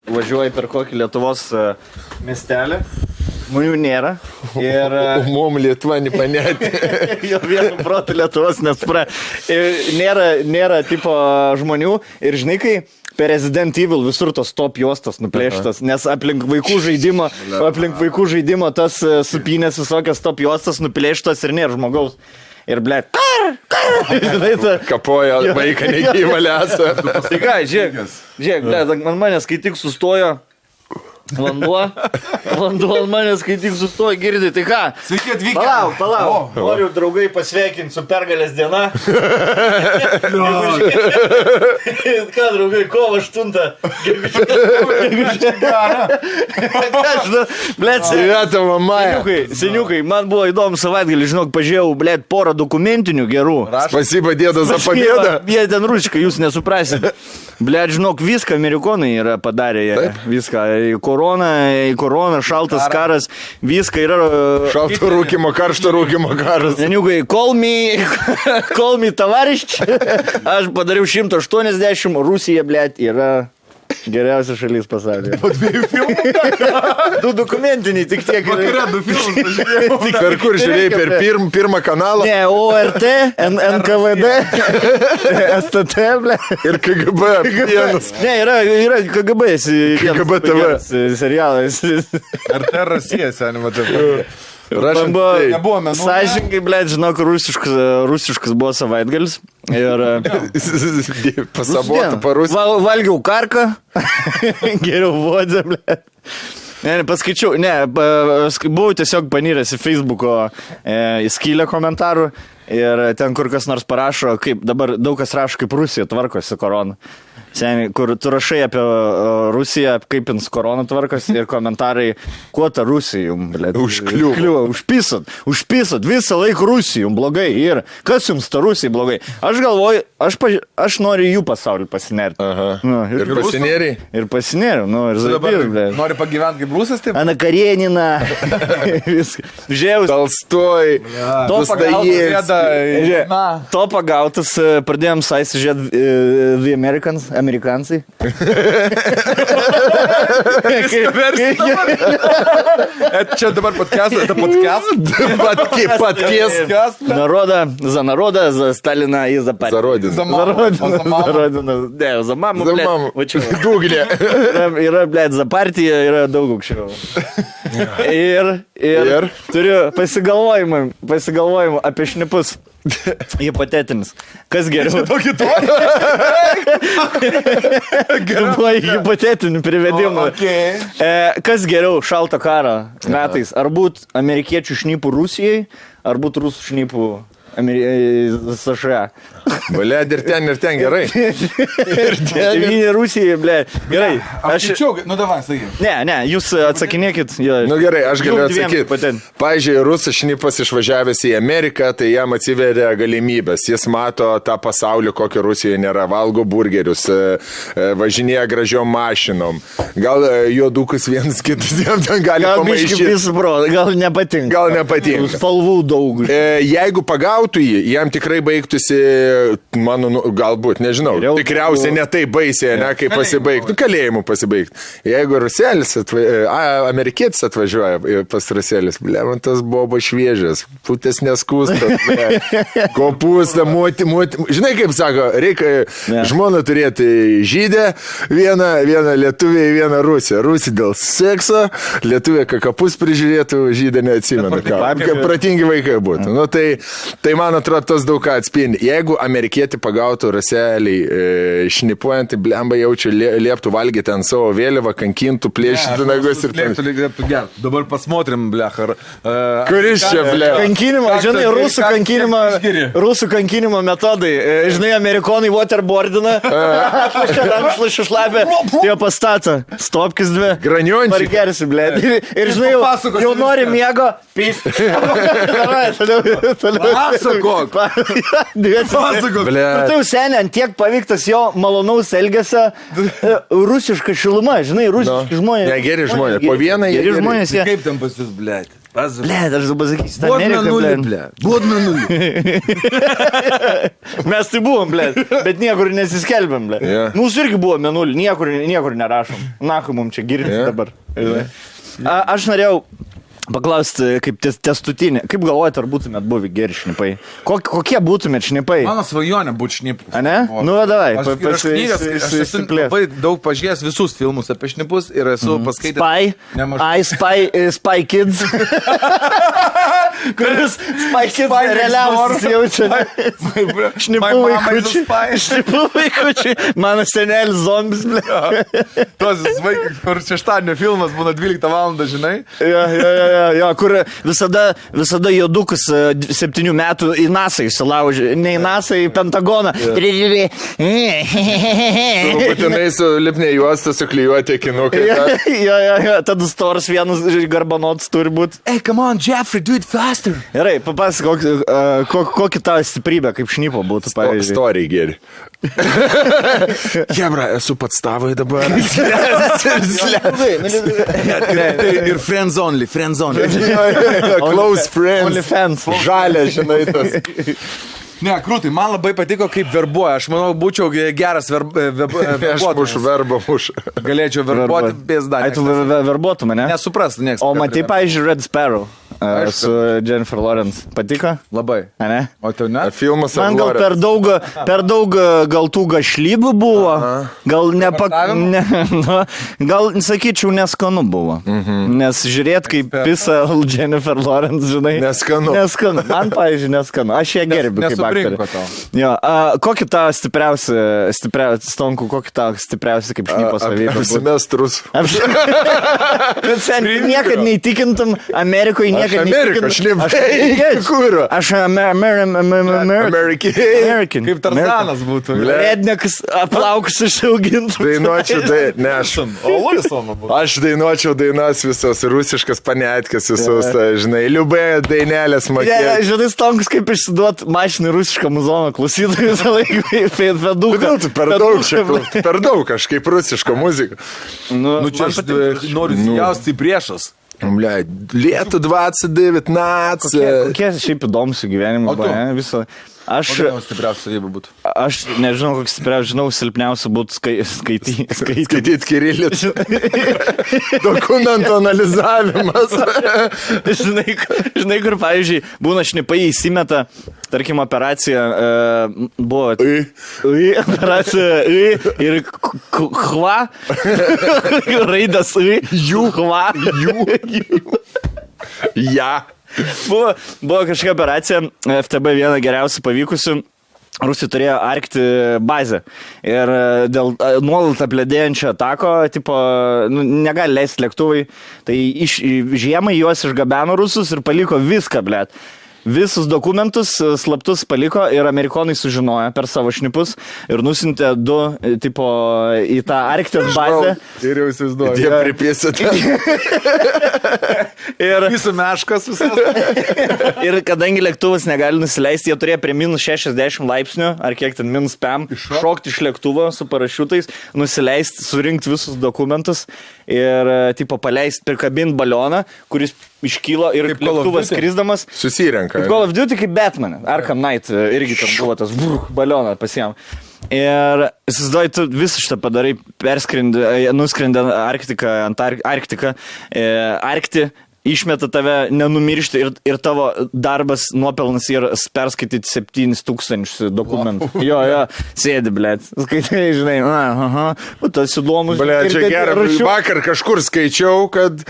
Važiuoji per kokį Lietuvos miestelį, žmonių nėra. Ir... Mum Lietuva nepanėti. Jo vienu protu Lietuvos nespra. Nėra tipo žmonių ir žinai, kai per Resident Evil visur tos top juostos nuplėštas, nes aplink vaikų žaidimo tas supynės visokios top juostos nuplėštas ir nėra žmogaus. Ir, blėt, kapoja vaiką negyvą lesą. Tai ką, žiūrėk, blėt, man manęs, kai tik sustojo vanduo ant manęs, kai tik sustojo, girdi, tai ką? Sveiki atvykę. Palauk. Noriu draugai pasveikinti su pergalės diena. Ką, draugai, kovo 8. Blėt, seniukai, man buvo įdomu savaitgalį, žinok, pažiūrėjau, blėt, porą dokumentinių gerų. Spasiba, dėda, za pabėdą. Jie ten rusiškai, jūs nesuprasit. Blėt, žinok, viską amerikonai yra padarę, viską. Korona, šaltas karas, viską yra... Šalto rūkimo, karšto rūkimo karas. Seniukai, call me tavarišč. Aš padariau 180, Rusija, blėt, yra... Geriausia šalis pasaulyje. Po 2 filmų? 2 dokumentiniai, tik tiek. Vakare 2 filmus pažiūrėjau. Per kur žiūrėjai, per pirmą kanalą? Ne, ORT, NKVD, STT, ble. Ir KGB vienas. Ne, yra KGB. KGB TV. Serialas. RT Rasija, seniai, matau. Nebuvo menų. Sąžininkai, ble, žinok, rusiškas buvo savaitgalis. Ir... Pasabotų parus. Valgiau karką. Geriau vodė, ble. Ne, paskaičiau, buvau tiesiog panyręs į Facebooko skylę komentarų ir ten kur kas nors parašo, kaip dabar daug kas rašo, kaip Rusija tvarkosi korona. Seniai, kur tu rašai apie Rusiją, kaip jums korona tvarkosi ir komentarai, kuo ta Rusija jums, blėt, užkliuvo, užpisot, visą laiką Rusija jums blogai ir kas jums ta Rusija blogai. Aš galvoju, aš noriu jų pasaulį pasinerti. Ir pasinėriai? Ir pasinėriau, ir zaibir, blėt. Nori pagyventi kaip Rusas, taip? Ana Karenina, viską. Žiaus. Talstoj, To pagautas, pradėjom saisi žiūrėti The Amerikansai. Čia dabar podcast. За народа, за Сталина и за партию. За родину. За родину. Не, за маму, блядь. Google. Yra, blėt, za partiją, yra daug aukščiau. Ir turiu pasigalvojimą apie šnipus. Hipotetinis. Kas geriau? Tokį to? Buvo hipotetinių privedimų. Kas geriau šalto karo metais? Ar būt amerikiečių šnipų Rusijai, ar būt rusų šnipų США? Blėd, ir ten gerai. Devyni Rusijai, blėd. Gerai. Aš skaičiau, davai, sakai. Ne, jūs atsakinėkit. Gerai, aš galiu atsakyti. Pavyzdžiui, rusas šnipas išvažiavęs į Ameriką, tai jam atsiveria galimybės. Jis mato tą pasaulį, kokio Rusijoje nėra. Valgo burgerius, važinėja gražiom mašinom. Gal juodukus vienas kitas jam ten gali pamaišyti. Gal nepatinka. Spalvų daug. Jeigu pagautų jį, jam tikrai baigtųsi, galbūt, nežinau, tikriausiai ne taip baisiai, kai pasibaigtų, kalėjimu pasibaigtų. Jeigu ruselis, amerikietis atvažiuoja pas ruselis, man tas buvo šviežias, putės neskūstas, kopūsta, moti. Žinai, kaip sako, reikia žmoną turėti žydę, vieną lietuvę, vieną rusę. Rusė dėl sekso, lietuvė kapus prižiūrėtų, žydę neatsimena. Kaip pratingi vaikai būtų. Tai man atrodo, tas daug ką atspindi. Jeigu amerikietį pagautų ruselį šnipuojant, tai blemba jaučiu lieptų valgyti ant savo vėliavą, kankintų, plėšytų nagus ir lieptų gerti. Dabar pasmotrim, blechar. Kuris čia, blechar? Kankinimo, žinai, rusų kankinimo metodai. Žinai, amerikonai waterboardina, atlašia rankšlašį šlapę, jo pastatą. Stopkis 2. Graniončiai. Pargersi, blėt. Ir žinai, jau nori miego, pys. Pasakok. Tai jau seniai, ant tiek paveiktas jo malonaus elgesio rusiška šiluma, žinai, rusiški žmonės. Ne, geri žmonės. Po vieną geri žmonės. Kaip ten pas jūs, blėt? Blet, aš dabar sakysiu, Buvo Amerika, mėnulį, blet. ble. Buvo mėnulį. Mes tai buvom, blet, bet niekur nesiskelbėm, blet. Yeah. Mūsų irgi buvo mėnulį, niekur nerašom. Nakai mums čia girdisi dabar. Aš norėjau paklausti, kaip testutinė. Kaip galvojate, ar būtumėt buvę geri šnipai? Kokie būtumėt šnipai? Mano svajonė būtų šnipus. A ne? Nu, davai. Aš esu labai daug pažiūrėjęs visus filmus apie šnipus ir esu paskaitęs. Spy Kids. Kuris Spy Kids realiausias jaučia. Šnipų vaikučiai. Mano senelis zombis, ble. Tos vaikai, kur šeštadienio filmas būna 12 valandą, žinai? Jo, kur visada jodukus 7 metų į NASA įsilaužė. Ne į NASA, į Pentagoną. Būtinai su lipnė juosta suklijuoti akinukai. Jo, tada storas vienas garbanotas turi būti. Hey, come on, Jeffrey, do it faster. Gerai, papasakok, kokį tavo stiprybę kaip šnipo būtų, pavyzdžiui. Story geri. Jebra, esu pats tavai dabar. Ir friends only. Close friends. Only fans. Žalia, žinai, tas. Ne, krūtai, man labai patiko, kaip verbuoja. Aš manau, būčiau geras Aš mušu verbą mušu. Galėčiau verbuoti pėsdą. Ai, tu verbuotum, ne? Nesuprastų, niekas. O matai, pavyzdžiui, Red Sparrow su Jennifer Lawrence. Patiko? Labai. A ne? O tau ne? Filmas Man gal per daug gal tų gašlybų buvo. Gal gal, sakyčiau, neskanu buvo. Nes žiūrėt, kaip pisa Jennifer Lawrence, žinai. Neskanu. Man, pavyzdžiui, neskanu. Aš ją gerbiu kaip aktorė. Jo, kokį tą stipriausią, Stonku, kokį tą stipriausią kaip šnypo savybę? Apsimestrus. Niekad neįtikintum Amerikoje, niekad Amerikos šnipai. Kur? Aš American. Kaip Tarzanas būtų. Rednekas aplaukus išaugintų. Dainuočiau, aš dainuočiau dainas visos, rusiškas panetkės visos, žinai, liubai dainelės mokėjo. Žinai, Stonkus kaip išsiduot mašinį rusišką muzoną klausytojų visą laiką. Kodėl tu per daug kažkaip rusišką muziką? Nu, čia aš noriu įsijausti į priešas. Lietų 2019. Kokie šiaip įdomus gyvenimo viso. Stipriausia savybė būtų. Aš nežinau, koks stipriausia, žinau, silpniausia būtų skaityti kirilicu. Dokumento analizavimas. Žinai, kur, pavyzdžiui, būna šnipai įsimeta, tarkim, operacija buvo operacija ir hva, raidas jų hva, ja. Buvo kažkokia operacija, FTB viena geriausių pavykusių, Rusija turėjo arkti bazę ir dėl nuolat apledėjančio atako, tipo, negali leisti lėktuvai, tai žiemai juos išgabeno rusus ir paliko viską, blet. Visus dokumentus slaptus paliko ir amerikonai sužinojo per savo šnipus ir nusintė 2 tipo į tą Arktijos bazę. Ir jau įsivaizduoju. Jie pripėsite. Ir visų meškas visas. Ir kadangi lėktuvas negali nusileisti, jie turėjo prie minus 60 laipsnių, ar kiek ten minus 5, šokti iš lėktuvo su parašiutais, nusileisti, surinkti visus dokumentus ir tipo paleisti, prikabinti balioną, kuris iškylo ir lėktuvas skrisdamas. Susirenka. Kaip Call of Duty, kaip Batman. Arkham Knight irgi ten buvo tas balioną pasiėm. Ir įsivaizduoji, tu visą šitą padarai, nuskrendė Arktiką, išmeta tave nenumiršti ir tavo darbas nuopelnas yra perskaityti 7,000 dokumentų. Jo, sėdi, blėt. Skaitai, žinai, tas įdomus. Blėt, čia gerai. Vakar kažkur skaičiau, kad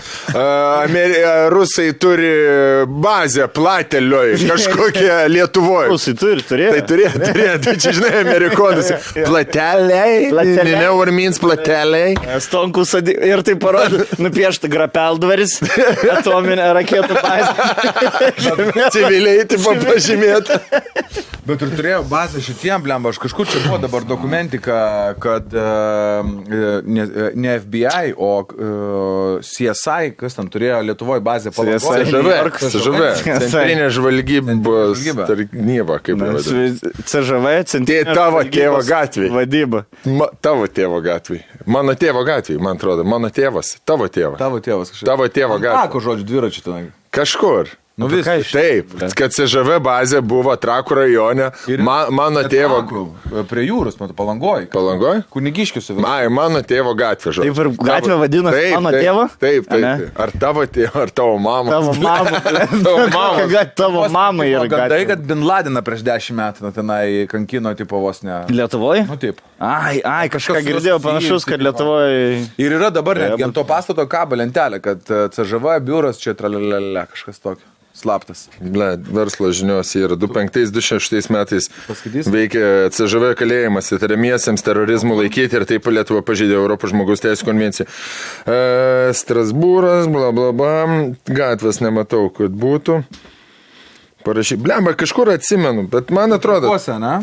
rusai turi bazę Platelioj, kažkokią Lietuvoje. Rusai turėjo. Tai turėjo. Tai čia, žinai, amerikonas. Plateliai. Never means plateliai. Stonkus ir tai parodė, nupiešta grapeldvaris. Atominė raketų bazė. Civiliai taip pažymėta. Bet ir turėjau bazę šitiem, blemba, aš kažkur čia buvo dabar dokumentika, kad ne FBI, o CSI, kas ten turėjo Lietuvoje bazę Palangoj. CŽV, Centrinė žvalgybos tarnyba, kaip vadinasi. CŽV, Centrinė tavo tėvo gatvėje. Vadyba. Tavo tėvo gatvėje. Mano tėvo gatvėje, man atrodo. Mano tėvas. Tavo tėvas. Tavo tėvas kažkaip. Tavo tėvo gatvėje. Tako žodžiu, dviračių tenai. Kažkur. Nu vis. Taip, kad CŽV bazė buvo Trakų rajone, mano tėvo... Prie jūros, matau, Palangoj. Palangoj? Kunigiškius. Mano tėvo gatvė, žodžiu. Taip ir gatvė vadinasi mano tėvo? Taip. Ar tavo tėvo, ar tavo mama? Tavo mama. Tavo mama yra gatvė. Gandai, kad Bin Ladeną prieš 10 metų tenai kankino tipo vos ne... Lietuvoje? Nu taip. Ai, kažką girdėjau panašus, kad Lietuvoje... Ir yra dabar netgi ant to pastato kabo lentelė, kad CŽV biuras čia tralalala, kažkas tokio. Slaptas. Verslo žinios yra 2005-2006 metais veikia CŽV kalėjimas įtariamiesiems terorizmų laikyti ir taip Lietuva pažeidė Europos žmogaus teisų konvenciją. Strasbūras, blablabla, gatvės nematau, kad būtų. Parašy, blemba, kažkur atsimenu, bet man atrodo... Trakuose, ne?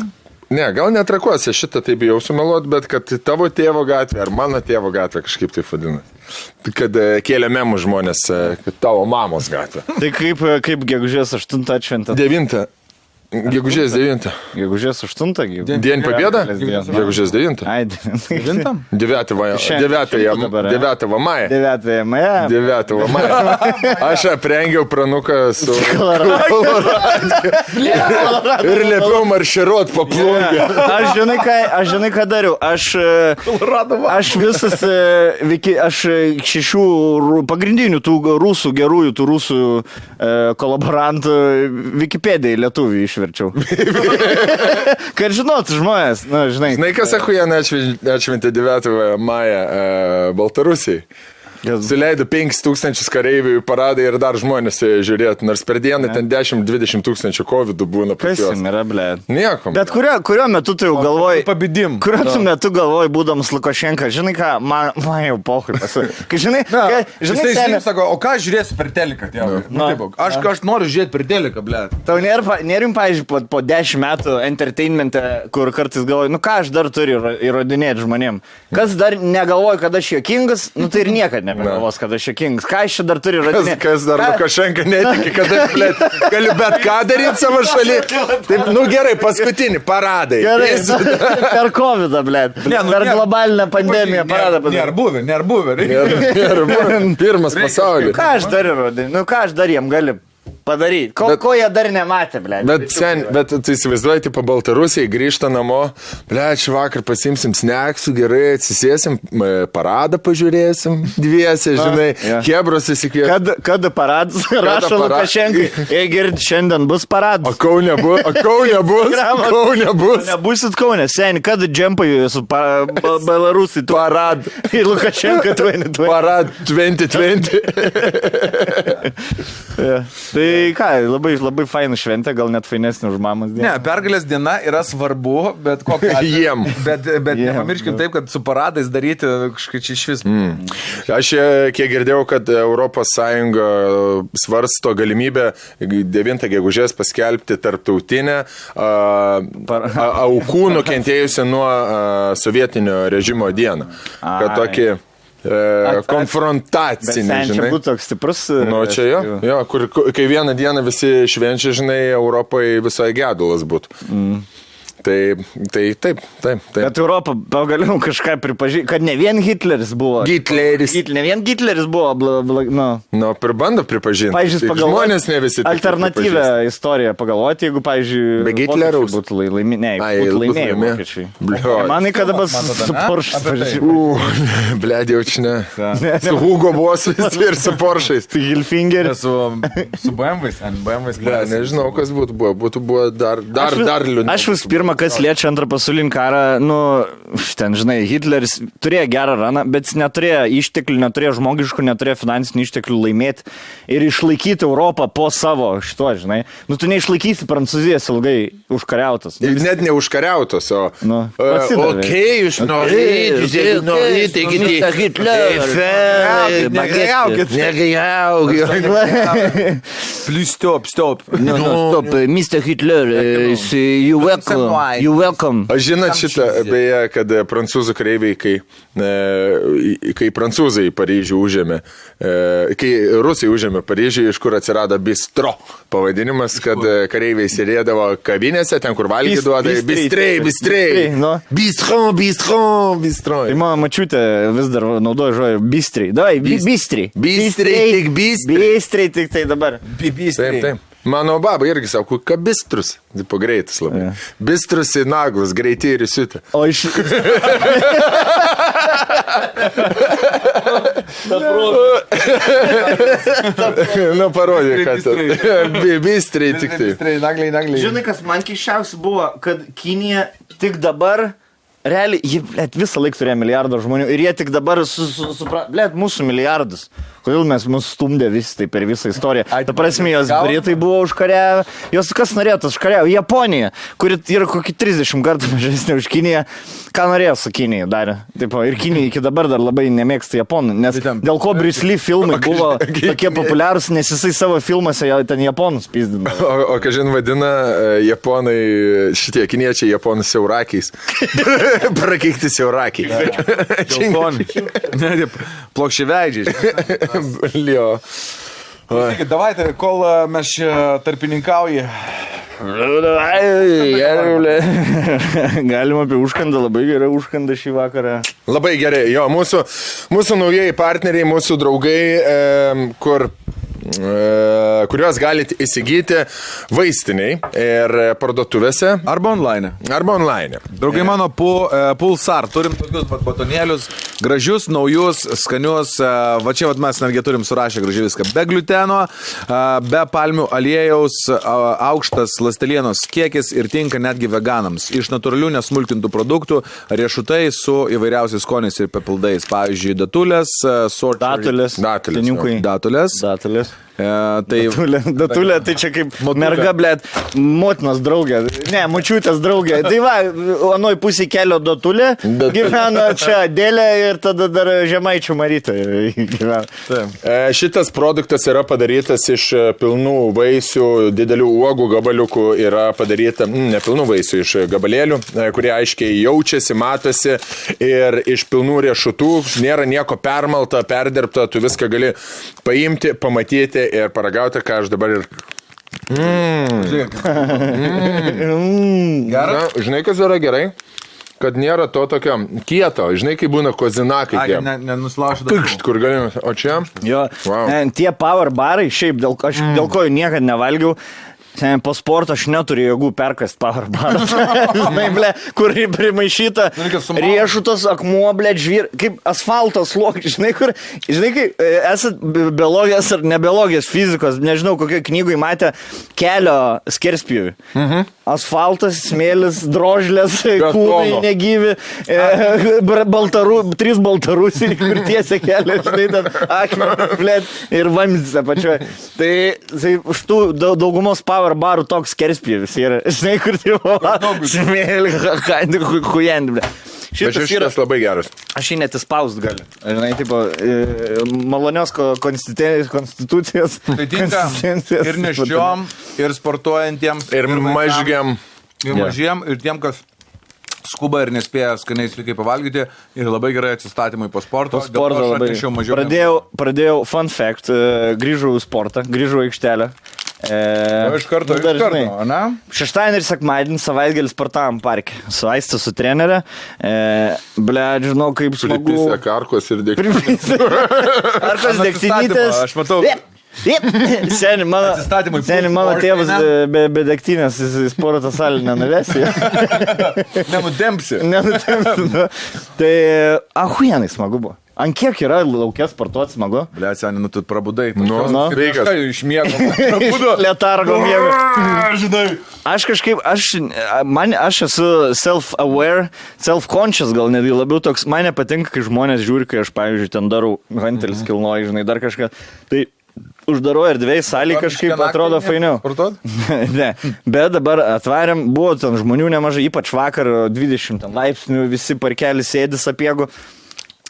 Ne, gal netrakuose, šitą taip jau sumeluot, bet kad tavo tėvo gatvė ar mano tėvo gatvė kažkaip taip vadina. Kad kėlė memų žmonės, kad tavo mamos gatvė. Tai kaip gegužės 8 atšventė? 9. Gegužės 9. Gegužės 8. Dien победа? Gegužės 9. Ai, 9. 9 maja. 9 maja. 9 maja. Aš aprengiau pranuką su ir liepiau marširuot po plungę. Aš žinai, ką dariau. Aš visas, aš 6 pagrindinių tų rusų, gerųjų tų rusų kolaborantų Wikipedijai lietuvių išverčiau. Kad žinotų žmonės, žinai. Žinai, kas Achujaną atšventė 9 mają Baltarusijai? Suleido 5000 kareivių į paradą ir dar žmonės žiūrėtų, nors per dieną ten 10-20 tūkstančių COVID būna pas juos. Kas yra, ble? Nieko. Bet kurio metu tu jau galvoji... Pabidim. Kurio metu galvoji, būdamas Lukašenka, žinai ką, man jau pohui pasakė. Kai žinai, žinai, sako, o ką žiūrėsi per teliką, tėvai? Aš noriu žiūrėti per teliką, ble. Tau nėrim, pavyzdžiui, po 10 metų entertainmente, kur kartais galvoji, ką aš dar turiu įrodinėti žmonėm. Kas dar negalvoja, kad aš juokingas, tai ir niekad nebegalvos, kad aš juokingas. Ką aš čia dar turiu įrodinėti? Kas dar Lukašenka netiki, kad aš galiu bet ką daryti savo šaly. Taip, gerai, paskutinį paradai. Gerai, per COVID-ą, ble. Per globalinę pandemiją paradą. Nėra buvę. Pirmas pasaulis. Ką aš dar įrodinėti? Ką aš dar jiem galiu padaryti? Ko jie dar nematė, ble? Bet tu įsivaizduoji, tipo Baltarusijai grįžta namo, ble, šį vakar pasimsim sneksų, gerai, atsisėsim, paradą pažiūrėsim, dviese, žinai, Hebros įsikvėsim. Kada paradas, rašo Lukašenkai, girdi, šiandien bus paradas. O Kaune bus. Nebusit Kaune, seni, kada džempai su Belarusai. Parad. Ir Lukašenka 2020. Parad 2020. Tai ką, labai fainų šventė, gal net fainesnė už mamos dieną. Ne, pergalės diena yra svarbu, bet kokia... Jiem. Bet nepamirškim taip, kad su paradais daryti kažkaip čia iš vis. Aš kiek girdėjau, kad Europos Sąjunga svarsto galimybę 9 gegužės paskelbti tarptautinę aukų nukentėjusią nuo sovietinio režimo dieną. Kad tokį... konfrontacinį, žinai. Bet čia būtų toks stiprus... Nu, čia jo, kai vieną dieną visi švenčia, žinai, Europai visai gedulas būtų. Taip. Bet Europa pagaliau kažką pripažino, kad ne vien Hitleris buvo. Ne vien Hitleris buvo, pribando pripažinti. Pavyzdžiui, žmonės ne visi. Alternatyvę istoriją pagalvoti, jeigu, pavyzdžiui, be Hitleriaus būtų laimėjai vokiečiai. Manai, kada bus su Porsche. Blėdė, jaučiu ne. Su Hugo Boss ir su Porsche'ais. Su Hilfinger. Su BMW's. Nežinau, kas būtų buvo dar liūdniau. Aš vis pirma, kas liečia antrą pasaulinį karą, ten, žinai, Hitleris turėjo gerą raną, bet jis neturėjo išteklių, neturėjo žmogiškų, neturėjo finansinių išteklių laimėti ir išlaikyti Europą po savo šito, žinai. Tu neišlaikysi Prancūzijos ilgai užkariautas. Net ne užkariautas, o... Okei, jūs norite, Please stop. Stop, Mr. Hitler, you welcome. Why? You welcome. Aš žinot šitą, beje, kad prancūzų kareiviai, kai prancūzai Paryžių užėmė, kai rusai užėmė Paryžių, iš kur atsirado bistro pavadinimas, kad kareiviai sėdėdavo kavinėse, ten kur valgydavo, bistrei. No. Bistro. Tai mano mačiutė vis dar naudoja žodį bistriai. Davai, bistriai. Bistriai tik tai dabar. Taip. Mano baba irgi sako, kad bistrus. Tipo greitas labai. Yeah. Bistrus į naglus, greitai ir įsiutė. O iš... Nu, parodė, kad bistriai tik tai. Nagliai. Žinai, kas man keiščiausia buvo, kad Kinija tik dabar... Realiai, jie visą laiką turėjo milijardą žmonių ir jie tik dabar mūsų milijardus. Kodėl mes mūsų stumdė visi tai per visą istoriją? Ta prasme, jos Britai buvo užkariavę, jos kas norėtų užkariavę? Japonija, kuri yra kokį 30 kartų mažesnė už Kiniją, ką norėjo su Kinija darė. Taip, ir Kinija iki dabar dar labai nemėgsta Japonų, nes dėl ko Bruce Lee filmai buvo tokie populiarūs, nes jisai savo filmuose ten Japonus pizdino. O kažin vadina Japonai, šitie kiniečiai Japonus siaurakiais. Prakeikti siaurakiai. Plokščiaveidžiai. Lio. Davai, kol mes čia tarpininkauji. Galima apie užkandą, labai gerai užkandą šį vakarą. Labai gerai, jo, mūsų naujieji partneriai, mūsų draugai, kuriuos galite įsigyti vaistiniai ir parduotuvėse. Arba online. Draugai mano, Pulsar, turim tokius batonėlius, gražius, naujus, skanius, va čia mes netgi turim surašę gražiai viską, be gliuteno, be palmių aliejaus, aukštas ląstelienos kiekis ir tinka netgi veganams. Iš natūralių nesmulkintų produktų, riešutai su įvairiausiais skoniais ir papildais. Pavyzdžiui, datulės, datulės. Datulė, tai čia kaip merga, blėt, motinos draugė, ne, močiutės draugė. Tai va, anoj pusė kelio datulė, gyvena čia Dėlė ir tada dar Žemaičių Marytė gyvena. Šitas produktas yra padarytas iš pilnų vaisių, didelių uogų gabaliukų, yra padaryta, ne pilnų vaisių, iš gabalėlių, kurie aiškiai jaučiasi, matosi ir iš pilnų riešutų, nėra nieko permalta, perdirbta, tu viską gali paimti, pamatyti ir paragauti, ką aš dabar ir... Gerai? Žinai, kas yra gerai? Kad nėra to tokio kieto. Žinai, kai būna kozinakai. Nenuslaužu. Pikšt, kur galime. O čia? Jo, tie power barai, šiaip dėl ko jų niekad nevalgiau. Po sporto aš neturiu jėgų perkast power barą. Žinai, ble, kur primaišyta riešutas, akmuo, ble, žvyr, kaip asfaltos sluoksnis, žinai, kur, žinai, kai esat biologijos ar nebiologijos fizikos, nežinau, kokioje knygoje matė kelio skerspjūvį. Asfaltas, smėlis, drožlės, kūnai negyvi, 3 baltarusiai, kur tiesia kelią, žinai, ten akmenį, ble, ir vamzdis apačioje. Tai už tų daugumos power barų toks skerspjūvis yra, žinai, kur tai smėlį, hujendį, ble. Šitas labai geras. Aš jį net įspaust galiu. Žinai, tipo, malonios konstitucijos. Tai tinka ir neščiom, ir sportuojantiems, ir mažgiam. Ir mažiem, ir tiem, kas skuba ir nespėja skaniai sveikai pavalgyti, ir labai gerai atsistatymai po sporto. Pradėjau fun fact, grįžau į sportą, grįžau į aikštelę. Iš karto, ne? Šeštadienį ir sekmadienį savaitgalį sportavom parke. Su Aiste, su trenerė. Ble, žinau, kaip smagu. Pripysė karkos ir dėktinytės. Karkos dėktinytės. Aš matau. Seni, mano tėvas be dėktinės į sporto salę nenuvesi. Nenutempsi. Tai ahuienai smagu buvo. Ant kiek yra laukės sportuoti smagu? Ble, seni, tu prabudai. Sveikas. Iš miego. Prabudo. Letargo miego. Žinai. Aš kažkaip, aš esu self-aware, self-conscious gal netgi labiau toks. Man nepatinka, kai žmonės žiūri, kai aš, pavyzdžiui, ten darau hantelis kilnoju, žinai, dar kažką. Tai uždaro erdvėj salį kažkaip atrodo fainiau. Ne, bet dabar atvarėm, buvo ten žmonių nemažai, ypač vakar 20 laipsnių, visi parkelis sėdi sapiegų.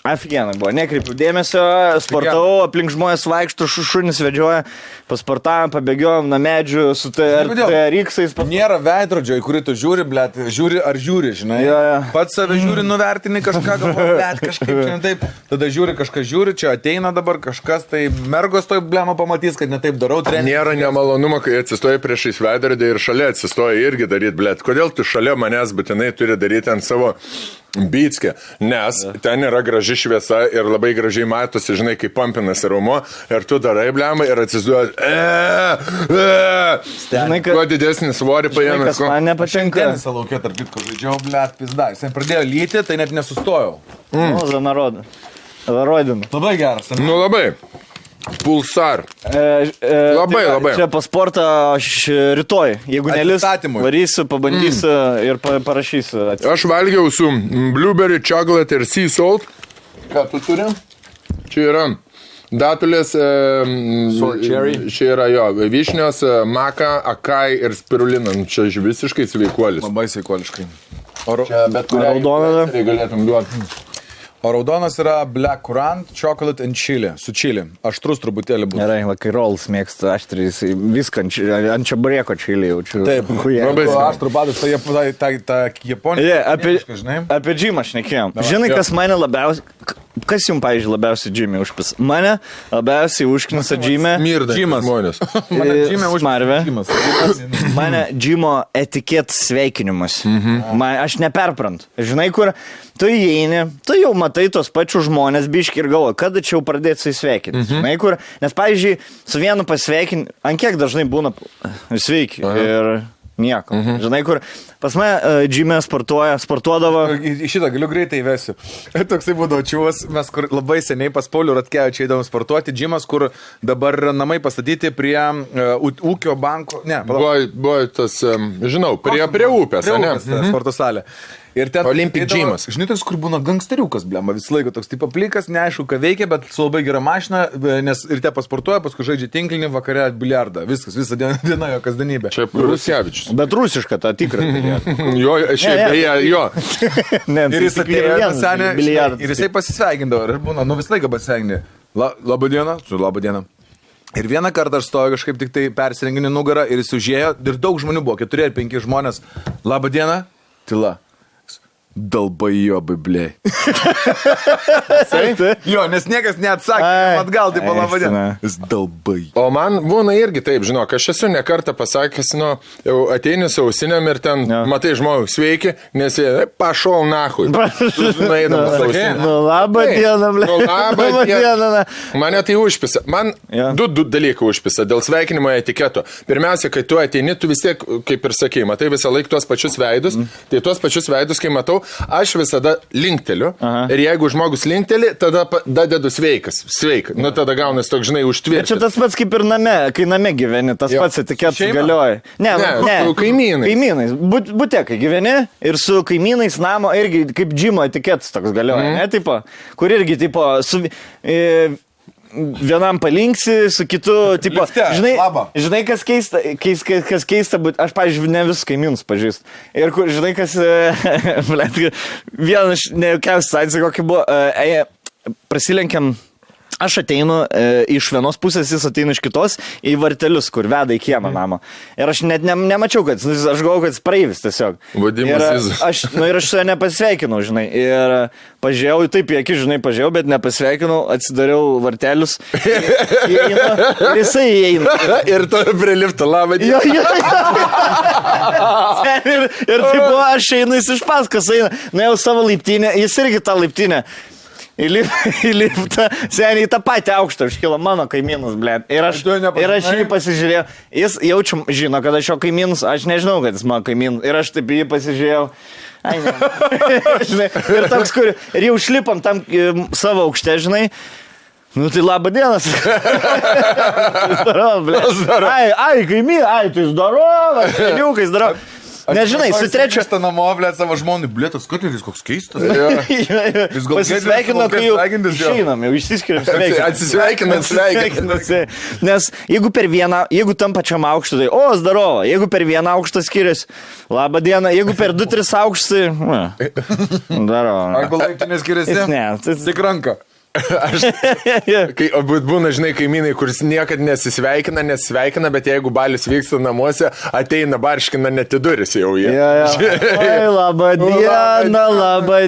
Afigenai buvo, nekreipiu dėmesio, sportavau, aplink žmonės vaikšto, šunis vedžioja, pasportavom, pabėgiojom nuo medžių su TRX-ais. Nėra veidrodžio, į kurį tu žiūri, blėt, žiūri ar žiūri, žinai. Pats save žiūri, nuvertini kažką, blėt, kažkaip čia ne taip. Tada žiūri, kažkas žiūri, čia ateina dabar kažkas, tai mergos toj blėma pamatys, kad ne taip darau. Nėra nemalonumo, kai atsistoji priešais veidrodį ir šalia atsistoji irgi daryti, blėt. Kodėl tu šalia manęs būtinai turi daryti ant savo Bytskė, nes ten yra graži šviesa ir labai gražiai matosi, žinai, kaip pampinasi raumo ir tu darai blemą ir atsiduoji. Kuo didesnį svorį paėmė. Kas man nepatinka. Tenisą laukė, tarp kitko, žaidžiau, blėt, pizda. Jis pradėjo lyti, tai net nesustojau. Zarodinu. Labai geras. Nu labai. Pulsar. Labai. Čia pasportą aš rytoj. Jeigu nelis, varysiu, pabandysiu ir parašysiu. Aš valgiau su blueberry, chocolate ir sea salt. Ką tu turi? Čia yra datulės, čia yra jo, vyšnios, maka, akai ir spirulina. Čia visiškai sveikuolis. Labai sveikuoliškai. Bet kurią raudoną galėtum duoti. O raudonas yra Black Currant, Chocolate and Chili, su chili. Aštrus truputėlį bus. Gerai, kai rolls mėgsta aštrys, viską ant čaburėko chili jaučiu. Taip, aštrų padas, ta Japonija. Apie džimą šnekėjom. Žinai, kas mane labiausiai... Kas jums, pavyzdžiui, labiausiai džimė užpis? Mane labiausiai užknisa džimė... Džimas. Mane džimė užpis. Mane džimo etikėt sveikinimas. Aš neperprantu. Žinai, kur tu įeini, tu jau matai tos pačius žmonės biški ir galvoji, kada čia jau pradėti su įsveikinti. Žinai, kur... Nes, pavyzdžiui, su vienu pasveikinti, ant kiek dažnai būna sveiki ir... Nieko. Žinai, kur pas mane džime sportuodavo. Šitą galiu greitai įvesiu. Toksai būdavo čiūvas, mes kur labai seniai pas Paulių Ratkevičių eidavom sportuoti. Džimas, kur dabar namai pastatyti prie ūkio banko. Ne, buvo tas, žinau, prie upės. Prie upės, sporto salė. Ir ten Olympic Gymas. Žinai, tas, kur būna gangsteriukas, blema, vis laiko toks tipo plikas, neaišku, ką veikia, bet su labai gera mašina, nes ir te pasportuoja, paskui žaidžia tinklinį, vakare biliardą. Viskas, visą dieną jo kasdienybė. Čia Ruskevičius. Bet rusiška ta tikra. Jo, šiaip beje, jo. Ir jis atėjo senė, ir jisai pasisveikindavo. Ir būna, nu vis laiką pasisveikindavo. Labą dieną, su labą dieną. Ir vieną kartą aš stoju kažkaip tik tai persirenginį nugarą ir jis užėjo ir daug žmonių buvo, 4 ar 5 žmonės. Labą dieną, tyla. Dalbajobai, blei. Jo, nes niekas neatsakė, atgal, tai palaba diena. Jis dalbai. O man būna irgi taip, žinok, aš esu ne kartą pasakęs, nu, jau ateini su ausinėm ir ten, matai žmogų, sveiki, nes jie, pašol nahui. Nu, labą dieną, blei. Nu, labą dieną. Mane tai užpisa. Man du dalykai užpisa dėl sveikinimo etiketo. Pirmiausia, kai tu ateini, tu vis tiek, kaip ir sakei, matai visą laiką tuos pačius veidus. Tai tuos pačius veidus, kai matau, aš visada linkteliu. Ir jeigu žmogus linkteli, tada dedu sveikas. Sveik. Nu, tada gaunas toks, žinai, užtvirtinti. Čia tas pats kaip ir name, kai name gyveni, tas pats etiketas galioja. Ne, su kaimynais. Kaimynais. Bute, kai gyveni ir su kaimynais namo irgi kaip džimo etiketas toks galioja. Ne, tipo, kur irgi, tipo, su... Vienam palinksi, su kitu, tipo, žinai, kas keista, bet aš, pavyzdžiui, ne visus kaimynus pažįstu. Ir, žinai, kas, vieną iš nejaukiausių situacijų, kokia buvo, prasilenkiam, aš ateinu iš vienos pusės, jis ateina iš kitos į vartelius, kur veda į kiemą namą. Ir aš net nemačiau, kad, aš galvoju, kad jis praeivis tiesiog. Ir aš su juo nepasveikinau, žinai. Ir pažiūrėjau, taip į akį, žinai, pažiūrėjau, bet nepasveikinau, atsidariau vartelius. Ir jisai įeina. Ir to prilipta, labą dieną. Ir taip, aš einu, jis iš paskos eina. Na jau savo laiptinę, jis irgi tą laiptinę. Įlipta, seniai tą patį aukštą iškilo mano kaimynus, blėt. Ir aš jį pasižiūrėjau, jis jaučiu, žino, kad aš jo kaimynus, aš nežinau, kad jis mano kaimynus. Ir aš taip jį pasižiūrėjau. Ai, ne. Žinai, ir toks, kur, ir jau šlipam tam savo aukšte, žinai. Nu tai labą dienas. Ai, kaimyn, tai zdarova, seniukai zdarova. Nežinai, su trečiu. Aš namo, blėt, savo žmonį, blėtas, Kotleris koks keistas. Pasisveikino, kai jau išeinam, jau išsiskiriam. Atsisveikinasi. Nes jeigu tam pačiam aukštu, tai zdaro, jeigu per vieną aukštą skiriasi, labą dieną, jeigu per 2-3 aukštai, daro. Arba laiptinės skiriasi? Ne, tik ranka. Būna, žinai, kaimynai, kuris niekad nesisveikina, bet jeigu balius vyksta namuose, ateina barškina net į duris jau jie. Oi, labą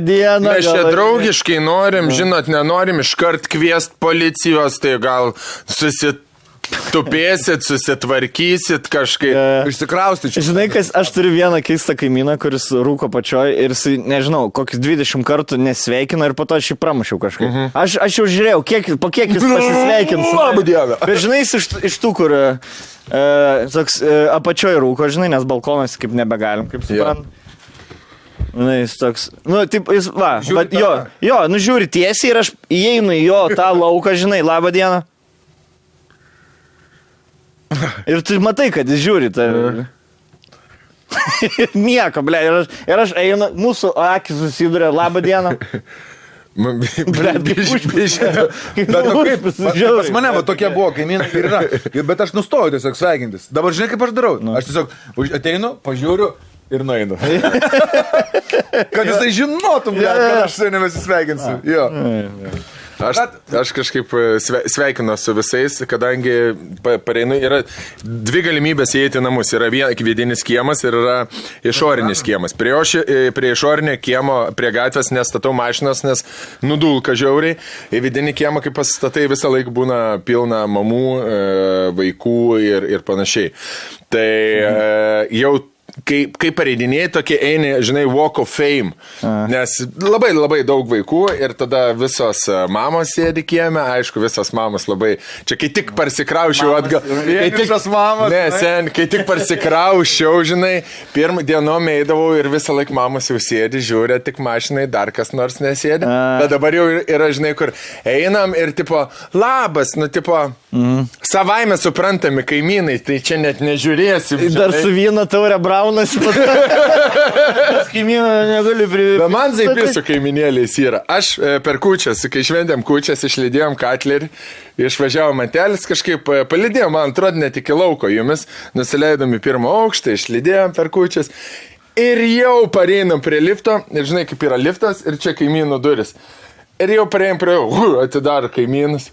dieną. Mes čia draugiškai norim, žinot, nenorim iškart kviest policijos, tai gal susitupėsit, susitvarkysit kažkaip. Išsikraustyčiau. Žinai, aš turiu vieną keistą kaimyną, kuris rūko pačioj ir jis, nežinau, kokius 20 kartų nesveikina ir po to aš jį pramušiau kažkaip. Aš jau žiūrėjau, po kiek jis pasisveikins. Labą dieną. Bet žinai, jis iš tų, kur toks apačioj rūko, žinai, nes balkonas kaip nebegalim, kaip suprantu. Jis toks, taip, jis, žiūri tiesiai ir aš įeinu į jo tą lauką, žinai, labą dieną. Ir tu matai, kad jis žiūri tą. Nieko, ble, ir aš einu, mūsų akis susiduria, labą dieną. Pas mane tokie buvo, kaimynai ir yra. Bet aš nustojau tiesiog sveikintis. Dabar žinai, kaip aš darau? Aš tiesiog ateinu, pažiūriu ir nueinu. Kad jisai žinotum, kad aš su nebesisveikinsiu. Jo. Aš kažkaip sveikinu su visais, kadangi pareinu, yra 2 galimybės įeiti į namus. Yra vidinis kiemas ir yra išorinis kiemas. Prie išorinio kiemo, prie gatvės nestatau mašinas, nes nudulka žiauriai. Į vidinį kiemą, kai pasistatai, visą laiką būna pilna mamų, vaikų ir panašiai. Tai jau kai pareidinėjai, tokie eini, žinai, Walk of Fame, nes labai daug vaikų ir tada visos mamos sėdi kieme, aišku, visos mamos labai, čia kai tik parsikraušiau atgal, kai tik parsikraušiau, žinai, pirmą dienom eidavau ir visą laiką mamos jau sėdi, žiūrė, tik mašinai, dar kas nors nesėdi, bet dabar jau yra, žinai, kur einam ir tipo, labas, savaime suprantami kaimynai, tai čia net nežiūrėsim. Dar su vyno taurė braunas. Kaimyną negali privilti. Bet man zaipis su kaiminėliais yra. Aš per kūčias, kai šventėm kūčias, išlydėjom Katlerį, išvažiavom Mantelis, kažkaip palydėjom, man atrodo, net iki lauko jumis, nusileidom į 1 aukštą, išlydėjom per kūčias ir jau pareinam prie lifto, ir žinai, kaip yra liftas, ir čia kaimynų duris. Ir jau parėjom prie atidaro kaimynas.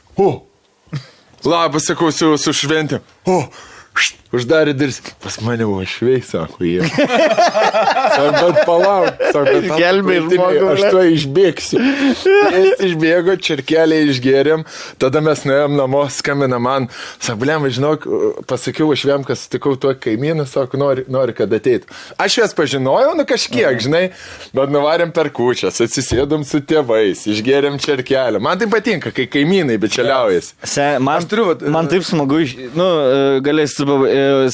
Labas, sakau, su šventėm. Uždarė duris. Pas mane buvo švei, sako jie. Bet palauk, sako, gelbė žmogų. Aš to išbėgsiu. Jis išbėgo, čirkelį išgėrėm, tada mes nuėjom namo, skambina man. Sako, blem, žinok, pasakiau aš kad sutikau tuo kaimyną, sako, nori, kad ateitų. Aš jas pažinojau, kažkiek, žinai, bet nuvarėm per kūčias, atsisėdom su tėvais, išgėrėm čirkelį. Man tai patinka, kai kaimynai bičialiaujasi. Man taip smagu,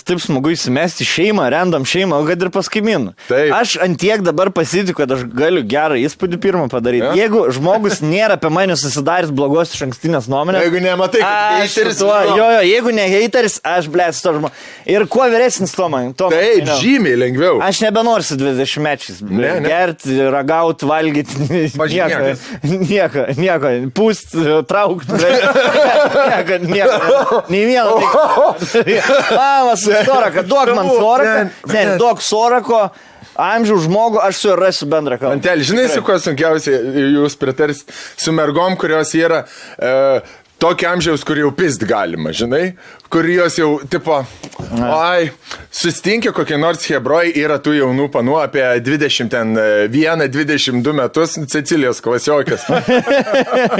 taip smagu įsimesti šeimą, random šeimą, o kad ir pas kaimynų. Aš antiek dabar pasitikiu, kad aš galiu gerą įspūdį pirmą padaryti. Jeigu žmogus nėra apie mane susidaręs blogos iš ankstinės nuomonės. Jeigu nematai, kad hateris. Jeigu ne hateris, aš blėt su to žmogu. Ir kuo vyresnis to man. Taip, žymiai lengviau. Aš nebenoriu su 20-mečiais. Gerti, ragauti, valgyti. Nieko. Pūst, traukti. Nieko. Nei vieno. Mamas, soraka, duok man soraką, duok sorako, amžių žmogų, aš su juo rasiu bendrą kalbą. Mantelį, žinai, su kuo sunkiausiai jūs pritarsit, su mergom, kurios yra tokio amžiaus, kur jau pist galima, žinai, kur jos jau, tipo, sustinkia kokie nors hebroj, yra tų jaunų panų apie 21-22 metus, Cecilijos klasiokas.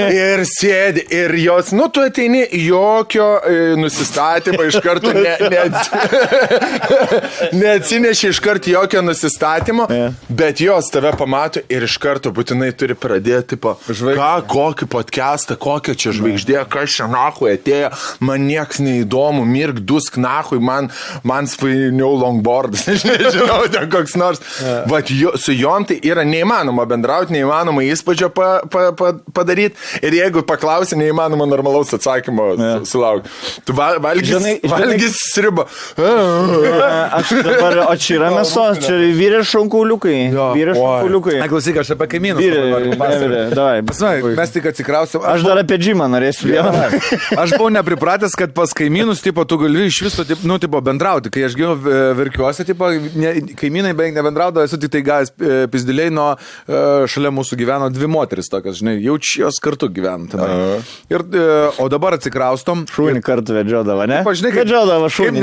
Ir sėdi, ir jos, tu ateini, jokio nusistatymo iš karto, neatsineši iš karto jokio nusistatymo, bet jos tave pamato ir iš karto būtinai turi pradėti, tipo, kokį podcastą, kokią čia žvaigždė, kas čia nahui atėjo, man nieks neįdomu, mirk, dusk nahui, man svainiau longboardas, aš nežinau, ten koks nors. Vat su jom tai yra neįmanoma bendrauti, neįmanoma įspūdžio padaryti ir jeigu paklausi, neįmanoma normalaus atsakymo sulaukti. Tu valgys sriubą. Aš dabar, o čia yra mėsos, čia vyrės šonkauliukai. Vyrės šonkauliukai. Klausyk, aš apie kaimynus. Mes tik atsikrausim. Aš dar apie džimą norėsiu vieną. Aš buvau nepripratęs, kad pas kaimynus, tipo, tu gali iš viso, tipo, bendrauti. Kai aš gyvenu Verkiuose, tipo, kaimynai beveik nebendraudavo, esu tik tai gavęs pizdiliai, nuo šalia mūsų gyveno 2 moteris tokias, žinai, jaučios kartu gyvena. O dabar atsikraustom. Šūnį kartu vedžiodavo, ne? Žinai, vedžiodavo šūnį.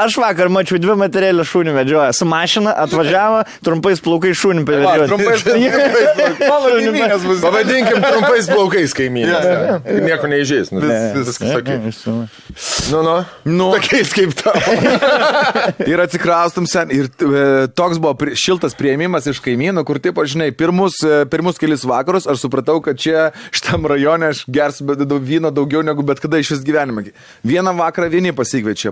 Aš vakar mačiau 2 materialį šūnį vedžioja. Su mašina atvažiavo, trumpais plaukais šūnį pavedžioti. Pavadinkim trumpais plaukais kaimynės. Nieko neįžės. Tokiais kaip tavo. Ir atsikraustum sen. Ir toks buvo šiltas priėmimas iš kaimynų, kur, taip, žinai, pirmus kelis vakarus aš supratau, kad čia šitam rajone aš gersiu vyno daugiau negu bet kada iš vis gyvenime. Vieną vakarą vieni pasikviečia,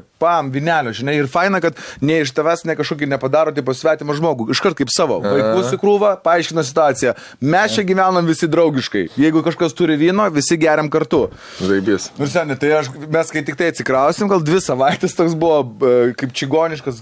vinelio, žinai, ir faina, kad ne iš tavęs ne kažkokį nepadaro, tipo, svetimą žmogų, iškart kaip savo. Vaikus į krūvą, paaiškina situaciją. Mes čia gyvenam visi draugiškai. Jeigu kažkas turi vyno, visi geriam kartu. Zaibys. Ir seniai, tai mes kai tik tai atsikrausim, gal 2 savaitės toks buvo kaip čigoniškas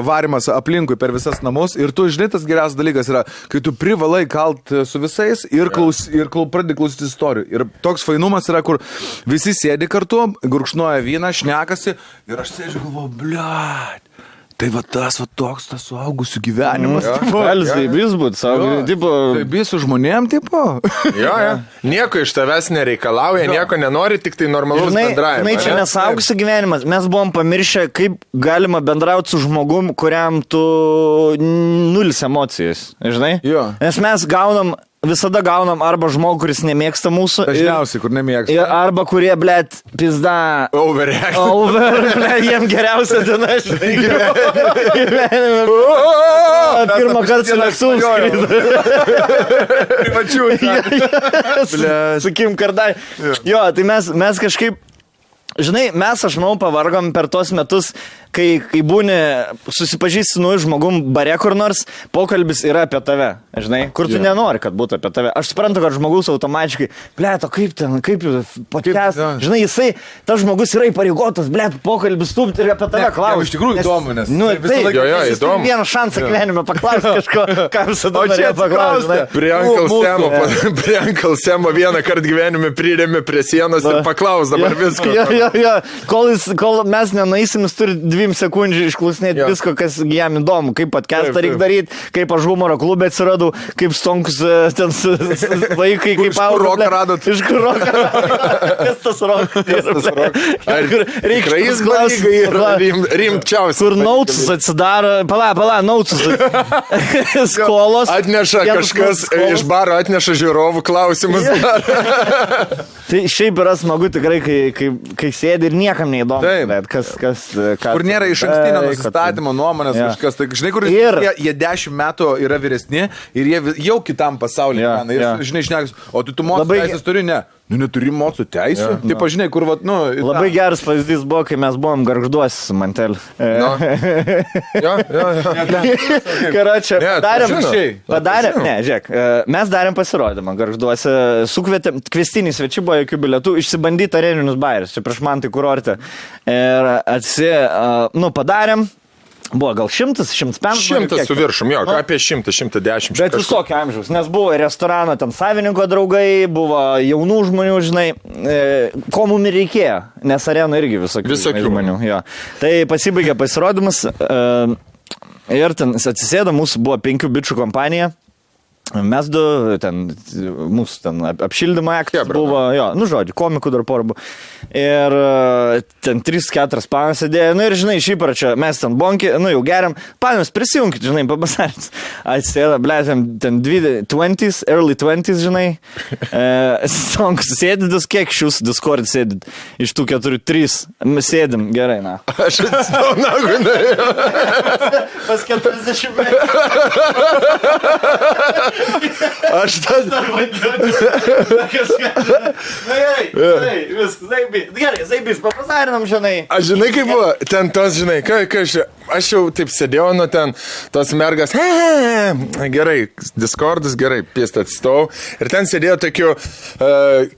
varimas aplinkui per visas namus. Ir tu, žinai, tas geriausias dalykas yra, kai tu privalai kalt su visais ir pradedi klausyti istorijų. Ir toks fainumas yra, kur visi sėdi kartu, gurkšnoja vyną, šnekasi ir aš sėdžiu galvoju, bliat. Tai va tas suaugusių gyvenimas. Galis zaibys būti, zaibys su žmonėm, tipo. Jo. Nieko iš tavęs nereikalauja, nieko nenori, tik tai normalus bendravimas. Žinai, čia nesaugusių gyvenimas. Mes buvom pamiršę, kaip galima bendrauti su žmogum, kuriam tu 0 emocijas. Žinai? Jo. Nes mes visada gaunam arba žmogų, kuris nemėgsta mūsų. Dažniausiai, kur nemėgsta. Arba kurie, blėt, pizda. Blėt, jiem geriausia diena, žinai, gyvenime. Pirmą kartą lėktuvus skrido. Privačių. Su Kim Kardai. Jo, tai mes kažkaip, žinai, aš manau, pavargom per tos metus, kai būni susipažįsti su nauju žmogum bare kur nors, pokalbis yra apie tave, žinai, kur tu nenori, kad būtų apie tave. Aš suprantu, kad žmogus automatiškai, blėt, o kaip podcast, žinai, tas žmogus yra įpareigotas, blėt, pokalbis stūpti ir apie tave klausti. Iš tikrųjų įdomu, nes... Tai vieną šansą gyvenime paklausti kažko, ką visada norėjo paklausti. Prie Uncle Semo vieną kartą gyvenime prirėmė prie sienos ir paklaus dabar visko. Jo. Kol mes nenaisim, jis turi 2 sekundžių išklausinėti visko, kas jam įdomu, kaip podcastą reikia daryti, kaip aš humoro klube atsiradau, kaip stonkus ten vaikai, kaip roką radot. Iš kur roką radot? Kas tas rokas? Reikia klausti. Rimčiausias. Kur nautus atsidaro, pala, nautus. Skolos. Atneša kažkas iš baro, atneša žiūrovų klausimus. Tai šiaip yra smagu tikrai, kai sėdi ir niekam neįdomu. Kur nėra iš ankstinio nusistatymo nuomonės kažkas. Tai, žinai, kur jie 10 metų yra vyresni ir jie jau kitam pasaulyje. Žinai, šnekas, o tu mokslo teisės turi, ne? Neturi mokslo teisų. Taip, žinai, kur Labai geras pavyzdys buvo, kai mes buvom Gargžduose su Manteliu. Karočią, padarėm, žiūrėk, mes darėm pasirodymą Gargžduose, sukvietėm, kvestiniai svečiai buvo jokių bilietų, išsibandyti areninius bairius, čia prieš man tai kurorte. Ir padarėm. Buvo gal 100-150. 100 su viršum, jo, apie 100-110. Bet visokio amžiaus, nes buvo restorano ten savininko draugai, buvo jaunų žmonių, žinai, ko mums reikėjo, nes arena irgi visokių žmonių. Jo. Tai pasibaigė pasirodymas ir ten atsisėdo, mūsų buvo 5 bičių kompanija. Mes mūsų ten apšildymo aktas buvo, žodžiu, komikų dar porų buvo. Ir ten 3-4 panas sėdėjo, ir žinai, šįpračio, mes ten bonki, jau geriam, panas prisijungit, žinai, pabasartis. Atsėda, ten 20s, early 20s, žinai, sėdidus, kiek šius Discord sėdit, iš tų 4-3, sėdim, gerai, na. Aš atsitau, Pas 40 metų. Aš tada... Gerai, Zaibys, papasarinam, žinai. Aš žinai, kaip buvo, ten tos, žinai, aš jau taip sėdėjau, nu ten tos mergas, gerai, Discordas, gerai, pėstą atstovau. Ir ten sėdėjo tokių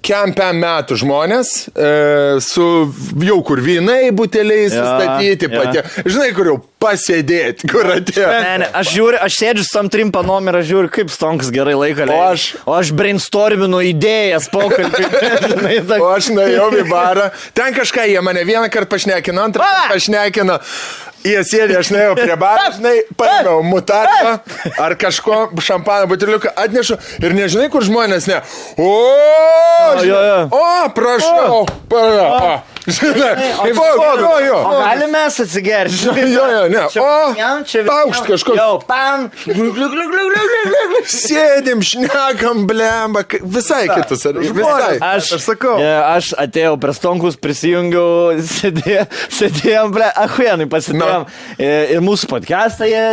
kempiam metų žmonės, su jau kur vynai buteliai sustatyti, patė. Žinai, kur jau pasėdėti, kur atėjo. Ne, aš sėdžiu su tam trim panom ir aš žiūriu, kaip Stonkas gerai laiką leidžia. O aš brainstorminu idėjas pokalbį. O aš nuėjau į barą. Ten kažką jie mane vieną kartą pašnekino, antrą kartą pašnekino. Jie sėdė, aš nuėjau prie barą, žinai, paėmiau mutarką ar kažko šampano buteliuką atnešu ir nežinai, kur žmonės ne. Prašau. Žinai, o galime mes atsigerti? Ne. Paukšt kažkoks. Jau, pam. Sėdim, šnekam, blemba. Visai kitus. Visai. Aš sakau. Aš atėjau prie Stonkus, prisijungiau, sėdėjom, ahuienai pasidėjom. Ir mūsų podcastą jie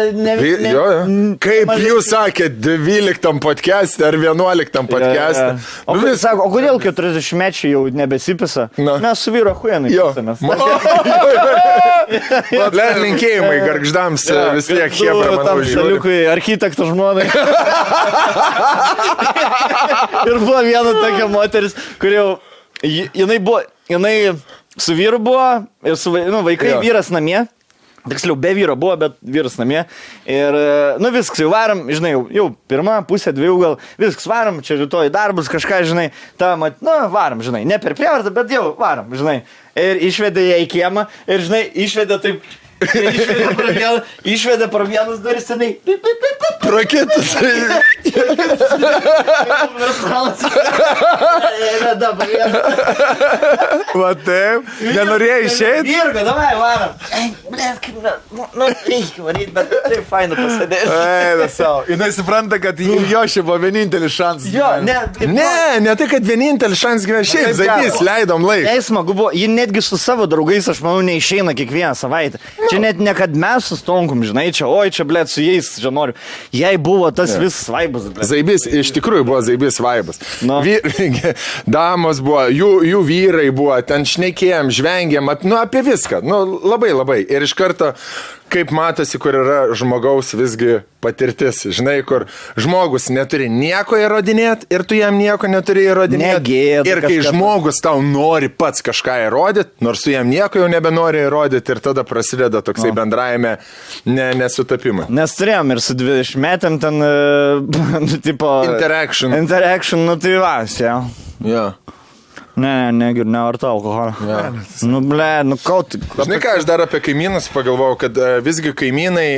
Kaip jūs sakėt, 12 podcast'e ar 11 podcast'e? O kodėl 40-mečiai jau nebesipisa? Mes su vyru ahuienai pisamės. Linkėjimai gargždams vis tiek hebra, manau, žiūri. Architektų žmonai. Ir buvo viena tokia moteris, kur jau, jinai su vyru buvo, ir su vaikai, vyras namie. Tiksliau, be vyro buvo, bet vyras namie. Ir, viskas, jau varam, žinai, jau pirmą pusę, 2 gal, viskas varam, čia rytoj darbus, kažką, žinai, varam, žinai, ne per prievartą, bet jau varam, žinai. Ir išvedė ją į kiemą, ir, žinai, išvedė taip, išvedė pro vienas duris, senai, Prakitus. Va taip, nenorėjai išeiti? Virga, davai, varam. Reikia varyti, bet taip faina pasidėti. Eina savo. Jinai supranta, kad jo šia buvo vienintelis šansas. Jo, ne tai, kad vienintelis šansas gyvena. Šiaip Zaibys, leidom laiką. Smagu buvo, ji netgi su savo draugais, aš manau, neišeina kiekvieną savaitę. Čia net ne kad mes su Stonkum, žinai, čia, blėt, su jais, čia noriu. Jai buvo tas visas vaibas. Zaibys, iš tikrųjų buvo Zaibys vaibas. Damos buvo, jų vyrai buvo, ten šnekėjom, žvengėm, apie viską. Labai. Ir iš karto, kaip matosi, kur yra žmogaus visgi patirtis. Žinai, kur žmogus neturi nieko įrodinėti ir tu jam nieko neturi įrodinėti. Ir kai žmogus tau nori pats kažką įrodyti, nors tu jam nieko jau nebenori įrodyti ir tada prasideda toksai bendrajame nesutapimai. Nes turėjom ir su 20 metėm ten, tipo... Interaction, tai vas, jau. Jo. Nevartau alkoholio. Žinai ką, aš dar apie kaimynus pagalvojau, kad visgi kaimynai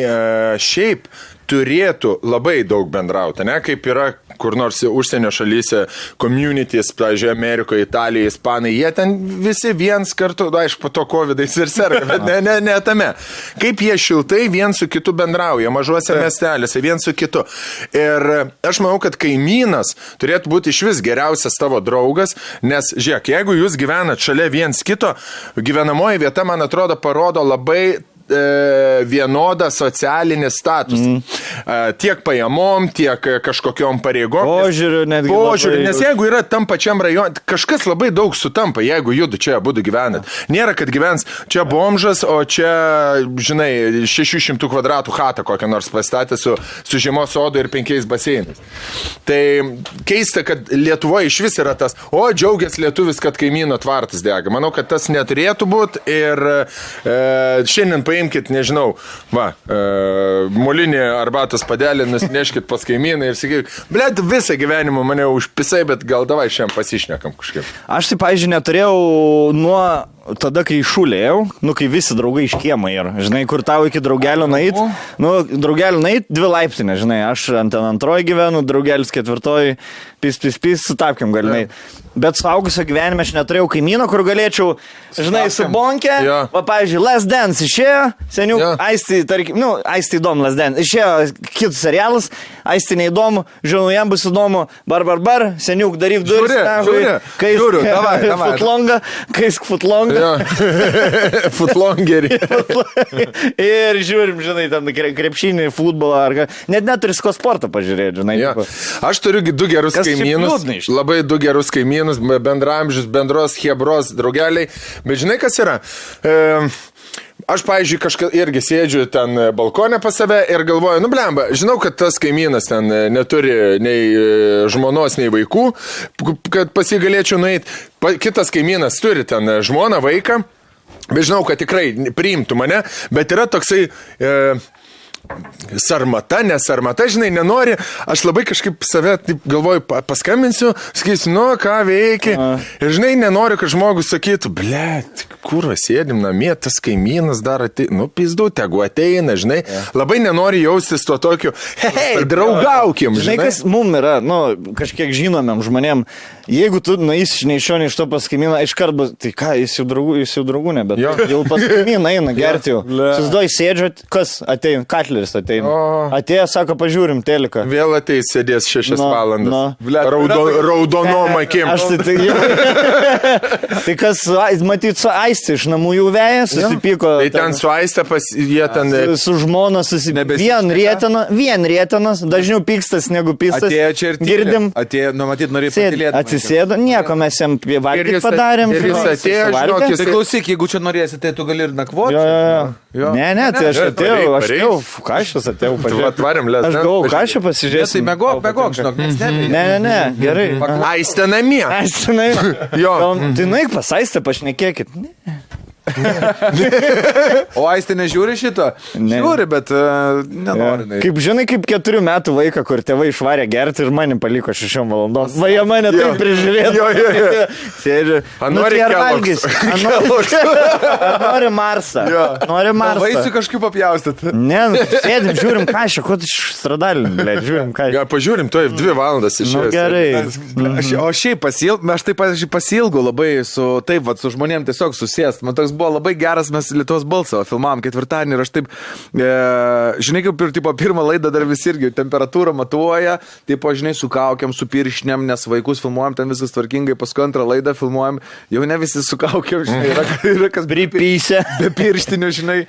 šiaip turėtų labai daug bendrauti, ne? Kaip yra kur nors užsienio šalyse, communities, pavyzdžiui, Amerikoje, Italijoje, Ispanai, jie ten visi viens kartu, aišku, po to covidais ir serga, bet ne tame. Kaip jie šiltai viens su kitu bendrauja, mažuose miestelėse, viens su kitu. Ir aš manau, kad kaimynas turėtų būti iš vis geriausias tavo draugas, nes, žiūrėk, jeigu jūs gyvenat šalia viens kito, gyvenamoji vieta, man atrodo, parodo labai vienodą socialinį statusą. Tiek pajamom, tiek kažkokiom pareigom. Požiūriu, nes jeigu yra tam pačiam rajone, kažkas labai daug sutampa, jeigu judu čia būtų gyvenat. Nėra, kad gyvens čia bomžas, o čia, žinai, 600 kvadratų chatą kokią nors pastatė su žiemos sodu ir 5 baseinais. Tai keista, kad Lietuvoje iš vis yra tas, džiaugias lietuvis, kad kaimyno tvartas dega. Manau, kad tas neturėtų būti ir šiandien paimkit, nežinau, molinį arbatos padelį, nusineškit pas kaimyną ir sakyk, blėt, visą gyvenimą mane užpisai, bet gal davai šiandien pasišnekam kažkaip. Aš tai, pavyzdžiui, neturėjau nuo tada, kai šulėjau, kai visi draugai iš kiemą yra, žinai, kur tau iki draugelio nait, draugelio nait 2 laiptinė, žinai, aš ant 2 gyvenu, draugelis 4, pis, sutapkim galinai. Bet suaugusio gyvenime aš neturėjau kaimyno, kur galėčiau, žinai, su bonke, pavyzdžiui, Last Dance išėjo, seniau, Aisti, tarkim, Aisti įdomu Last Dance, išėjo kitus serialas, Aisti neįdomu, žinau, jam bus įdomu, bar, seniuk daryk duris, Žiūriu, davai. kaisk futlongą, Footlongerį. Ir žiūrim, žinai, ten krepšinį, futbolą, ar net neturi ko sportą pažiūrėti, žinai. Ja. Aš turiu du gerus kaimynus, labai du gerus kaimynus, bendramžius, bendros hebros draugeliai, bet žinai, kas yra? Aš, pavyzdžiui, kažką irgi sėdžiu ten balkonė pas save ir galvoju, nu blemba, žinau, kad tas kaimynas ten neturi nei žmonos, nei vaikų, kad pas jį galėčiau nueiti. Kitas kaimynas turi ten žmoną, vaiką, bet žinau, kad tikrai priimtų mane, bet yra toksai... sarmata, nesarmata, žinai, nenori, aš labai kažkaip save taip galvoju, paskambinsiu, sakysiu, nu, ką veikia, ir žinai, nenoriu, kad žmogus sakytų, blet, kur sėdim namie, tas kaimynas dar ateina, nu, pizdu, tegu ateina, žinai, labai nenori jaustis to tokiu, hei, draugaukim, žinai. Žinai, kas mum yra, nu, kažkiek žinomėm žmonėm, jeigu tu nueisi nei iš šio, nei iš to pas kaimyną, iškart bus, tai ką, jis jau draugų ne, bet jau pas kaimyną eina gerti jau. Susidoj sėdžiu, kas ateina, Katleris ateina. Atėjo, sako, pažiūrim teliką. Vėl ateis, sėdės 6 valandas. Raudonom akim. Aš tai kas, matyt, su Aistė iš namų jau veja, susipyko. Tai ten su Aistė jie ten... Su žmona susipyko. Vien rėtenas, dažniau pykstas negu pystas. Atėjo čia ir girdim. Atėjo, nu, matyt, norėjo patylėti. Atsisėdo, nieko mes jam valgyti padarėm. Ir jis atėjo, žinokis. Tai klausyk, jeigu čia norėsi, tai tu gali ir nakvoti. Ne, tai aš atėjau, ką aš atėjau pažiūrėti. Atvarėm, aš galvoju, ką aš pasižiūrėsiu. Tai megok, žinok, nes ne, gerai. Aistė namie. Tai nueik pas Aistę, pašnekėkit. O Aistė nežiūri šito? Ne. Žiūri, bet nenori. Kaip žinai, kaip 4 metų vaiką, kur tėvai išvarė gerti ir mane paliko 6 valandom. Va, jie mane taip prižiūrėjo. Sėdžiu. Nori Kellogg's. Nori Marsą. Nori Marsą. Vaisių kažkaip apjaustyti. Ne, sėdim, žiūrim kažką, ko tu stradalin, blė, žiūrim kažką. Pažiūrim, to 2 valandas išėjęs. Gerai. O šiaip aš taip pasilgau labai su žmonėm tiesiog susėst. Man toks buvo labai geras, mes Lietuvos balsą filmavom 4-dienį ir aš taip, žinai, kaip ir pirmą laidą dar visi irgi temperatūrą matuoja, taip, žinai, su kaukiam, su piršniam, nes vaikus filmuojam, ten viskas tvarkingai, paskui antrą laidą filmuojam, jau ne visi su kaukiam, žinai, yra kas pripysę, be pirštinių, žinai.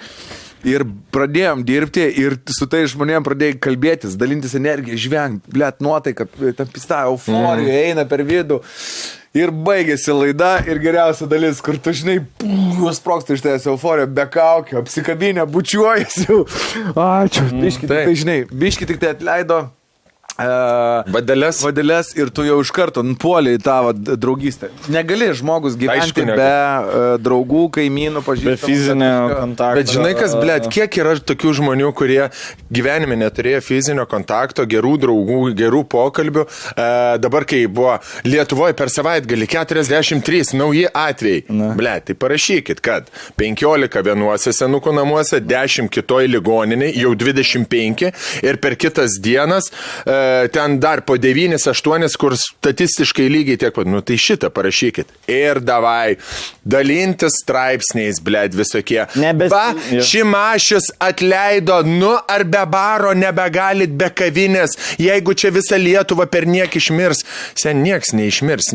Ir pradėjom dirbti ir su tai žmonėm pradėjai kalbėtis, dalintis energiją, žvengt, blėt, nuotaika, tam pista euforija eina per vidų. Ir baigėsi laida ir geriausia dalis, kur tu, žinai, sprogsta iš tavęs euforija, be kaukio, apsikabinę, bučiuojasi jau. Ačiū. Biški, tai žinai, biški tik tai atleido. Vadeles ir tu jau iš karto nupuolė į tavo draugystę. Negali žmogus gyventi be draugų, kaimynų, pažįstamų. Be fizinio kontakto. Bet žinai kas, blėt, kiek yra tokių žmonių, kurie gyvenime neturėjo fizinio kontakto, gerų draugų, gerų pokalbių. Dabar, kai buvo Lietuvoje per savaitgalį 43 nauji atvejai. Blėt, tai parašykit, kad 15 vienuose senukų namuose, 10 kitoj ligoninėj, jau 25 ir per kitas dienas ten dar po 9-8, kur statistiškai lygiai tiek pat. Nu tai šitą parašykit. Ir davai, dalintis straipsniais, blėt, visokie. Šimašius atleido, nu ar be baro nebegalit be kavinės, jeigu čia visą Lietuvą per niek išmirs. Sen nieks neišmirs,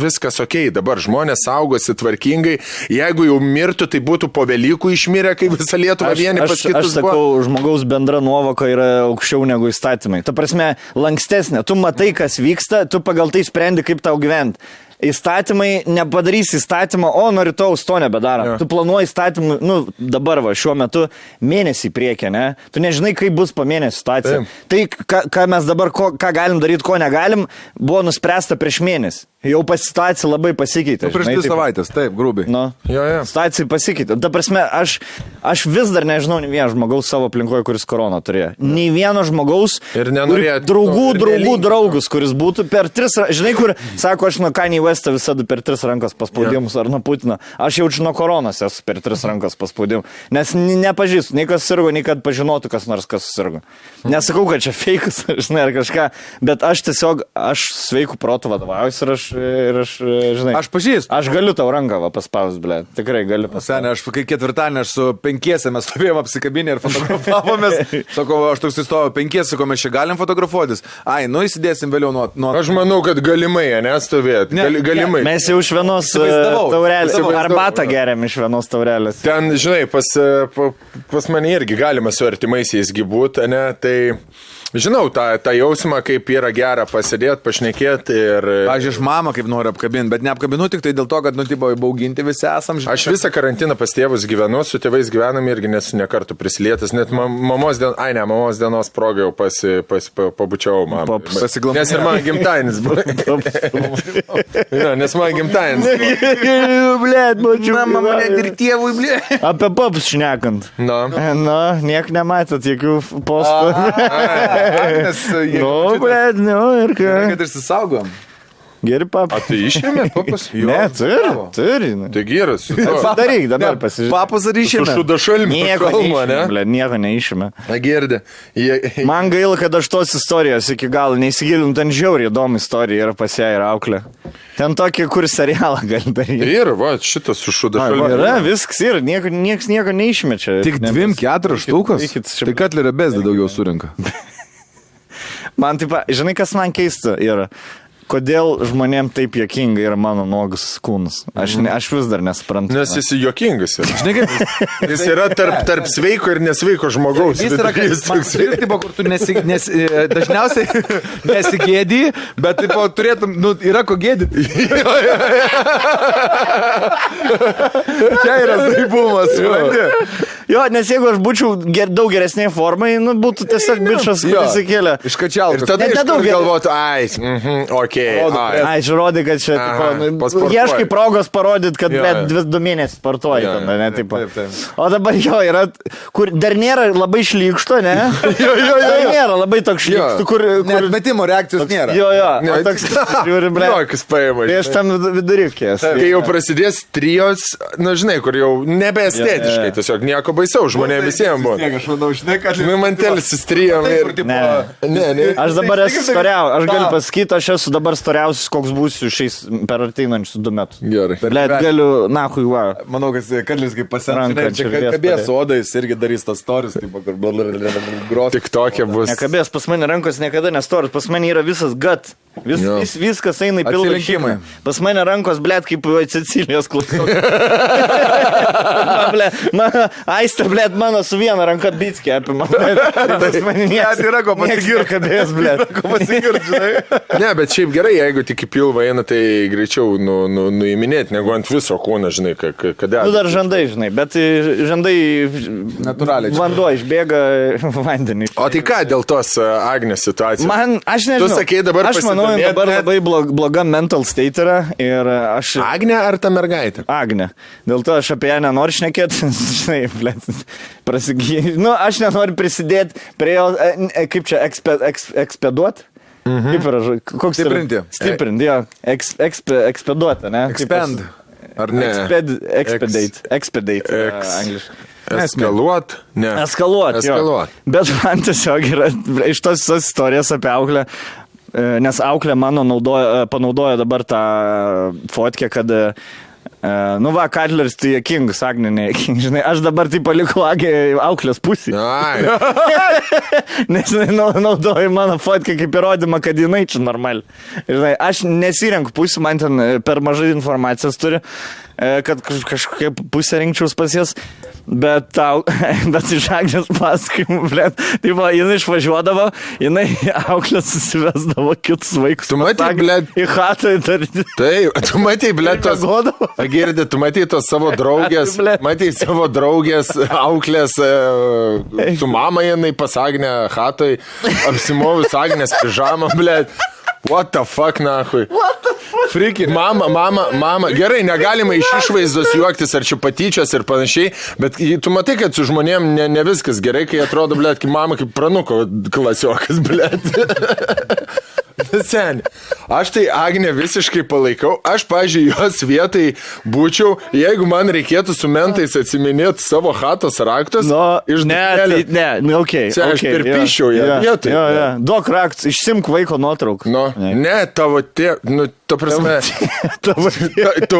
viskas okei, dabar žmonės saugosi tvarkingai, jeigu jau mirtų, tai būtų po Velykų išmirę, kai visą Lietuvą vieni pas kitus buvo. Aš sakau, žmogaus bendra nuovoka yra aukščiau negu įstatymai. Ta prasme, lankstesnė. Tu matai, kas vyksta, tu pagal tai sprendi, kaip tau gyventi. Įstatymai, nepadarys įstatymą, o nuo rytaus to nebedaro. Tu planuoji įstatymą, dabar šiuo metu mėnesį priekį, ne? Tu nežinai, kaip bus po mėnesį situacija. Tai, ką mes dabar, ką galim daryti, ko negalim, buvo nuspręsta prieš mėnesį. Jau situacija labai pasikeitė. Prieš 2 savaitės, taip, grubiai. Situacija pasikeitė. Ta prasme, aš vis dar nežinau nei vieno žmogaus savo aplinkoje, kuris koroną turėjo. Nei vieno žmogaus, draugus, kuris būtų per 3, žinai, kur, sako, aš nuo Kanye Westą visada per 3 rankos paspaudimus, ar nuo Putino. Aš jaučiu nuo koronos esu per 3 rankos paspaudimus. Nes nepažįstu, nei kas sirgo, nei kad pažinotų kas nors, kas sirgo. Nesakau, kad čia feikas, žinai, ar kažką, bet aš tiesiog, sveikų protų vadovaujuosi ir aš žinai. Aš pažįstu. Aš galiu tau ranką paspaus, ble. Tikrai galiu paspaus. Senė, aš kai ketvirtadienį aš su 5 mes stovėjom apsikabinę ir fotografavomės. Sakau, aš toks įstojau 5, sakau, mes čia galim fotografuotis. Ai, nu įsidėsim vėliau nuo... Aš manau, kad galimai, nestovėt. Galimai. Mes jau iš vienos taurelės, arbatą geriam iš vienos taurelės. Ten, žinai, pas mane irgi galima su artimaisiais būt, ne, tai... Žinau, tą jausmą, kaip yra gera pasidėti, pašnekėti ir... Aš iš mamą kaip noriu apkabinti, bet neapkabinu tik tai dėl to, kad, tipo, įbauginti visi esam. Aš visą karantiną pas tėvus gyvenu, su tėvais gyvenam irgi nesu nekartų prisilietęs, net mamos dienos progą jau pabučiau mamą. Nes ir man gimtainis buvo. Nes man gimtainis buvo. Blet, mačiau. Mama mane ir tėvui, blet. Apie paps šnekant. Na, niek nematot jokių postų. Blet, ir ką. Kad išsisaugom. Geri papas. Tai išėmė papas? Ne, turi. Tai geras. Daryk, dabar pasižiūrėk. Papas ar išėmė? Su šudašalmi. Nieko neišėmė. Girdė. Man gaila, kad aš tos istorijos iki galo neįsigilinu, ten žiauriai įdomi istorija yra pas ją ir auklė. Ten tokį, kur serialą gali daryti. Ir, va, šitas su šudašalmi. Yra, viskas yra, nieks nieko neišmečia. Tik 2-4 štukas? Tai Katlerio Bezda daugiau surinka. Man taip, žinai, kas man keista yra? Kodėl žmonėm taip juokinga yra mano nuogas kūnas? Aš vis dar nesuprantu. Nes jis juokingas yra. Žinai, kaip? Jis yra tarp sveiko ir nesveiko žmogaus. Jis yra kaip tipo, kur tu dažniausiai nesigėdį, bet tipo, turėtum, yra ko gėdyti. Čia yra saibumas. Jo, nes jeigu aš būčiau daug geresnėje formai, būtų tiesiog bičas, kuris įkėlė. Iškačiautas. Ir tada iškart galvotų, Ai, žiūrodi, kad čia, ieškai progos parodyti, kad 2 mėnesius sportuoji. O dabar jo yra, kur dar nėra labai šlykšto, ne? Dar nėra labai toks šlykšto, kur... Net metimo reakcijos nėra. Jo, toks, žiūri, ble. Tai aš tam vidurikės. Kai jau prasidės trijos, žinai, kur jau nebeestetiškai, tiesiog nieko baisiau, žmonėm visiems buvo. Aš manau, žinai, kad... Mantelis įstrijom ir... Ne. Aš dabar esu storiausias, aš galiu pasakyti, aš esu dabar storiausias, koks būsiu šiais per ateinančius 2 metus. Gerai. Blet, galiu, nahui, va. Manau, kad Katlis kaip pasiranka, čia kabės odais irgi darys tas storis, taip, kur gros. Tik tokia bus. Nekabės, pas mane rankos niekada nestoris, pas mane yra visas gut. Viskas eina į pilną šeimą. Pas mane rankos, blet, kaip Cecilijos klausau. Aistė, blet, mano su viena ranka bitskė apima. Tas mane yra ko pasigirti. Kabės, blet. Ne, bet šiaip gerai, jeigu tik į pilvą eina, tai greičiau nuiminėti, negu ant viso kūno, žinai, kada. Dar žandai, žinai, bet žandai natūraliai. Vanduo išbėga vandenį. O tai ką dėl tos Agnės situacijos? Aš nežinau. Tu sakei dabar aš manau, dabar labai bloga mental state yra ir aš... Agnė ar ta mergaitė? Agnė. Dėl to aš apie ją nenoriu šnekėti, žinai, blet, aš nenoriu prisidėti prie jo, kaip čia, ekspeduoti? Kaip yra, koks stiprinti. Stiprinti, jo. Ekspeduoti, ne? Expand. Ar ne? Expedate, angliškai. Eskaluot? Ne. Eskaluot, jo. Bet man tiesiog yra iš tos istorijos apie auklę, nes auklė mano panaudojo dabar tą fotkę, kad Katleris tai juokingas, Agnė nejuokingas, žinai, aš dabar tai palikau auklės pusį. Nes naudoju mano fotkę kaip įrodymą, kad jinai čia normali. Žinai, aš nesirenku pusį, man ten per mažai informacijos turi, kad kažkokia pusė rinkčiaus pas jas, bet iš Agnės pasakymų, blet, tai jinai išvažiuodavo, jinai auklės susivesdavo kitus vaikus. Tu matai, blet, į chatą įtarti. Tai, tu matai, blet, tos... Girdi, tu matai tos savo draugės, auklės, su mama jinai pas Agnę chatoj, apsimovus Agnės pižamą, blet. What the fuck, nahui? What the fuck? Friki. Mama. Gerai, negalima iš išvaizdos juoktis ar čia patyčios ir panašiai, bet tu matai, kad su žmonėm ne viskas gerai, kai atrodo, blet, kaip mama, kaip pranuko klasiokas, blet. Seniai. Aš tai Agnę visiškai palaikau. Aš, pažiūrėjau, jos vietai būčiau, jeigu man reikėtų su mentais atsiminėti savo chatos raktus. Okay, aš perpiščiau ją vietoj. Duok raktus, išsimk vaiko nuotrauką. Ne, tavo tėvas, ta prasme, tu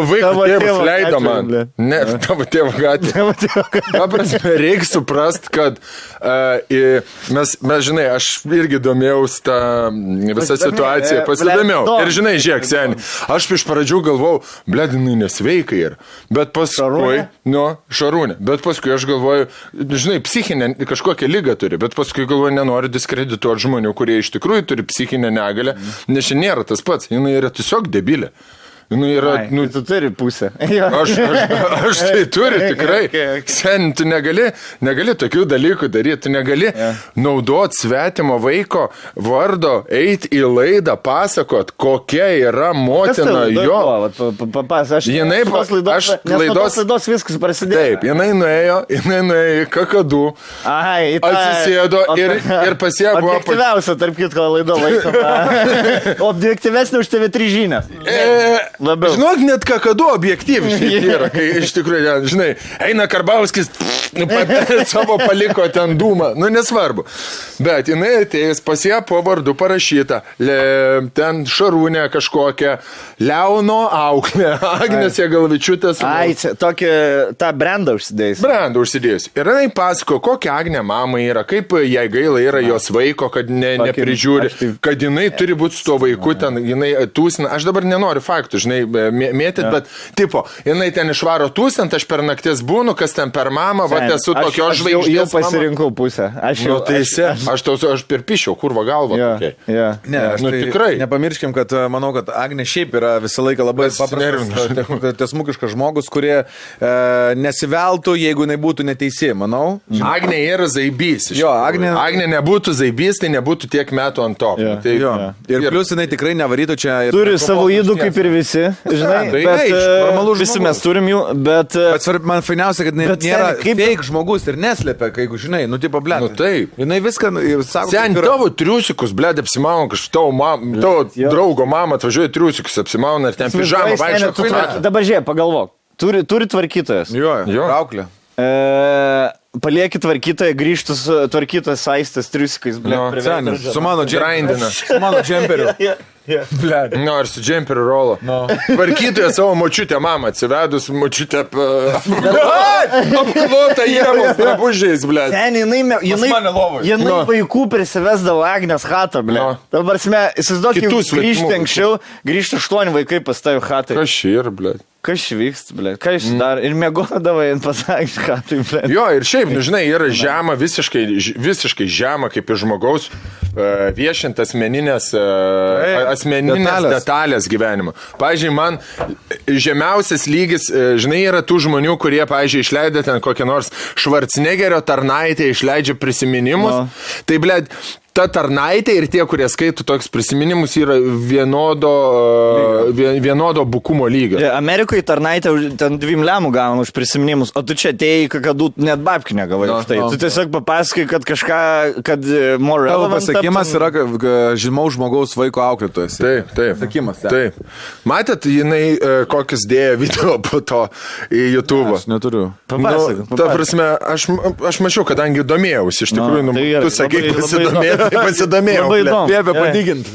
vaiko tėvas leido man. Ne, tavo tėvo gatvė. Ta prasme, reikia suprast, kad mes, žinai, aš irgi domėjaus tą visą situaciją, pasidomėjau. Ir žinai, žiūrėk, seni, aš iš pradžių galvojau, bledinai nesveikai ir, bet paskui, Šarūnė, bet paskui aš galvoju, žinai, psichinę kažkokią ligą turi, bet paskui galvoju, nenoriu diskredituoti žmonių, kurie iš tikrųjų turi psichinę negalę, nes čia nėra tas pats, jinai yra tiesiog debilė. Tu turi pusę. Aš tai turiu tikrai. Sen, tu negali tokių dalykų daryti, tu negali naudoti svetimo vaiko vardo, eiti į laidą, pasakot, kokia yra motina jo. Laidos viskas prasidėjo. Taip, jinai nuėjo į kakadų, atsisėdo ir pasiebuvo. Objektyviausia, tarp kitko, laido laikoma. Objektyvesnė už TV3 žinias. Labiau. Žinok, net kakadu objektyviškai yra, kai iš tikrųjų, žinai, eina Karbauskis, savo paliko ten dūmą, nesvarbu. Bet jinai atėjus pas ją po vardu parašyta, ten Šarūnė kažkokia, Leono auklė, Agnės Jagalavičiūtės. Tą brandą užsidėjus. Ir jinai pasako, kokia Agnė mama yra, kaip jai gaila yra jos vaiko, kad neprižiūri, kad jinai turi būti su tuo vaiku, ten jinai tūsina. Aš dabar nenoriu faktų, žinai, mėtyt, bet tipo, jinai ten išvaro tūsint, aš per naktis būnu, kas ten per mamą, va, esu tokios žvaigždės. Aš jau pasirinkau pusę. Aš perpišiau, kurva galva. Ne, tikrai. Nepamirškim, kad manau, kad Agnė šiaip yra visą laiką labai paprastas, tiesmukiškas žmogus, kurie nesiveltų, jeigu jinai būtų neteisi, manau. Agnė yra zaibys. Agnė nebūtų zaibys, tai nebūtų tiek metų ant to. Ir plius jinai tikrai nevarytų čia. Turi savo įdų kaip ir visi, žinai, bet visi mes turim jų, bet man fainiausia, kad nėra fake žmogus ir neslėpia, kai, žinai, tipo, blėt. Taip. Jinai viską sako. Sen, tavo triusikus, blėt, apsimauna, tavo draugo mama atvažiuoja triusikus, apsimauna ir ten pižamą vaikščia. Dabar žiūrėk, pagalvok. Turi tvarkytojas. Jo, auklė. Palieki tvarkytoją, grįžtus tvarkytojas saistas triusikais, blėt. Su mano džemperiu. Ar su džemperiu rolo. Tvarkytoja savo močiutę mamą atsivedus, močiutę apklotą jėvos drabužiais, blėt. Ten, jinai vaikų prisivesdavo Agnės chatą, blėt. Dabar, įsivaizduok, grįžti anksčiau, grįžti 8 vaikai pas tavį chatą. Kas šir, blėt. Kas vyksta, blėt, ką iš dar, ir mėgodavai ant pasakyti, ką tai, blėt. Jo, ir šiaip, žinai, yra žema, visiškai žema, kaip ir žmogaus viešint asmeninės detalės gyvenimo. Pavyzdžiui, man žemiausias lygis, žinai, yra tų žmonių, kurie, pavyzdžiui, išleidę ten kokią nors Švarcnegerio tarnaitę, išleidžia prisiminimus. Tai, blėt, ta tarnaitė ir tie, kurie skaito toks prisiminimus, yra vienodo bukumo lygio. Amerikoje tarnaitė ten 2 lemų gauna už prisiminimus, o tu čia atėjai, kad net babkių negavai už tai. Tu tiesiog papasakai, kad kažką, kad more relevant. Tavo pasakymas yra žymaus žmogaus vaiko auklėtojas. Taip. Pasakymas. Taip. Matėt, jinai kokius dėjo video po to į YouTube. Aš neturiu. Papasakai. Ta prasme, aš mačiau, kadangi domėjausi, iš tikrųjų, tu sakai, pasidomėjai. Pasidomėjau. Labai įdomu. Liepė padigint.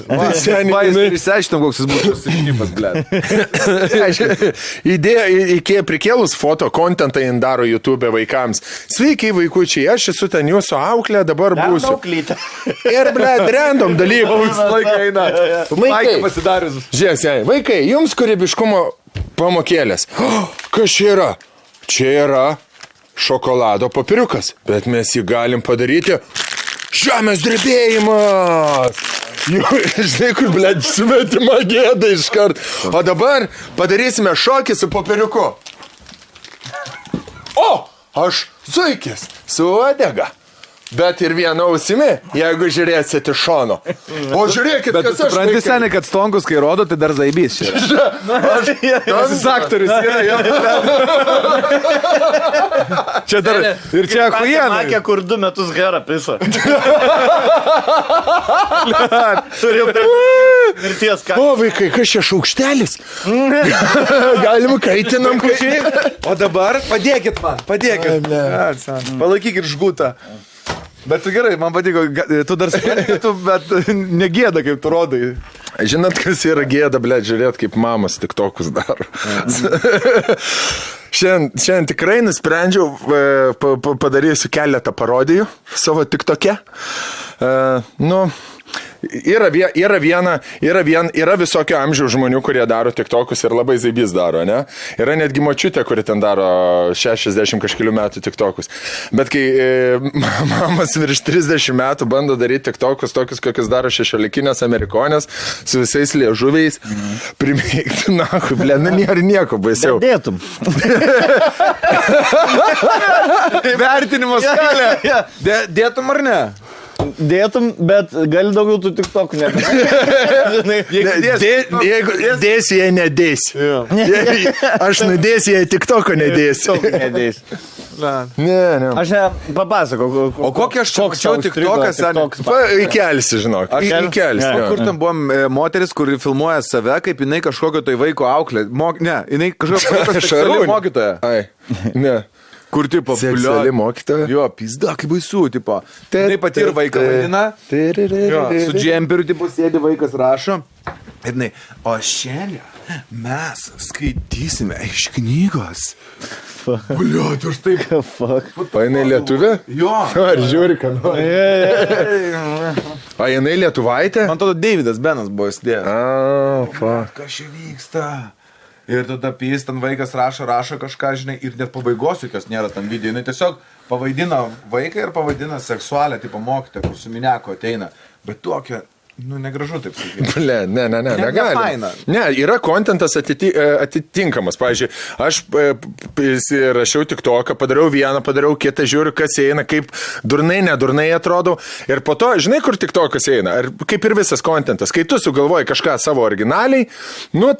Išsiaiškinom, koks jis būtų susišypas, blėt. Idėja prikėlus foto kontentą jin daro YouTube vaikams. Sveiki, vaikučiai, aš esu ten jūsų auklė, dabar būsiu. Ir, blėt, random dalykų. Žiūrėk, vaikai, jums kūrybiškumo pamokėlės. Kas čia yra? Čia yra šokolado papiriukas, bet mes jį galim padaryti. Žemės drebėjimas! Žinai, kur, blėt, svetima gėda iškart. O dabar padarysime šokį su popieriuku. O, aš zuikis su uodega. Bet ir viena ausimi, jeigu žiūrėsit iš šono. O žiūrėkit, bet kas aš... Supranti, seniai, kad stonkus, kai rodo, tai dar zaibys čia. Šis aktorius yra. Čia dar... Ir čia achujienai. Makė, kur 2 metus gerą pisą. Mirties ką. O, vaikai, kas čia šaukštelis? Galim kaitinam. O dabar padėkit man, padėkit. Palaikykit žgutą. Bet tu gerai, man patiko, tu dar supranti, bet negėda, kaip tu rodai. Žinot, kas yra gėda, blėt, žiūrėt, kaip mamas tiktokus daro. Šiandien tikrai nusprendžiau, padarysiu keletą parodijų savo tiktoke. Yra visokio amžiaus žmonių, kurie daro tiktokus ir labai zaibys daro, ne? Yra netgi močiutė, kuri ten daro 60 kažkelių metų tiktokus. Bet kai mamas virš 30 metų bando daryti tiktokus, tokius, kokius daro 16-inės amerikonės, su visais liežuviais, primėgti, ble, nėra nieko baisiau. Dėtum. Vertinimo skalė. Dėtum ar ne? Dėtum, bet gali daugiau tų tiktokų Jeigu dėsi, jei nedėsi. Aš nudėsi, jei tiktoko nedėsi. Ne. Aš papasakau. O kokią aš čia mačiau tiktokas? Įkelsi, žinok. Įkelsi. Kur tam buvo moteris, kuri filmuoja save, kaip jinai kažkokio tai vaiko auklė. Ne, jinai kažkokio seksuali mokytoja. Ne. Kur, tipo, seksuali mokytoja? Jo, pizda, kaip baisu, tipo. Tai pati ir vaiką vaidina. Su džemperiu, tipo, sėdi vaikas rašo. Ir jinai, o šiandien mes skaitysime iš knygos. Bliot, už tai. O jinai lietuvė? Jo. Ar žiūri, ką nori? O jinai lietuvaitė? Man atrodo, Davidas Benas buvo įsidėjęs. Kas čia vyksta? Ir tada jis ten vaikas rašo kažką, žinai, ir net pabaigos jokios nėra tam video. Jis tiesiog pavaidina vaiką ir pavaidina seksualią, tipo mokytę, kur su mineko ateina. Bet tokia, negražu taip sakyti. Ble, ne, negali. Ne, yra kontentas atitinkamas. Pavyzdžiui, aš rašiau tiktoką, padariau vieną, padariau kitą, žiūriu, kas eina, kaip durnai, nedurnai atrodau. Ir po to, žinai, kur tiktokas eina. Ir kaip ir visas kontentas. Kai tu sugalvoji kažką savo originaliai,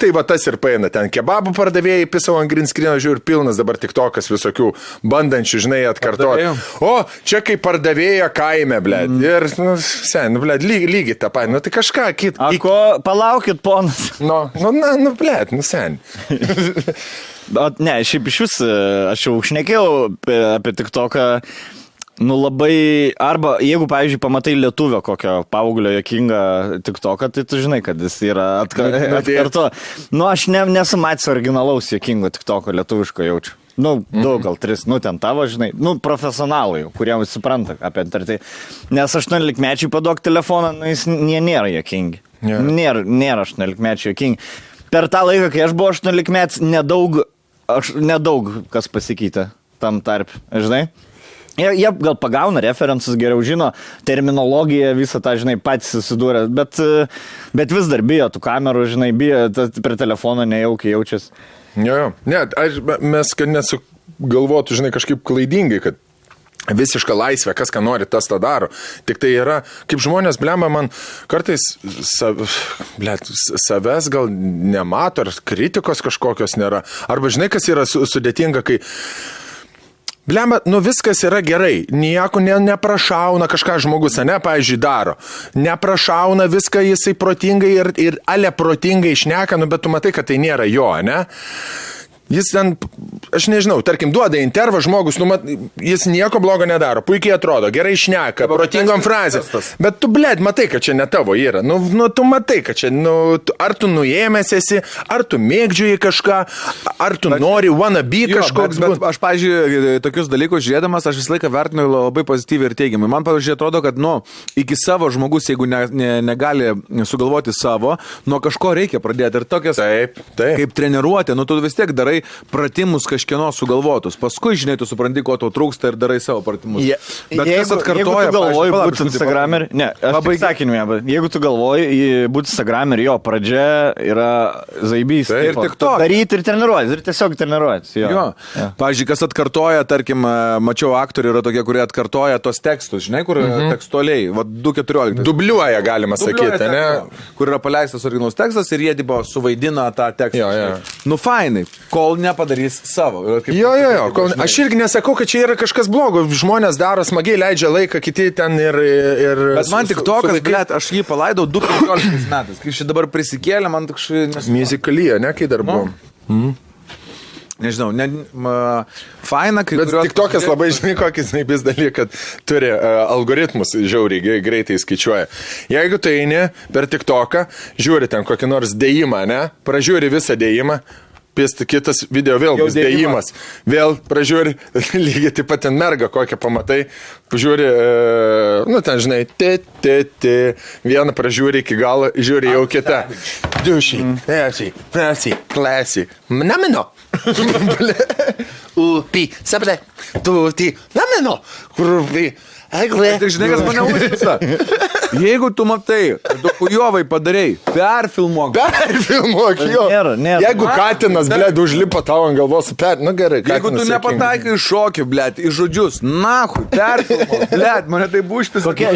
tai va tas ir paeina. Ten kebabų pardavėjai, pisau ant green screen, žiūriu, pilnas dabar tiktokas visokių bandančių, žinai, atkartoti. O, čia kaip pardavėja kaime, ble. Ir, ble, lygiai tą patį. Tai kažką kitą. Ko, palaukit, ponas. Blėt, sen. Ne, šiaip iš vis, aš jau šnekėjau apie TikToką, labai, arba jeigu, pavyzdžiui, pamatai lietuvio kokio paauglio jokingą TikToką, tai tu žinai, kad jis yra atkarto. Aš nesu matęs originalaus jokingo TikToko lietuviško jaučiu. Daug, gal 3, ten tavo, žinai, profesionalai, kurie supranta apie tai. Nes 18-mečiai paduok telefoną, jis nėra jokingi. Nėra 18-mečiai jokingi. Per tą laiką, kai aš buvau 18-metis, nedaug kas pasikeitė tam tarp, žinai. Jie gal pagauna referensus, geriau žino, terminologiją, visą tą, žinai, patys susidūrė, bet vis dar bijo tų kamerų, žinai, bijo, prie telefono nejaukiai jaučiasi. Jo. Ne, mes, kad nesugalvotų, žinai, kažkaip klaidingai, kad visiška laisvė, kas ką nori, tas tą daro. Tik tai yra, kaip žmonės, blemba, man kartais savęs gal nemato, ar kritikos kažkokios nėra. Arba, žinai, kas yra sudėtinga, kai blemba, viskas yra gerai, nieko neprašauna kažką žmogus, pavyzdžiui, daro. Neprašauna viską jisai protingai ir ale protingai šneka, bet tu matai, kad tai nėra jo, ne? Jis ten, aš nežinau, tarkim, duoda intervą žmogus, jis nieko blogo nedaro, puikiai atrodo, gerai šneka, protingom frazėm. Bet tu, blėd, matai, kad čia ne tavo yra. Tu matai, kad čia, ar tu nuėmęs esi, ar tu mėgdžiuji kažką, ar tu nori wanna be kažkoks. Bet aš, pavyzdžiui, tokius dalykus žiūrėdamas, aš visą laiką vertinu labai pozityviai ir teigiamai. Man, pavyzdžiui, atrodo, kad, iki savo žmogus, jeigu negali sugalvoti savo, nuo kažko reikia pradėti. Ir tokias, kaip treniruotė, tu vis tiek darai pratimus kažkieno sugalvotus. Paskui, žinai, tu supranti, ko tau trūksta ir darai savo pratimus. Bet kas atkartoja, jeigu tu galvoji būti Instagramer, jeigu tu galvoji būti Instagramer, jo pradžia yra zaibys. Ir tik to. Daryti ir treniruotis, ir tiesiog treniruotis. Jo. Pavyzdžiui, kas atkartoja, tarkim, mačiau aktorių yra tokie, kurie atkartoja tos tekstus, žinai, kur tekstualiai, 2.14. Dubliuoja, galima sakyti, ne? Kur yra paleistas originalus tekstas ir jie, tipo, suvaidina tą tekstą. Jo. Fainai. Kol kol nepadarys savo. Jo. Aš irgi nesakau, kad čia yra kažkas blogo. Žmonės daro smagiai, leidžia laiką, kiti ten ir... Bet man tik tokas, blėt, aš jį palaidau 2015 metais. Kai šį dabar prisikėlė, man tik šį... Musikalyje, ne, kai dar buvom. Nežinau, faina, kai... Bet tik tokas labai žinai, kokį snaipis dalyką, kad turi algoritmus žiauriai greitai skaičiuoja. Jeigu tu eini per TikToką, žiūri ten kokį nors dėjimą, ne? Pražiūri visą dėjimą, kitas video vėl bus dėjimas. Vėl pražiūri, lygiai taip pat ten merga kokią pamatai, pažiūri, ten žinai, vieną pražiūri iki galo, žiūri jau kitą. Dušiai, klasiai, namino. Upi, sabre, tuti, namino, kurvi. Tik žinai, kas mane užkisa. Jeigu tu matai, tu kujovai padarei, perfilmuok, jo. Nėra. Jeigu katinas, blėd, užlipa tau ant galvos, gerai. Jeigu tu nepataikai šokį, blėd, į žodžius, nahui, perfilmuok, blėd, mane tai užpisa. Kokie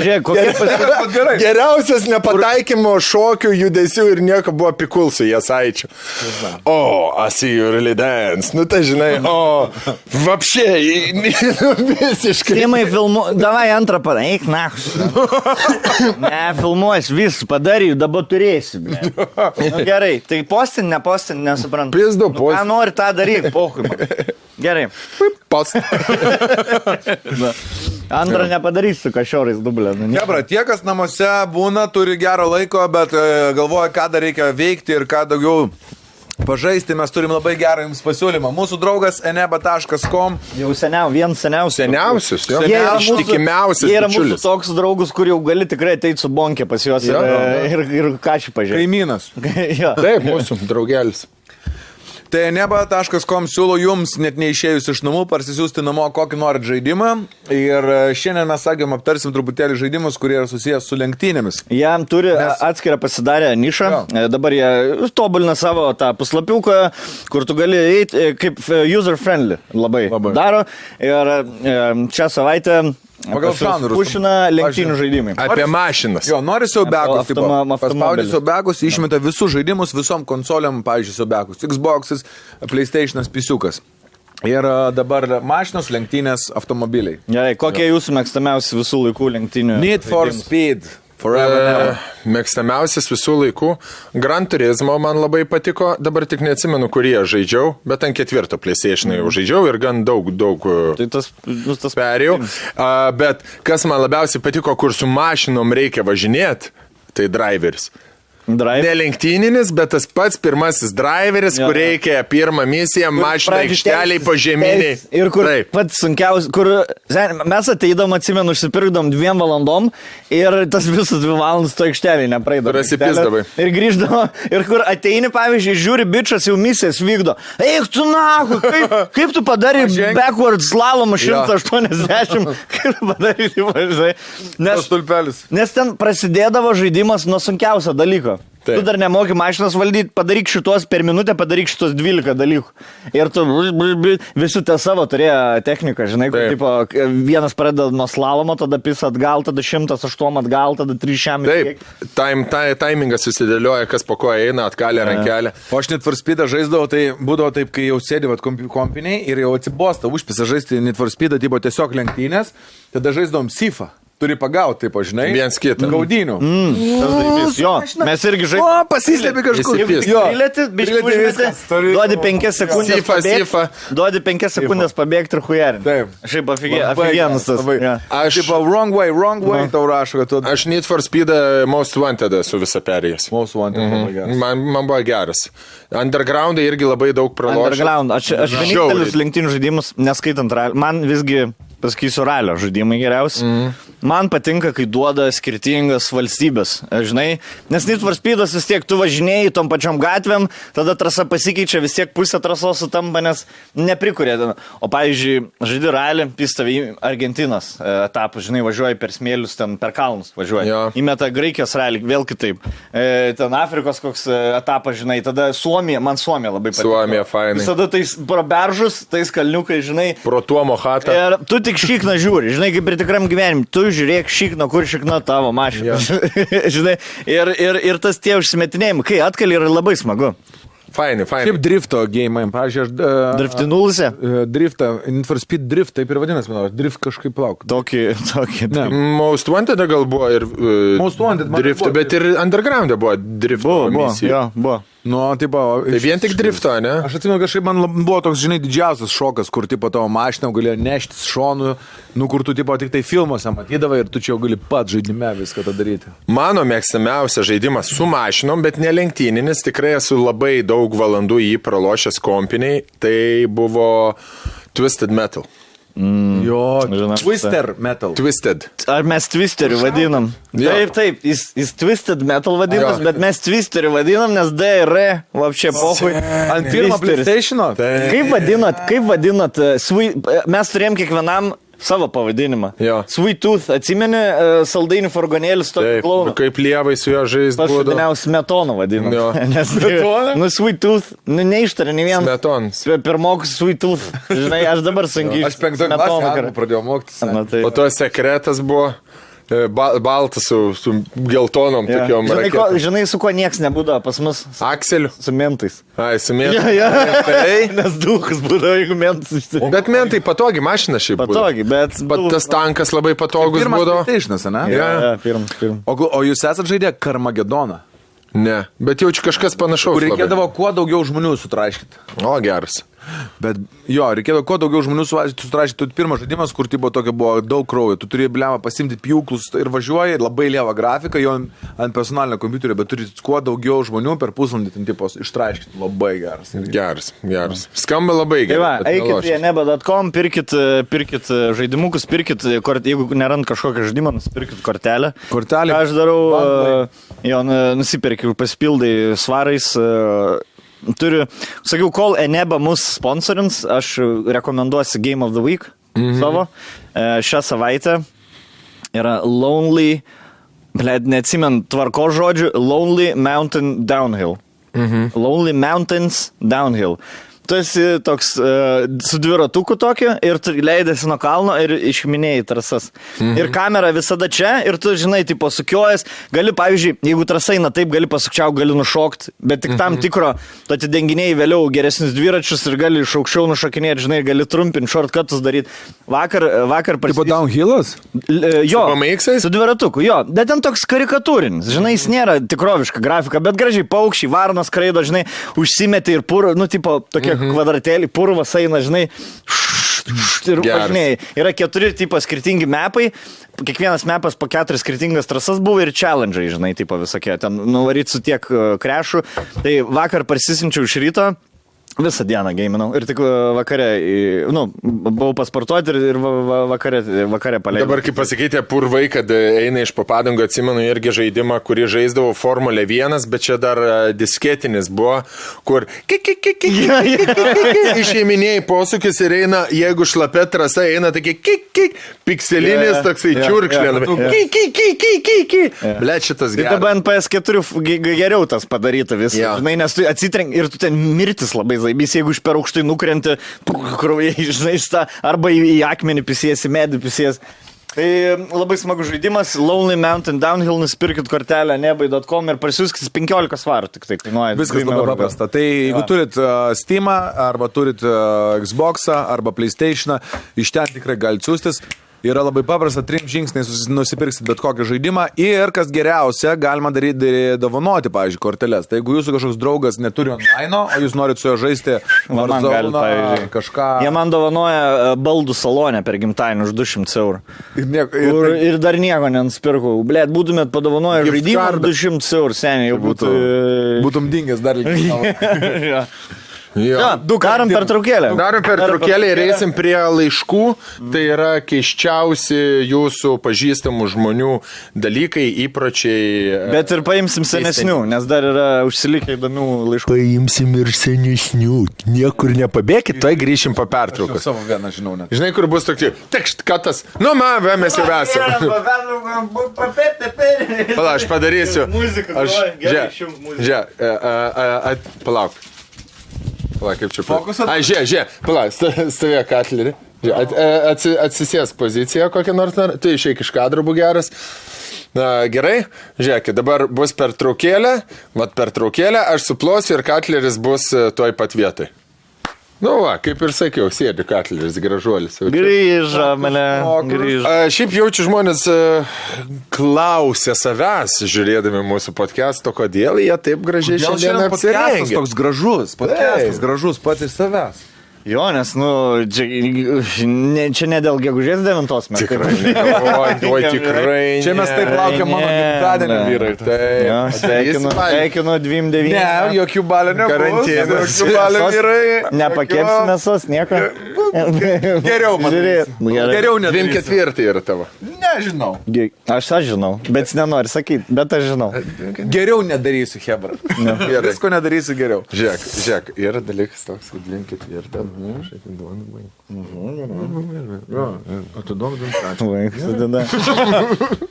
gerai. Geriausias nepataikymo šokių, judesių ir nieko buvo pikul su Jasaičiu. I see you really dance. Tai žinai, vapšiai, visiškai. Timai davai antrą padaryk, ne, filmuos, vis padaryk, dabar turėsi. Gerai, tai postin, nesuprantu. Pizdu, postin. Ką nori tą daryk, pohui. Gerai. Post. Antrą nepadarysiu kažiorais dublę. Hebra, tie, kas namuose būna, turi gero laiko, bet galvoja, ką dar reikia veikti ir ką daugiau pažaisti, mes turim labai gerą jums pasiūlymą. Mūsų draugas eneba.com. Jau seniausius. Ištikimiausias. Jie yra mūsų toks draugus, kur jau gali tikrai ateiti su bonkė pas juos ir ką šį pažiūrėti. Kaimynas. Taip, mūsų draugelis. Tai eneba.com siūlo jums, net neišėjus iš namų, parsisiųsti namo kokį norit žaidimą. Ir šiandien mes sakėm, aptarsim truputėlį žaidimus, kurie yra susijęs su lenktynėmis. Jam turi atskirą pasidarę nišą. Dabar jie tobulina savo tą puslapiuką, kur tu gali eiti kaip user-friendly labai daro. Ir šią savaitę pagal žanrus pušina lenktynių žaidimai. Apie mašinas. Jo, nori siaubekus. Paspaudži siaubekus, išmeta visus žaidimus visom konsoliam, pavyzdžiui, siaubekus. Xbox'as, PlayStation'as, pisiukas. Ir dabar mašinos, lenktynės, automobiliai. Gerai, kokie jūsų mėgstamiausi visų laikų lenktynių? Need for Speed. Mėgstamiausias visų laikų. Gran Turismo man labai patiko, dabar tik neatsimenu, kurie žaidžiau, bet ant 4 PlayStation'ą jau žaidžiau ir gan daug tai tas perėjau. Bet kas man labiausiai patiko, kur su mašinom reikia važinėti, tai Driveris. Ne lenktyninis, bet tas pats pirmasis driveris, kur reikia pirmą misiją, mašiną aikšteliai požeminiai. Ir kur pats sunkiausias, kur mes ateidom, atsimenu, užsipirkdom 2 valandom ir tas visas 2 valandas to aikšteliai nepraeidom. Prasipisdavai. Ir grįždavo, ir kur ateini, pavyzdžiui, žiūri, bičas jau misijas vykdo. Eik tu nahu, kaip tu padarai backward slalomą 180, kaip padarai, nes ten prasidėdavo žaidimas nuo sunkiausio dalyko. Tu dar nemoki mašinas valdyti, padaryk šitos per minutę, padaryk šitos 12 dalykų. Ir tu visi te savo turėjo techniką, žinai, kur tipo, vienas pradeda nuo slalomo, tada pisa atgal, tada 108 atgal, tada 300. Taip, taimingas susidėlioja, kas po ko eina, atkalė rankelę. O aš Need for Speed'ą žaisdavau, tai būdavo taip, kai jau sėdėvat kompiniai ir jau atsibosta užpisa žaisti Need for Speed'ą, tipo tiesiog lenktynės, tada žaisdavom Sifą. Turi pagauti, taip, žinai. Viens kitą. Gaudinių. Jo, mes irgi žaidžiam. O, pasislėpi kažkur. Duodi 5 sekundės pabėgti. Duodi 5 sekundės pabėgti ir hujarinti. Taip. Šiaip aфиgenas tas. Aš tipo wrong way, tau rašo, kad tu... Aš Need for Speed'ą Most Wanted esu visą perėjęs. Most Wanted, labai geras. Man buvo geras. Underground'ai irgi labai daug pralošęs. Underground. Aš vienintelis lenktynių žaidimus, neskaitant ralio, man visgi... Pasakysiu, ralio žaidimai geriausi. Man patinka, kai duoda skirtingas valstybės, žinai, nes Need for Speed'as vis tiek tu važinėjai tom pačiom gatvėm, tada trasa pasikeičia, vis tiek pusė trasos sutampa, nes neprikuria. O pavyzdžiui, žaidi ralį, pistavi Argentinos etapą, žinai, važiuoji per smėlius, ten per kalnus važiuoji. Įmeta Graikijos ralį, vėl kitaip. Ten Afrikos koks etapas, žinai, tada Suomija, man Suomija labai patinka. Suomija, fainai. Visada tais proberžus, tais kalniukai, žinai. Pro Tuomo chatą. Ir tu tik šikną žiūri, žinai, kaip ir tikram gyvenimui, tu žiūrėk šikną, kur šikna tavo mašina. Žinai, ir tas tie užsimetinėjimai, kai atkali yra labai smagu. Faini. Šiaip drifto game, pavyzdžiui, aš... Driftinulse? Driftą, Need for Speed Drift, taip ir vadinasi, manau, drift kažkaip lauk. Tokį. Ne. Most Wanted gal buvo ir Most Wanted, drift, bet ir Underground buvo drifto misija. Buvo. Nu, tipo... Tai vien tik drifto, ne? Aš atsimenu, kažkaip man buvo toks, žinai, didžiausias šokas, kur, tipo, tavo mašiną galėjo neštis šonu, nu, kur tu, tipo, tik tai filmuose matydavai ir tu čia jau gali pat žaidime viską tą daryti. Mano mėgstamiausias žaidimas su mašinom, bet ne lenktyninis, tikrai esu labai daug valandų jį pralošęs kompiniai, tai buvo Twisted Metal. Jo, žinau, Twister Metal. Twisted. Ar mes Twisteriu vadinam? Jo. Taip, jis Twisted Metal vadinas, bet mes Twisteriu vadinam, nes D ir R, vapšė pohui. Ant pirmo PlayStation'o? Kaip vadinat, mes turėjom kiekvienam savo pavadinimą. Jo. Sweet Tooth, atsimeni, saldainių furgonėlis tokį klauną. Kaip lievai su jo žaist būdavo. Pašudiniaus Smetonu vadinam. Jo. Nes, nu, Sweet Tooth, nu, neištarė nei vienas. Smetons. Pirmokus Sweet Tooth. Žinai, aš dabar sunkiai. Aš 5 klasę pradėjau mokytis. Tai. O to sekretas buvo baltas su geltonom tokiom raketom. Žinai, su kuo nieks nebūdavo pas mus? Akseliu. Su mentais. Ai, su mentais. Ja. Nes duhas būdavo, jeigu mentas išsirinko. Bet mentai patogi mašina šiaip būdavo. Patogi, bet... Tas tankas labai patogus būdavo. Pirmas PlayStation'as, ne? Ja, pirmas. O jūs esat žaidę Karmagedoną? Ne, bet jaučiu kažkas panašaus. Kur reikėdavo kuo daugiau žmonių sutraiškyti. O, geras. Bet jo, reikėdavo kuo daugiau žmonių sutraiškyti. Pirmas žaidimas, kur tipo tokio buvo daug kraujo. Tu turi blemą pasimti pjūklus ir važiuoji, labai lievą grafiką, jo ant personalinio kompiuterio, bet turi kuo daugiau žmonių per pusvalandį ten tipo ištraiškyti. Labai geras. Geras. Skamba labai gerai. Tai va, eikit į neba.com, pirkit žaidimukus, jeigu nerand kažkokią žaidimą, nusipirkit kortelę. Kortelė. Aš darau, nusipirkiu, pasipildai svarais. Sakiau, kol Eneba mus sponsorins, aš rekomenduosiu Game of the Week savo. Šią savaitę yra Lonely, neatsimenu tvarko žodžių, Lonely Mountain Downhill. Lonely Mountains Downhill. Tu esi toks su dviratuku tokiu ir tu leidėsi nuo kalno ir išminėjai trasas. Ir kamera visada čia ir tu, žinai, tipo sukiojas, gali, pavyzdžiui, jeigu trasa eina taip, gali pasukčiau, gali nušokti, bet tik tam tikro, tu atidenginėjai vėliau geresnius dviračius ir gali iš aukščiau nušokinėti, žinai, gali trumpinti, shortcutus daryti. Vakar Tipo downhillas? Jo, su dviratuku, jo, bet ten toks karikatūrinis, žinai, jis nėra tikroviška grafika, bet gražiai paukščiai, varnos skraido, žinai, užsimetė ir pur, nu, tipo, tokie kvadratėlį, purvas eina, žinai, ir važinėjai. Yra 4 tipo skirtingi mapai, kiekvienas mapas po 4 skirtingas trasas buvo ir challenge'ai, žinai, tipo visokie, ten nuvaryt su tiek krešų. Tai vakar parsisinčiau iš ryto, visą dieną geiminau ir tik vakare, buvau pasportuoti ir vakare paleidau. Dabar kaip pasikeitė purvai, kad eina iš papadangų, atsimenu irgi žaidimą, kurį žaisdavo Formulė 1, bet čia dar disketinis buvo, kur išėminėjai posūkis ir eina, jeigu šlapia trasa eina, tokie pikselinis toksai čiurkšlė. Blet, šitas geras. Tai dabar NPS4 geriau tas padaryta visą, žinai, nes tu atsitrenk ir tu ten mirtis labai zaibys, jeigu iš per aukštai nukrenti, kraujai, žinai, arba į akmenį pisiesi, medį pisiesi. Tai labai smagus žaidimas, Lonely Mountain Downhill, nusipirkit kortelę nebai.com ir parsiųskit 15 svarų, tik tai kainuoja. Viskas labai paprasta. Tai jeigu turit Steamą, arba turit Xboxą, arba PlayStationą, iš ten tikrai galite siūstis. Yra labai paprasta, 3 žingsniais nusipirksit bet kokį žaidimą ir, kas geriausia, galima dovanoti, pavyzdžiui, korteles. Tai jeigu jūsų kažkoks draugas neturi online, o jūs norit su jo žaisti Warzone, kažką... Jie man dovanoja baldų salonę per gimtadienį už 200 eurų. Ir dar nieko nenusipirkau. Blet, būtumėt padovanoję žaidimą 200 eurų, seniai jau būtų... Būtum dingęs dar lygiai. Darom pertraukėlę. Darom pertraukėlę ir eisim prie laiškų. Tai yra keiščiausi jūsų pažįstamų žmonių dalykai, įpročiai. Bet ir paimsim senesnių, nes dar yra užsilikę įdomių laiškų. Paimsim ir senesnių. Niekur nepabėkit, tai grįšim po pertraukos. Savo vieną žinau net. Žinai, kur bus tokie, tekšt, katas. Nu, mes jau esame. Pala, aš padarysiu. Palauk. Pala, kaip čia fokusą? Ai, žiūrėk, pala, stovėk atlerį. Atsisės poziciją kokią nors, tu išeik iš kadro, būk geras. Gerai, žiūrėkit, dabar bus pertraukėlė, aš suplosiu ir Katleris bus toj pat vietai. Nu va, kaip ir sakiau, sėdi Katleris, gražuolis. Grįžo, mane, grįžo. Šiaip jaučiu žmonės klausia savęs, žiūrėdami mūsų podcast'o, kodėl jie taip gražiai šiandien apsirengia. Toks gražus, podcast'as gražus pats iš savęs. Jo, nes, čia ne dėl gegužės 9 mes. Tikrai, tikrai. Čia mes taip laukiam mano gimtadienio, vyrai. Sveikinu 29. Ne, jokių balių nebus. Karantinas. Jokių balių, vyrai. Nepakepsi mėsos, nieko. Geriau, man. Geriau nedarysiu. 24 yra tavo. Nežinau. Aš žinau, bet nenori sakyti, bet aš žinau. Geriau nedarysiu, hebra. Visko nedarysiu geriau. Žiūrėk, yra dalykas toks, kad 24.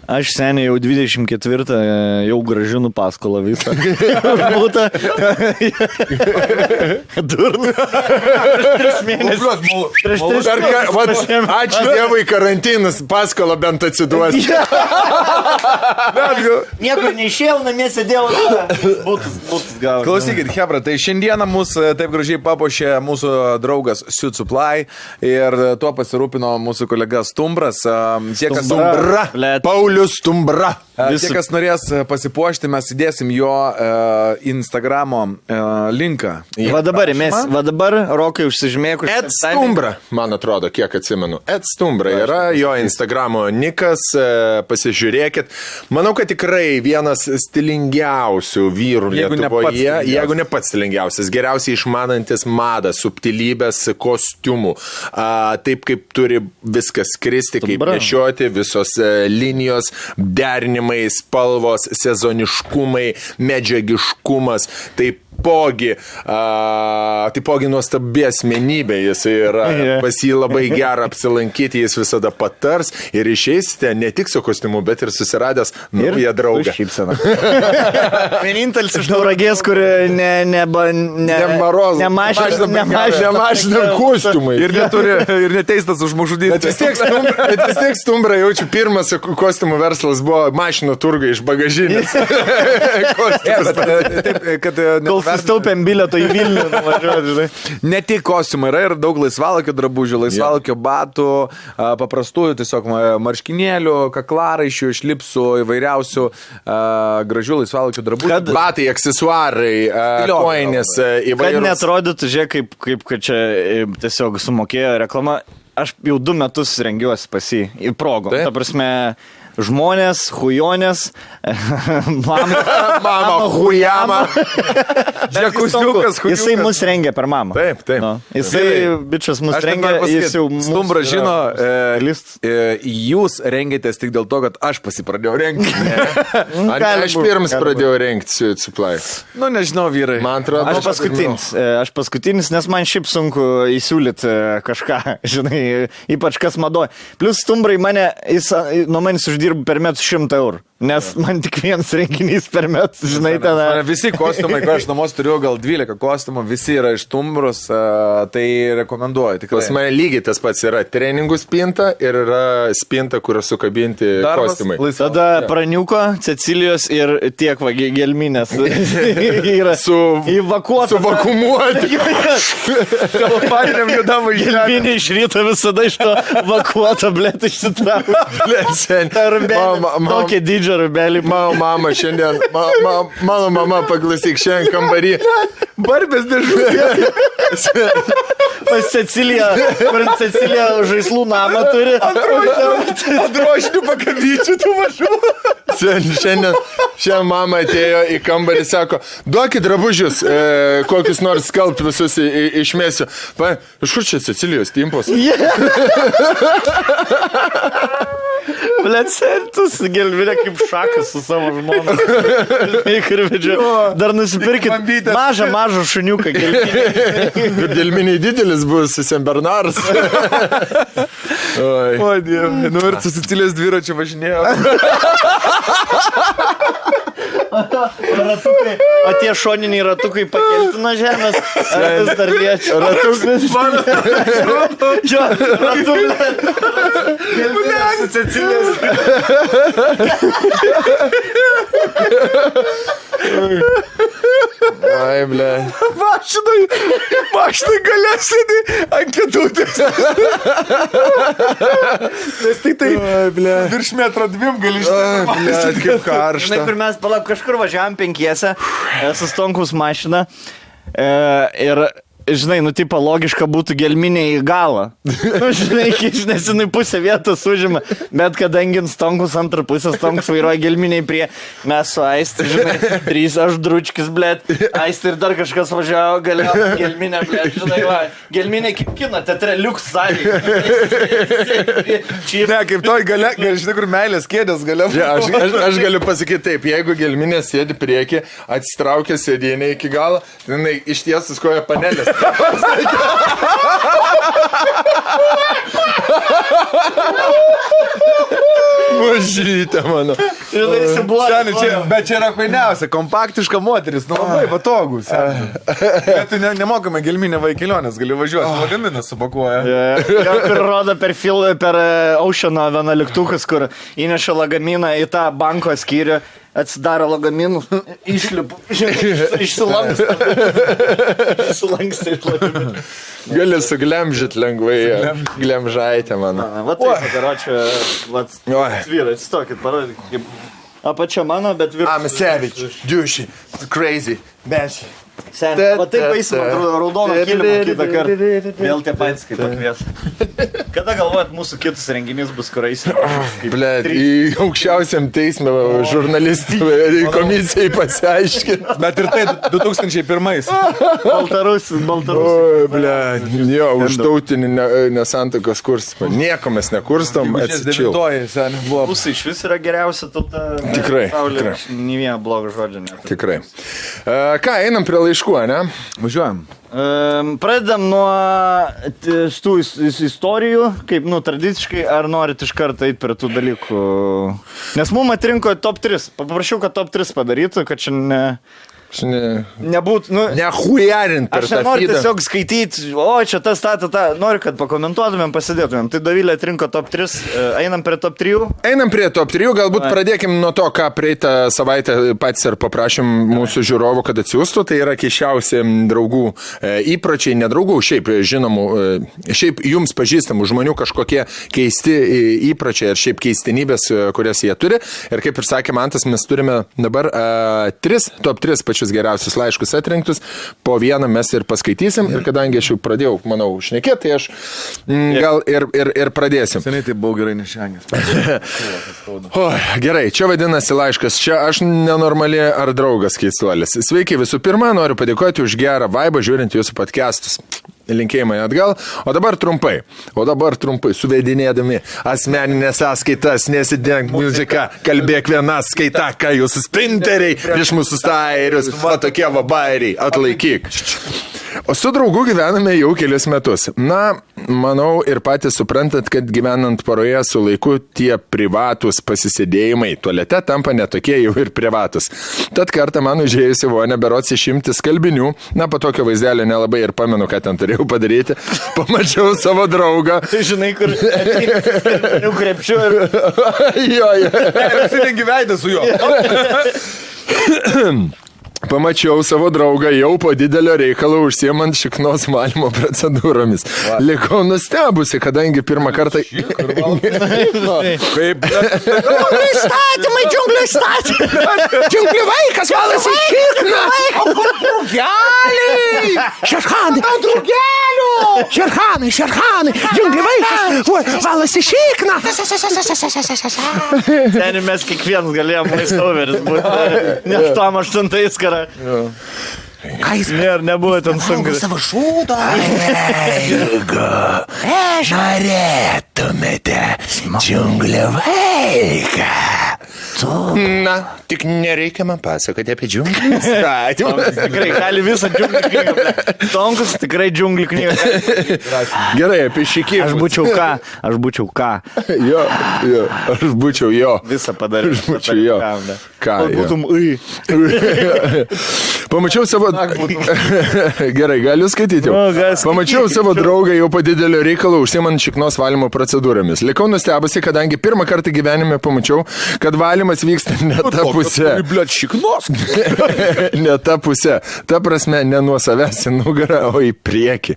Aš seniai jau 24 jau grąžinu paskolą visą. Būta. Durna. Prieš mėnesį. Ačiū Dievui, karantinas paskolą bent atsiduos. Niekur neišėjau, namie sėdėjau. Būtus gavau. Klausykit, hebra, tai šiandieną mūsų taip gražiai papuošė mūsų draugas Suit Supply ir tuo pasirūpino mūsų kolega Stumbras. Paulius Stumbra. Tie, kas norės pasipuošti, mes įdėsim jo Instagramo linką. Va dabar Rokai užsižymėk. Ed Stumbra, man atrodo, kiek atsimenu. Ed Stumbra yra jo Instagramo nikas, pasižiūrėkit. Manau, kad tikrai vienas stilingiausių vyrų Lietuvoje, jeigu ne pats stilingiausias, geriausiai išmanantis madą, subtilybės, kostiumų. Taip kaip turi viskas skristi, kaip nešioti, visos linijos, derinimai, spalvos, sezoniškumai, medžiagiškumas. Taipogi nuostabi asmenybė jis yra, pas jį labai gera apsilankyti, jis visada patars ir išeisite ne tik su kostiumu, bet ir susiradęs naują draugą. Vienintelis iš Tauragės, kur nemažina kostiumai. Ir neteistas už žmogžudystę. Bet vis tiek Stumbra jaučiu, pirmas kostiumų verslas buvo mašinų turgai iš bagažinės. Kol sustaupėm bilieto į Vilnių nuvažiuoti, žinai. Ne tik kostiumai, yra ir daug laisvalakio drabužių, laisvalakio batų, paprastųjų tiesiog marškinėlių, kaklaraiščių, šlipsų, įvairiausių gražių laisvalakio drabužių. Batai, aksesuarai, koinės, įvairūs. Kad neatrodytų, žiūrėk, kaip kad čia tiesiog sumokėjo reklama. Aš jau 2 metus rengiuosi pas jį į progą. Ta prasme, žmonės, hujonės, mama hujama. Jisai mus rengia per mamą. Taip. No. Jisai, bičias, mus rengia, jis jau mūsų... Stumbra žino, jūs rengėtės tik dėl to, kad aš pasipradėjau rengti. Aš pirmas pradėjau rengti Suit Supply. Nu, nežinau, vyrai. Man atrodo, aš paskutinis, nes man šiaip sunku įsiūlyti kažką, žinai, ypač kas madoja. Plus Stumbrai mane, jis nuo manęs uždirba per metus 100 eurų. Nes man tik vienas renginys per metus, žinai, ten. Visi kostiumai, kai aš namuos turiu gal 12 kostiumų, visi yra iš Stumbros, tai rekomenduoju. Tikrai. Pas mane lygiai tas pats yra treningų spinta ir yra spinta, kur sukabinti kostiumai. Tada praniuko, Cecilijos ir tiek gelminės. Yra įvakuota. Suvakumuoti. Kalpaniniam judamui. Gelminė iš ryto visada iš to vakuota, blėt, išsitraukia. Tokia didžia rubelį. Mano mama šiandien, mano mama, paklausyk, šiandien kambarį. Barbės dėžutė. Pas Ceciliją, kur Cecilija žaislų namą turi. Androšinių pakabyčių tų mažų. Šiandien mama atėjo į kambarį, sako, duokit drabužius, kokius nors skalbt visus išmėsiu. Iš kur čia Cecilijos timpos? Blet, sentus gelvinė kaip šakas su savo žmona. Dar nusipirkit mažą šuniuką gelvinį. Gelminiai didelis bus Saint Bernardas. O, Dieve. Nu ir su Cecilijos dviračiu važinėjo. Ratukai, o tie šoniniai ratukai pakelti nuo žemės. Ar vis dar liečia? Ratukai. Jo, ratukai. Gelminės Cecilės. Ai, ble. Mašinai galia sėdi ant kėdutės. Nes tik tai virš metro 2 gali Ble, kaip karšta. Žinai, kur mes kažkur važiavam 5 su Stonkaus mašina ir, žinai, tipo logiška būtų gelminė į galą. Žinai, nes jinai pusę vietos užima, bet kadangi Stonkus antrą pusę, Stonkus vairuoja gelminiai prie, mes su Aisti, žinai, 3 aš dručkis, blėt, Aisti ir dar kažkas važiavo, galėjo gelminė, blėt, žinai, va, gelminė kaip kino teatre, liuks salį. Ne, kaip toj galia, žinai, kur meilės kėdės galia. Ja, aš galiu pasakyti taip, jeigu gelminė sėdi prieki, atsitraukia sėdėnė iki galo, jinai ištiesus koja panelės. Mažytė mano. Bet čia yra painiausia, kompaktiška moteris, nu labai patogu. Bet tu nemokame gelminę vaikilionės, gali važiuoti, lagaminą supakuoja. Ir rodo per Oceano 11, kur įneša lagaminą į tą banko skyrių, atsidaro lagaminus, išlipu, išsilanksta iš lagamino. Gali suglemžit lengvai, glemžaitė mano. Va taip, karočią, vyrai, atsistokit, parodykit, kaip apačia mano, bet virš. I'm a savage, douchey, crazy, benchy. Va taip paisime, raudono kilimo kitą kartą. Vėl tie patys kaip pakvies. Kada galvojat, mūsų kitus renginys bus, kur eisim? Blet, į aukščiausiam teisme žurnalistų komisijai pasiaiškinti. Bet ir tai 2001. Baltarusis. Oi, blet, jo, už tautinį nesantokos kurstimą. Nieko mes nekurstom, atsičil. Mūsų iš vis yra geriausia tauta. Tikrai. Nė vieno blogo žodžio nėra. Tikrai. Ką, einam prie laiškų, ne? Važiuojam. Pradedam nuo tų istorijų, kaip, tradiciškai, ar norit iš karto eiti prie tų dalykų. Nes mums atrinko top 3. Paprašiau, kad top 3 padarytų, kad čia nebūtų, nehujarint per tą aš nenoriu feedą. tiesiog skaityti, čia tas, noriu, kad pakomentuotumėm, pasidėtumėm. Tai Dovilė atrinko top 3, einam prie top 3. Einam prie top 3, galbūt pradėkim nuo to, ką praeitą savaitę patys ir paprašym mūsų žiūrovų, kad atsiųstų. Tai yra keiščiausi draugų įpročiai, nedraugų, šiaip žinomų, šiaip jums pažįstamų žmonių kažkokie keisti įpročiai ir šiaip keistenybės, kurias jie turi. Ir kaip ir sakė Mantas, mes turime dabar top 3 pačius geriausius laiškus atrinktus, po vieną mes ir paskaitysim, ir kadangi aš jau pradėjau, manau, šnekėti, tai aš gal ir pradėsim. Seniai tai buvau gerai nešengęs. Gerai, čia vadinasi laiškas, čia aš nenormali ar draugas keistuolis. Sveiki, visų pirma, noriu padėkoti už gerą vaibą žiūrint jūsų podcastus. Linkėjimai atgal, o dabar trumpai, suvedinėdami asmeninės sąskaitas, nesidenk muziką, kalbėk vieną skaitą, ką jūsų sprinteriai prieš mūsų stairius, va tokie va bairiai, atlaikyk. O su draugu gyvename jau kelius metus. Na, manau ir patys suprantat, kad gyvenant poroje su laiku tie privatus pasisėdėjimai tualete tampa netokie jau ir privatus. Tad kartą man užėjusi vonę berots išimti skalbinių, na, po tokio vaizdelio nelabai ir pamenu, ką ten turėjau padaryti. Pamačiau savo draugą. Tai žinai, kur skalbinių krepšiu ir... Jo. Visi gyvena su juo. Pamačiau savo draugą jau po didelio reikalo užsiemant šiknos valymo procedūromis. Likau nustebusi, kadangi pirmą kartą... Kaip... Įstatymai, džiunglių įstatymai! Džiunglių vaikas valasi šikną! O kur drugeliai? Šerhanai! Ant drugelių! Šerhanai! Džiunglių vaikas valasi šikną! Ten mes kiekvienas galėjom maistoveris būti. Net tam 8 karą. Ką jis nebuvo ten sunku. Savo šūdo. Jeigu norėtumėte džiunglių vaiką, Na, tik nereikia man pasakoti apie džiunglių įstatymą. Tikrai gali visą džiunglių knygą. Ble. Tomkus tikrai džiunglių knygą. Gerai, apie šikimą. Aš būčiau ką. Jo, aš būčiau jo. Visą padariau. Aš būčiau jo. Ką, Būtum Pamačiau savo... Gerai, galiu skaityti jau. Pamačiau savo draugą jau po didelio reikalo užsiemant šiknos valymo procedūromis. Likau nustebusi, kadangi pirmą kartą gyvenime pamačiau, kad valymas vyksta ne ta pusė. Bliat, šiknos. Ne ta pusė. Ta prasme, ne nuo savęs į nugarą, o į priekį.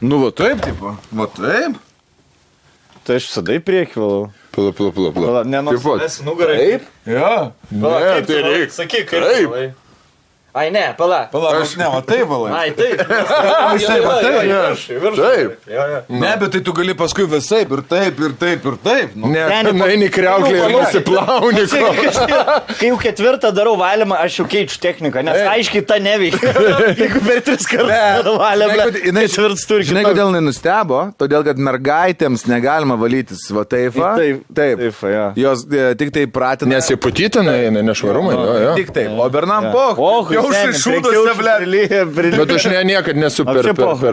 Nu, va taip, tipo. Va taip. Tai aš visada į priekį valau. Pala. Ne nuo savęs į nugarą. Taip? Jo. Ne, tai reikia. Sakyk, kaip valai. Ai, ne, pala. Aš ne, va taip, valai. Ai, taip. Taip. Ne, bet tai tu gali paskui visaip ir taip, ir taip, ir taip. Nu. Ne, eini kriauklį ir nusiplauni. Kai jau ketvirtą darau valymą, aš jau keičiu techniką, nes aiškiai ta neveikia. Jeigu per 3 kartus valymą, ketvirtas turi. Žinai, kodėl jinai nustebo? Todėl, kad mergaitėms negalima valytis va taip. Taip, jos tik tai pratina. Nesiputytina, nešvarumai. Tik taip, o bernam poch. Jau šaišūdose, ble. Bet aš niekad nesu per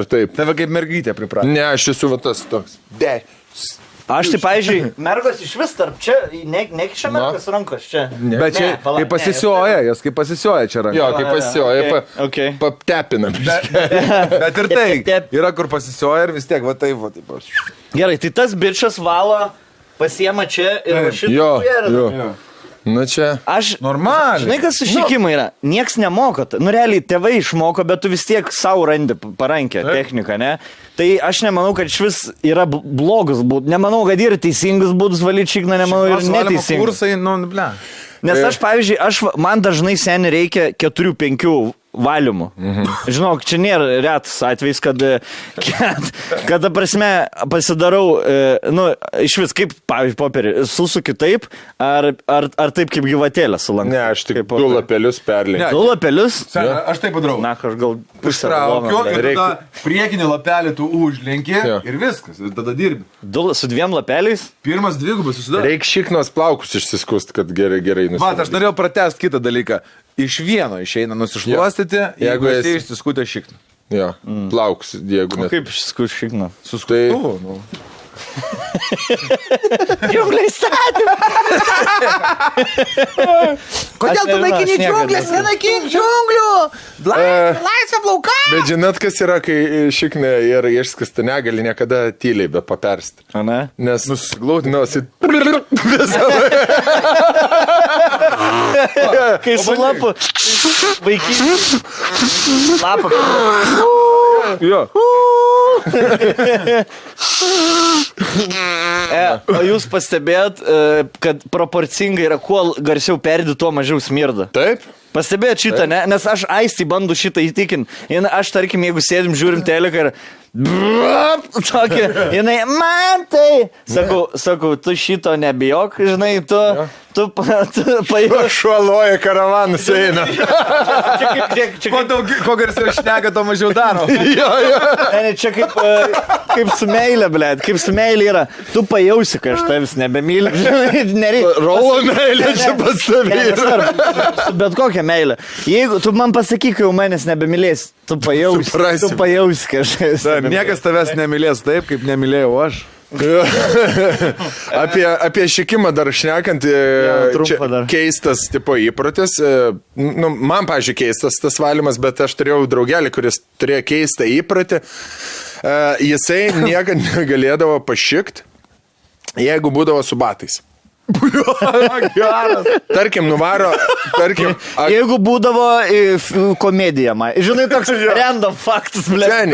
taip. Tave kaip mergytė pripratė. Ne, aš esu va tas toks. Aš tai, pavyzdžiui, mergos iš vis tarp čia, nekiša mergos rankos čia. Bet čia, kai pasisioja, jos kaip pasisioja čia rankos. Jo, kai pasisioja, paptepinam. Bet ir tai, yra kur pasisioja ir vis tiek, va taip, va taip. Gerai, tai tas bičas valo, pasiema čia ir va šitą. Jo. Nu čia. Aš, normaliai. Žinai, kas sušikimai yra? Nieks nemoko. Nu, realiai, tėvai išmoko, bet tu vis tiek savo randi parankę techniką, ne? Tai aš nemanau, kad iš vis yra blogus būdus. Nemanau, kad yra teisingus būdus valyti šikną, nemanau, ir neteisingus. Kursai, nu, ble. Nes aš, pavyzdžiui, man dažnai seniai reikia 4-5 valymų. Žinok, čia nėra retas atvejs, kad prasme, pasidarau, nu, iš vis kaip, pavyzdžiui, popierį, susuki taip, ar taip kaip gyvatėlę sulankai. Ne, aš tik 2 lapelius perlenkiu. 2 lapelius? Aš taip padarau. Na, aš gal ištraukiu ir tada priekinį lapelį tu užlenki ir viskas, ir tada dirbi. Su 2 lapeliais? Pirmas 2 susidaro. Reikia šiknos plaukus išsiskust, kad gerai nusidaro. Vat, aš norėjau pratęsti kitą dalyką. Iš vieno išeina nusišluostyti, jeigu esi išsiskutę šikną. Jo, plaukus, jeigu net. Kaip išsiskutę šikną? Su skutuvu, nu. Džiungliai statymą! Kodėl tu naikini džiunglės, nenaikink džiunglių? Laisvė plauka! Bet žinot, kas yra, kai šiknė ir išskasta negali niekada tyliai be papersti. A ne? Nes nusiglaudinosi. Kai su lapu vaikys lapą. Jo. O jūs pastebėjot, kad proporcingai yra, kuo garsiau perdi, tuo mažiau smirda. Taip. Pastebėjot šitą, ne? Nes aš Aistį bandu šitą įtikinti. Aš, tarkim, jeigu sėdim, žiūrim teleką ir... Tokia, jinai, man tai... Sakau, tu šito nebijok, žinai, tu pajūš. Šuoloja karavanus eina. Kuo garsiau šneka, to mažiau daro. Ne, čia kaip su meilė, blėt, kaip su meilė yra. Tu pajausi, kad aš tavęs nebemyliu. Rolo meilė čia pas tavį yra. Bet kokią meilę. Jeigu tu man pasakyk, jau manęs nebemylės, tu pajausi, kad aš tavęs. Niekas tavęs nemylės taip, kaip nemylėjau aš. Apie šikimą dar šnekant, keistas tipo įprotis. Nu, man, pavyzdžiui, keistas tas valymas, bet aš turėjau draugelį, kuris turėjo keistą įprotį. Jisai niekad negalėdavo pašikt, jeigu būdavo su batais. Tarkim, nuvaro, jeigu būdavo komedija, žinai, toks random faktas, blėt.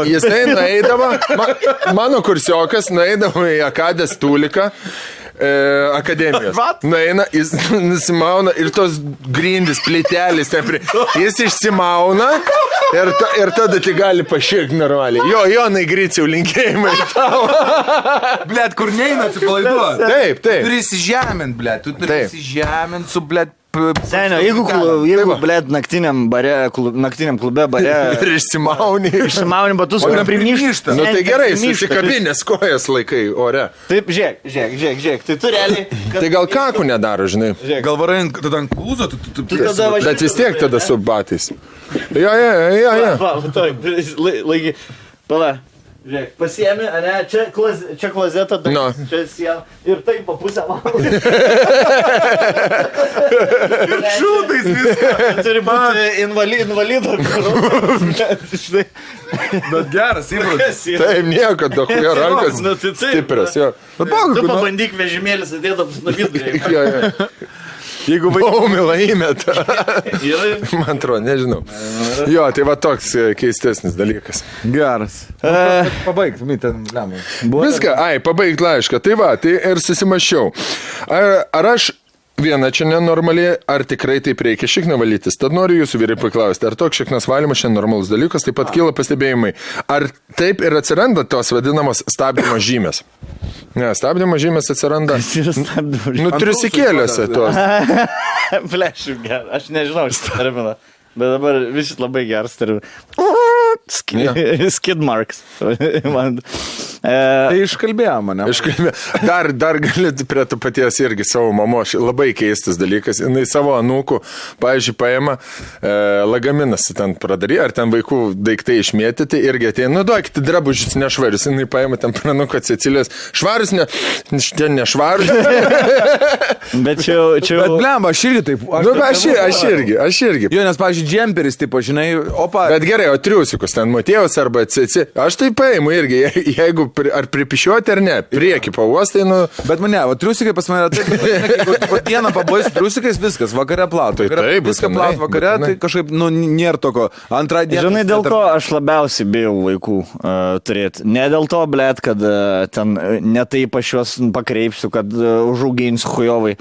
Jisai nueidavo, mano kursiokas nueidavo į Akadės Tuliką, akademijos. Nueina, jis nusimauna ir tos grindys, plytelis, jis išsimauna ir tada tai gali paširkti normaliai. Jonai Griciau, linkėjimai tau. Blet, kur neina atsipalaiduoti. Taip. Turi įsižemint, blet. Tu turi įsižemint su, blet, Senio, jeigu blėt, naktiniam klube bare... Ir Išsimauni batus, kur primyšta. Nu tai gerai, susikabinės kojas laikai ore. Taip, žiūrėk. Tai tu realiai... Tai gal kakų nedaro, žinai. Gal varai tada ant klūzo, Bet vis tiek tada su batais. Jo. Laiky. Pala. Žiūrėk, pasiemi, ane, čia klozeta, čia siena ir taip po pusę valandą. Ir šūtais viską. Turi būti invalido. Bet geras, įprotis. Taip, nieko, dahuja rankas stiprios, jo. Tu pabandyk vežimėlis atėdamas nuo vidurį. Jo. Jeigu baumilą įmeta. Man atrodo, nežinau. Jo, tai va toks keistesnis dalykas. Geras. Pabaigt, ten lemai. Viską, pabaigt laišką. Tai va, tai ir susimašiau. Ar aš viena čia nenormaliai, ar tikrai taip reikia šikną valytis? Tad noriu jūsų vyrai paklausti, ar toks šiknas valymas šiandien normalus dalykas, taip pat kyla pastebėjimai. Ar taip ir atsiranda tos vadinamos stabdymo žymės? Ne, stabdymo žymės atsiranda. Triusikėliuose tos. Flešiu, aš nežinau šitą terminą, bet dabar visi labai geras terminas. Skid marks. Tai iškalbėjo mane. Dar galit prie to paties irgi savo mamos, labai keistas dalykas. Jis savo anūkų, pavyzdžiui, paima lagaminas ten pradary, ar ten vaikų daiktai išmėtyti, irgi ateina, duokite drabužius nešvarius. Jis paima ten pranuką Cecilijos, švarus, ten nešvarus. Bet čia... Bet blemba, aš irgi taip. Aš irgi. Jo, nes, pavyzdžiui, džemperis, tipo, žinai, opa. Bet gerai, o triusikus, ten Matėjos arba Ceci. Aš tai paimu irgi, jeigu ar pripišiuoti ar ne, prieki pavostai, nu... Bet mane, o triusikai pas mane taip, jeigu dieną pabaisu triusikais, viskas, vakare platų. Taip, viską platų vakare, tai kažkaip, nu, nėra toko. Antrą dieną... Žinai, dėl ko aš labiausiai bijau vaikų turėti. Ne dėl to, blėt, kad ten netaip aš juos pakreipsiu, kad užauginsiu hujovai.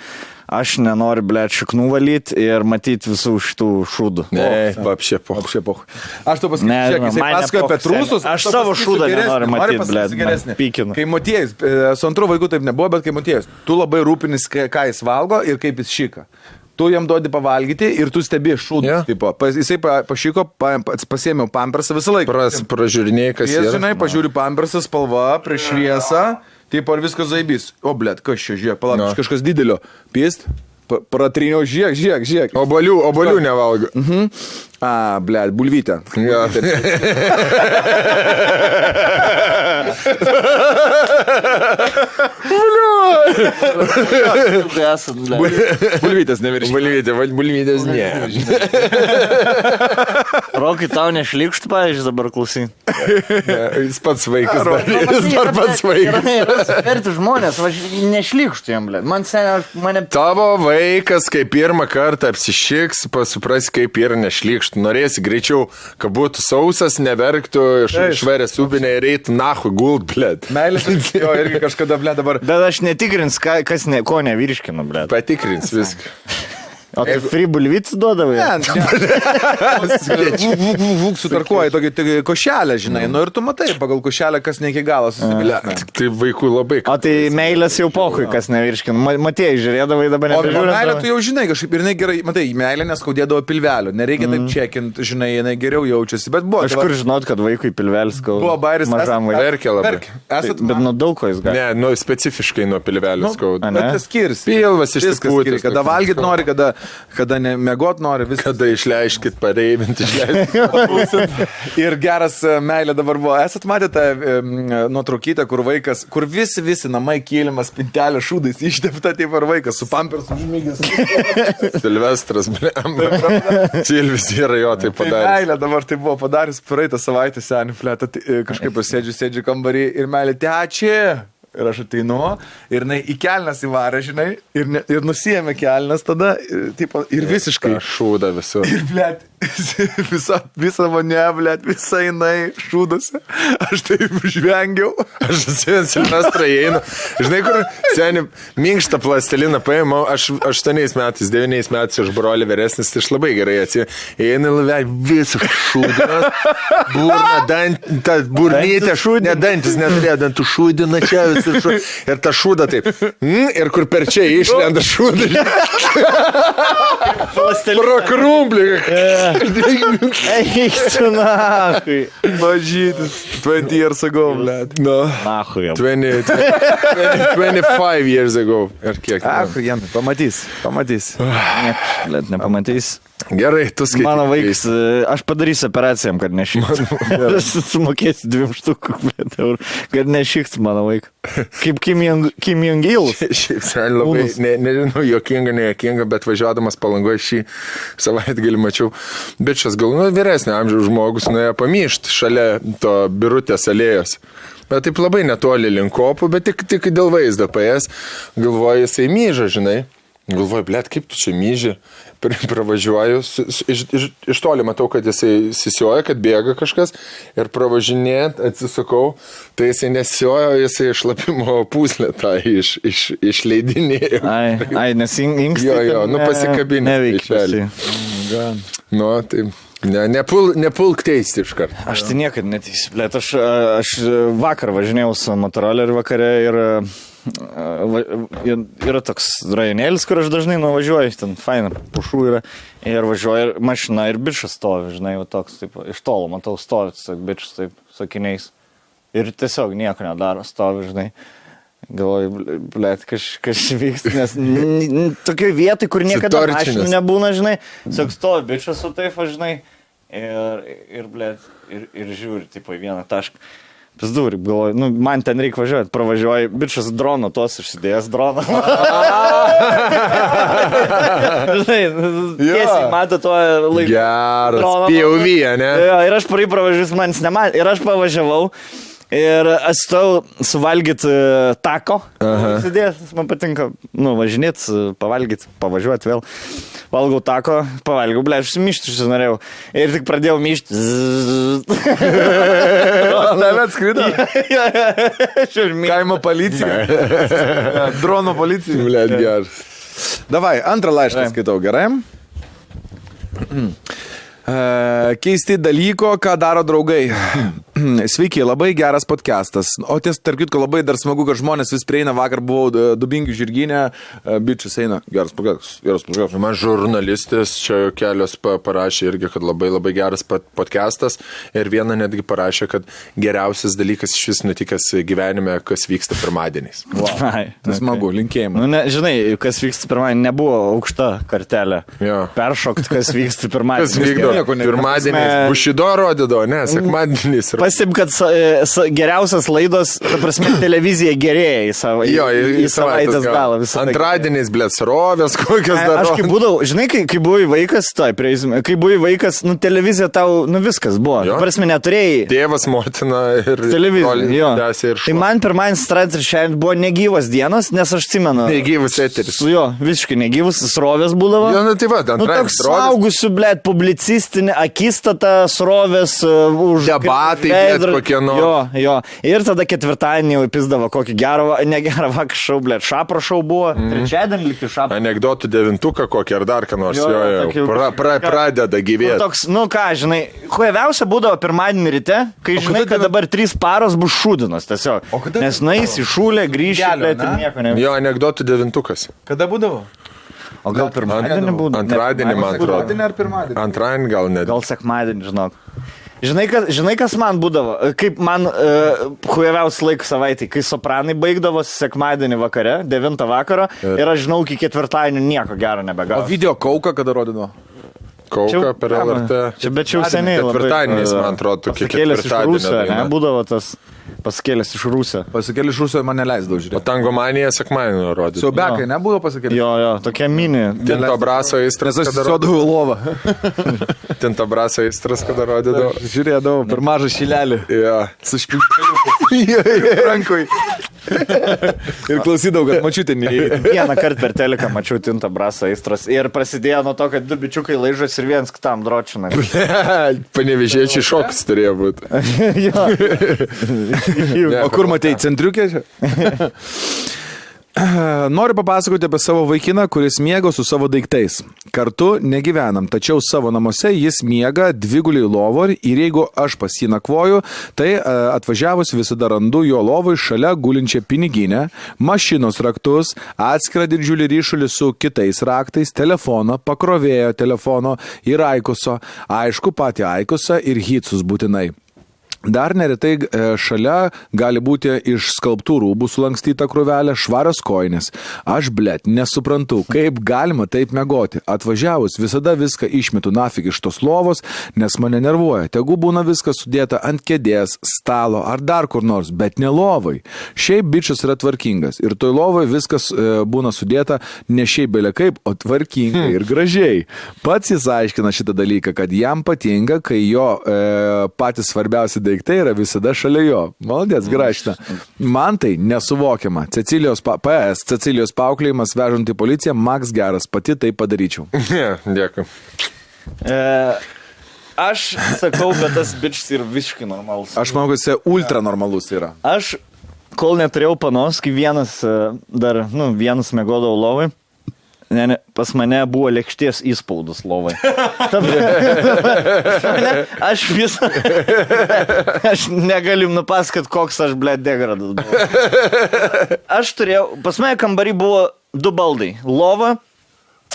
Aš nenoriu, blėt, šaknų valyti ir matyti visų šitų šūdų. Ne, vapšė poch. Aš to pasakysiu, jisai pasakoja apie trūsus. Aš savo šūdą nenoriu matyti, blėt, pykinu. Kai Motiejus, su antru vaiku taip nebuvo, bet kai Motiejus, tu labai rūpinis, ką jis valgo ir kaip jis šika. Tu jam duodi pavalgyti ir tu stebi šūdus. Tipo. Jisai pašyko, pasiėmiau pampersą visą laiką. Pražiūrinėjai, kas yra. Žinai, pažiūri pampersą, spalva, prieš šviesą. Taip, ar viskas zaibys? O, blėt, kas čia, žiūrėk, palauk, kažkas didelio. Pist, pratriniau, žiūrėk. Obolių nevalgo. Blėt, bulvytę. Ja. Bulvytės neviršė. Bulvytės ne. Rokai, tau nešlikštų, pavyzdžiui, dabar klausy. Jis pats vaikas. Jis dar pats vaikas. Verti žmonės, nešlikštų jam, blėt. Mane... Tavo vaikas, kai pirmą kartą apsišiks, supras, kaip yra nešlikštų. Norėsi greičiau, kad būtų sausas, neverktų, šverės ubinė ir eitų nahui gult, blėt. Meilės, jo, irgi kažkada, blėt, dabar. Bet aš netikrins, ko nevirškinu, blėt. Patikrins viską. O tai free bulvytis duodavai? Sutarkuoji tokį košelę, žinai. Nu ir tu matai, pagal košelę, kas ne iki galo susibilė. Tai vaikų labai. O tai meilės jau pohui, kas nevirškinu. Matėjai, žiūrėdavai dabar nebežiūrė. O meilė tu jau žinai kažkaip ir jinai gerai, matai, meilė neskaudėdavo pilvelio. Nereikia taip čekint, žinai, jinai geriau jaučiasi. Bet buvo. Aš kur žinot, kad vaikui pilvelis skauda. Buvo bairis. Verkia labai. Bet nuo daug ko jis gali. Ne, nu specifiškai nuo pilvelio skauda. Bet tas skirsi. Pilvas išsipūtęs. Kada valgyt nori, kada nemiegot nori, viską. Kada išleiskit, pareivinti, išleiskit. Ir geras meilė dabar buvo. Esat matę tą nuotraukytę, kur vaikas, kur visi namai kėlimas, pintelė šūdais, ištepta taip ar vaikas, su pampersu užmygęs. Silvestras, blem. Silvis yra jo tai padaręs. Meilė dabar tai buvo padaręs praeitą savaitę senį fletą, kažkaip sėdžiu kambarį ir meilė, teačia. Ir aš ateinu, ir jinai į kelnes įvarė, žinai, ir nusijėmė kelnes tada, ir visiškai. Šūda visur. Ir, blėt, Visa mane, blėt, visa jinai šūdose. Aš taip žvengiau. Aš atsimenu Silvestrą įeinu. Žinai, kur seniai minkštą plasteliną paėmau, aš 8 metais, 9 metais iš brolį vyresnis, tai aš labai gerai atsimenu. Įeinu laivę, visą šūdinas, burna, burnytė, ne dantis neturėjo, dantų šūdina čia visą ir ta šūda taip. Ir kur per čia išlenda šūda. Pro krumblį. Eikstu, nahui. Mažytis. 20 years ago, blėt. No. Nahui. 25 years ago. Ir kiek? Pamatys. Blėt, nepamatys. Gerai, tu skaitai. Mano vaikas, aš padarysiu operacijam, kad nešiktų. Aš sumokėsiu 2 štukų, blėt, eurų, kad nešiktų mano vaiką. Kaip Kim Jong-il. Šiaip labai, nežinau, jokinga, bet važiuodamas Palangoje šį savaitgalį mačiau. Bičas gal vyresnio amžiaus žmogus nuėjo pamyšti šalia to Birutės alėjos. Bet taip labai netoli link kopų, bet tik dėl vaizdo paės. Galvoju, jisai myža, žinai. Galvoju, blėt, kaip tu čia myži? Pravažiuoju, iš toli matau, kad jisai sisioja, kad bėga kažkas ir pravažinėt, atsisukau, tai jisai nesiojo, jisai šlapimo pūslę tą išleidinėjo. Ai, nes inkstai. Jo, pasikabinė. Neveikia. Tai nepulk teisti iš karto. Aš tai niekad neteisiu, blėt, aš vakar važinėjau su motoroleriu vakare ir yra toks rajonėlis, kur aš dažnai nuvažiuoju, ten faina, pušų yra, ir važiuoju mašina ir bičas stovi, žinai, toks, taip, iš tolo matau stovi, bičas taip, sakiniais, ir tiesiog nieko nedaro, stovi, žinai, galvoju, blėt, kas vyksta, nes tokioj vietoj, kur niekada mašinų nebūna, žinai, tiesiog stovi bičas su taip, žinai, ir blėt, ir žiūri, tipo, į vieną tašką. Pizdūri, galvoju, man ten reikia važiuoti, pravažiuoju, bičas drono, tos išsidėjęs droną. Žinai, tiesiai mato tuo laiku. Geras, POV, ne? Ir aš pravažiuoju, manis nematė, ir aš pavažiavau. Ir aš stau suvalgyti tako, sėdės, man patinka, važinėti, pavalgyti, pavažiuoti vėl. Valgau tako, pavalgiau, ble, aš myšti susinorėjau. Ir tik pradėjau myšti. Tave atskrido? Kaimo policija. Drono policija. Ble, geras. Davai, antrą laišką skaitau, gerai? Keisti dalyko, ką daro draugai. Sveiki, labai geras podcastas. O ties, tarp kitko, labai dar smagu, kad žmonės vis prieina. Vakar buvau Dubingių žirginė, bičias eina. Geras podcastas. Man žurnalistas čia kelios parašė irgi, kad labai geras podcastas. Ir viena netgi parašė, kad geriausias dalykas iš vis nutikęs gyvenime, kas vyksta pirmadieniais. Wow. Tai smagu, linkėjimai. Žinai, kas vyksta pirmadienį, nebuvo aukšta kartelė. Peršokti, kas vyksta pirmadienį. Kas vykdo? Pirmadieniais Bušido rodydavo, ne, sekmadieniais. Pasim, kad geriausias laidos, ta prasme, televizija gerėja į savaitės galą. Antradieniais, blėt, srovės, kokios dar. Aš kai būdavau, žinai, kai buvai vaikas, kai buvai vaikas, televizija tau, viskas buvo. Ta prasme, neturėjai. Tėvas, motina ir televizija. Ir tai man pirmadienis, trečiadienis buvo negyvas dienos, nes aš atsimenu. Negyvas eteris. Visiškai negyvas, srovės būdavo. Tai va, toks saugusių, blėt, publicistinė akistata, srovės už debatai. Kokie jo. Ir tada ketvirtadienį jau pizdavo kokį negerą vakar šau, blėt, šapro šau buvo. Trečiadienį likti šapro. Anekdotų 9 kokį ar dar ką nors. Pradeda gyvėti. Toks, žinai, hueviausia būdavo pirmadienį ryte, kai žinai, kad dabar 3 paros bus šūdinas tiesiog. Nes nueis į šūlę, grįžti, blėt, ir nieko ne. Jo, anekdotų 9. Kada būdavo? O gal pirmadienį būdavo? Antradienį, man atrodo. Antradienį ar pirmadienį? Antradienį gal net. Gal sekmadienį, žinok. Žinai, kas man būdavo, kaip man hueviausias laikų savaitį, kai Sopranai baigdavosi sekmadienį vakare, 9 vakaro, ir aš žinau, iki ketvirtadienio nieko gero nebegavo. O video Kauką kada rodino? Kauką per LRT. Bet čia jau seniai. Ketvirtadieniais, man atrodo, tokie ketvirtadienio. Būdavo tas pasikėlęs iš Rūsio. Pasikėlęs iš Rūsio man neleisdavo žiūrėti. O Tangomanija sekmadienį rodė. Siaubekai nebūdavo pasikėlęs? Jo, tokia mini. Tinto braso aistras, kada rodydavo lovą. Tinto braso aistras, kada rodydavo. Žiūrėdavau per mažą šilelį. Jo. Su špilkeliu. Rankoj. Ir klausydavau, kad mačiutė neįvykė. Vieną kartą per teleką mačiau Tintą Brasą aistros ir prasidėjo nuo to, kad du bičiukai laižos ir viens kitam dročina. Panevėžiečiai šoks turėjo būti. O kur matei, centriukė? Noriu papasakoti apie savo vaikiną, kuris miego su savo daiktais. Kartu negyvenam, tačiau savo namuose jis miega dviguliai lovo ir jeigu aš pas jį nakvoju, tai atvažiavus visada randu jo lovui šalia gulinčią piniginę, mašinos raktus, atskirą didžiulį ryšulį su kitais raktais, telefoną, pakrovėjo telefono ir aikuso, aišku patį aikusą ir hitsus būtinai. Dar neretai šalia gali būti iš skalbtų rūbų sulankstyta krūvelė, švarios koinės. Aš, blet, nesuprantu, kaip galima taip megoti. Atvažiavus visada viską išmetu nafig iš tos lovos, nes mane nervuoja. Tegu būna viskas sudėta ant kėdės, stalo ar dar kur nors, bet ne lovai. Šiaip bičas yra tvarkingas ir toj lovai viskas būna sudėta ne šiaip belia kaip, o tvarkingai ir gražiai. Pats jis aiškina šitą dalyką, kad jam patinka, kai jo patys svarbiausi daiktai yra visada šalia jo. Maladės, grašina. Man tai nesuvokiama. Cecilijos paauklėjimas vežant į policiją, Max geras, pati tai padaryčiau. Dėkui. Aš sakau, kad tas bičas yra visiškai normalus. Aš manau, kad jis ultra normalus yra. Aš, kol neturėjau panos, kai vienas miegodavau lovai, pas mane buvo lėkšties įspaudus lovai. Aš negaliu nupasakot, koks aš, blet, degradas buvau. Aš turėjau, pas mane kambarį buvo 2 baldai. Lova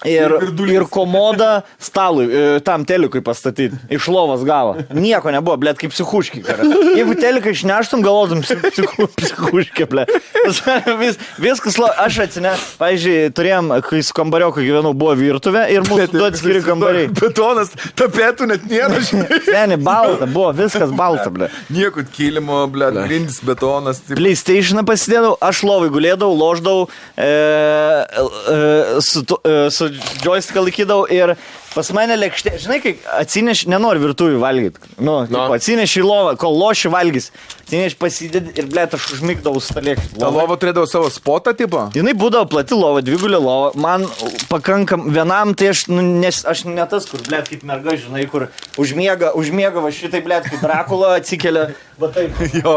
ir komoda stalui, tam telikui pastatyti. Iš lovos gavo. Nieko nebuvo, blet, kaip psichuški. Jeigu teliką išneštum, galvotum psichuški, blet. Viskas, aš pavyzdžiui, turėjom, kai su kambarioku gyvenau, buvo virtuvė ir mūsų du atskiri kambariai. Betonas, tapetų net nėra. Seni, balta, buvo viskas balta, blet. Nieko kilimo, blet, grindis, betonas. PlayStationą pasidėdavau, aš lovai gulėdavau, loždavau su joystick laikydavau ir pas mane lėkštė, žinai, kai atsineš, nenori virtuvį valgyti, atsineš į lovą, kol loši valgys, atsineš pasidėdi ir, blėt, aš užmigdavau su tą lėkštę. Ta lova turėdavo savo spotą, tipo? Jinai būdavo plati lova, dvigulė lova, man pakankam vienam, tai aš ne tas, kur, blėt, kaip merga, žinai, kur užmiega va šitai, blėt, kaip Drakula atsikelia, va taip. Jo,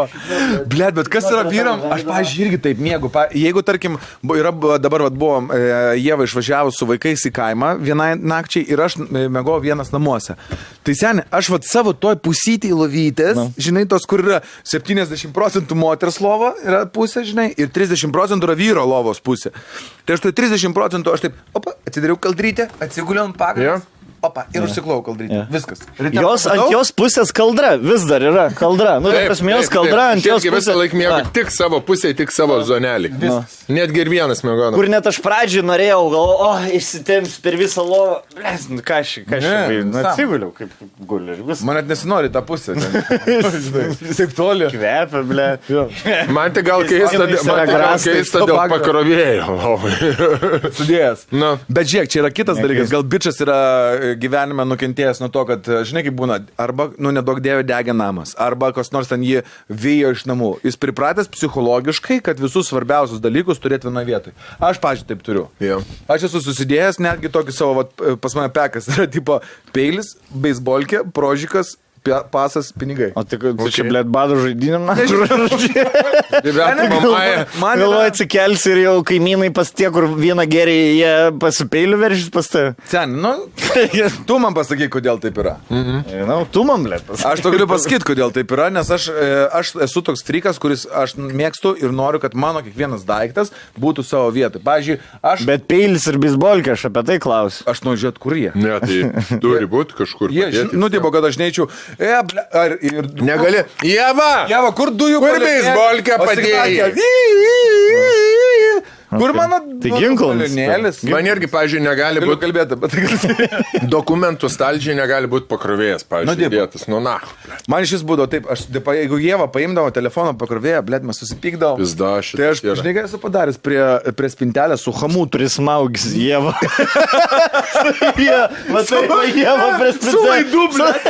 blėt, bet kas yra vyram, aš, pavyzdžiui, irgi taip miegu. Jeigu, tarkim, dabar buvo Ieva išvažiavus su vaikais į kaimą vienai nakčiai ir aš mėgau vienas namuose. Tai seniai, aš savo toj pusytį lovytės, žinai, tos, kur yra 70% moters lova yra pusė, žinai, ir 30% yra vyro lovos pusė. Tai aš toj 30% aš taip, atsidariau kaldrytę, atsiguliau ant pagrindas. Ir užsiklau kaldrytę. Viskas. Ant jos pusės kaldra, vis dar yra kaldra. Prasmėjos kaldra ant jos pusės. Visą laiką mėgau tik savo pusėje, tik savo zonelį. Netgi ir vienas mėgau. Kur net aš pradžiai norėjau, išsitemps per visą lovą. Blės, ką aš atsiguliau, kaip guliu. Man net nesinori tą pusę. Taip toli. Kvepia, blė. Man tai gal keista dėl pakrovėjo. Sudėjęs. Bet žiūrėk, čia yra kitas dalykas. Gal bičas yra gyvenime nukentėjęs nuo to, kad, žinai, kaip būna, arba, nedaug dėvė degė namas, arba kas nors ten jį vijo iš namų. Jis pripratęs psichologiškai, kad visus svarbiausius dalykus turėti vienoje vietoje. Aš, pažiūrėjau, taip turiu. Aš esu susidėjęs netgi tokį savo, pas mane pekas, yra tipo peilis, beisbolkė, prožikas, pasas, pinigai. O tai čia, blėt, badų žaidinėm, na? Man galvoju, atsikelsi ir jau kaimynai pas tie, kur vieną gerį jie pasipeilių veržys pas tai. Sen, tu man pasakyk, kodėl taip yra. Tu man, blėt, pasakyk. Aš to galiu pasakyti, kodėl taip yra, nes aš esu toks frikas, kuris aš mėgstu ir noriu, kad mano kiekvienas daiktas būtų savo vietoj. Pavyzdžiui, aš... Bet peilis ir bisbolkė, aš apie tai klausiu. Aš noriu žiūrėti, kur jie. Ne, tai turi būti kažkur. Tipo, kad aš neičiau. Negali. Jeva, kur dujų kur beisbolkę padėjai? Kur mano ginklas? Man irgi, pavyzdžiui, negali būti kalbėti, bet dokumentų stalčiai negali būti pakrovėjas, pavyzdžiui, dėtas. Man šis būdavo taip, jeigu Ieva paimdavo telefoną pakrovėją, blėt, mes susipykdavo. Tai aš, žinai, ką esu padaręs prie spintelę su hamutu. Prismaugis Ieva. Ieva prie spintelę. Su laidu, blėt.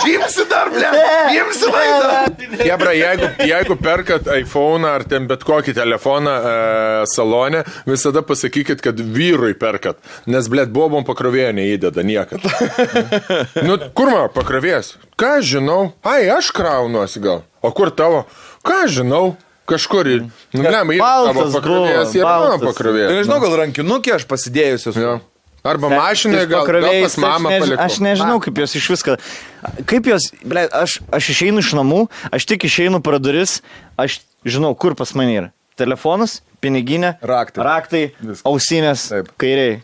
Imsi dar, blėt. Imsi laidą. Hebra, jeigu perkat iPhone ar ten bet kokį telefoną salone, visada pasakykit, kad vyrui perkat, nes, blėt, bobom pakrovėjo neįdeda niekad. Nu, kur man pakrovės? Ką žinau? Ai, aš kraunuosi gal. O kur tavo? Ką žinau? Kažkur ir... Nu, blėm, ir tavo pakrovės, ir mano pakrovės. Nežinau, gal rankinukė aš pasidėjusios. Arba mašinai gal pas mamą palikau. Aš nežinau, kaip jos iš viską. Kaip jos, aš išeinu iš namų, aš tik išeinu pro duris, aš žinau, kur pas mane yra. Telefonas, piniginė, raktai ausinės, kairiai.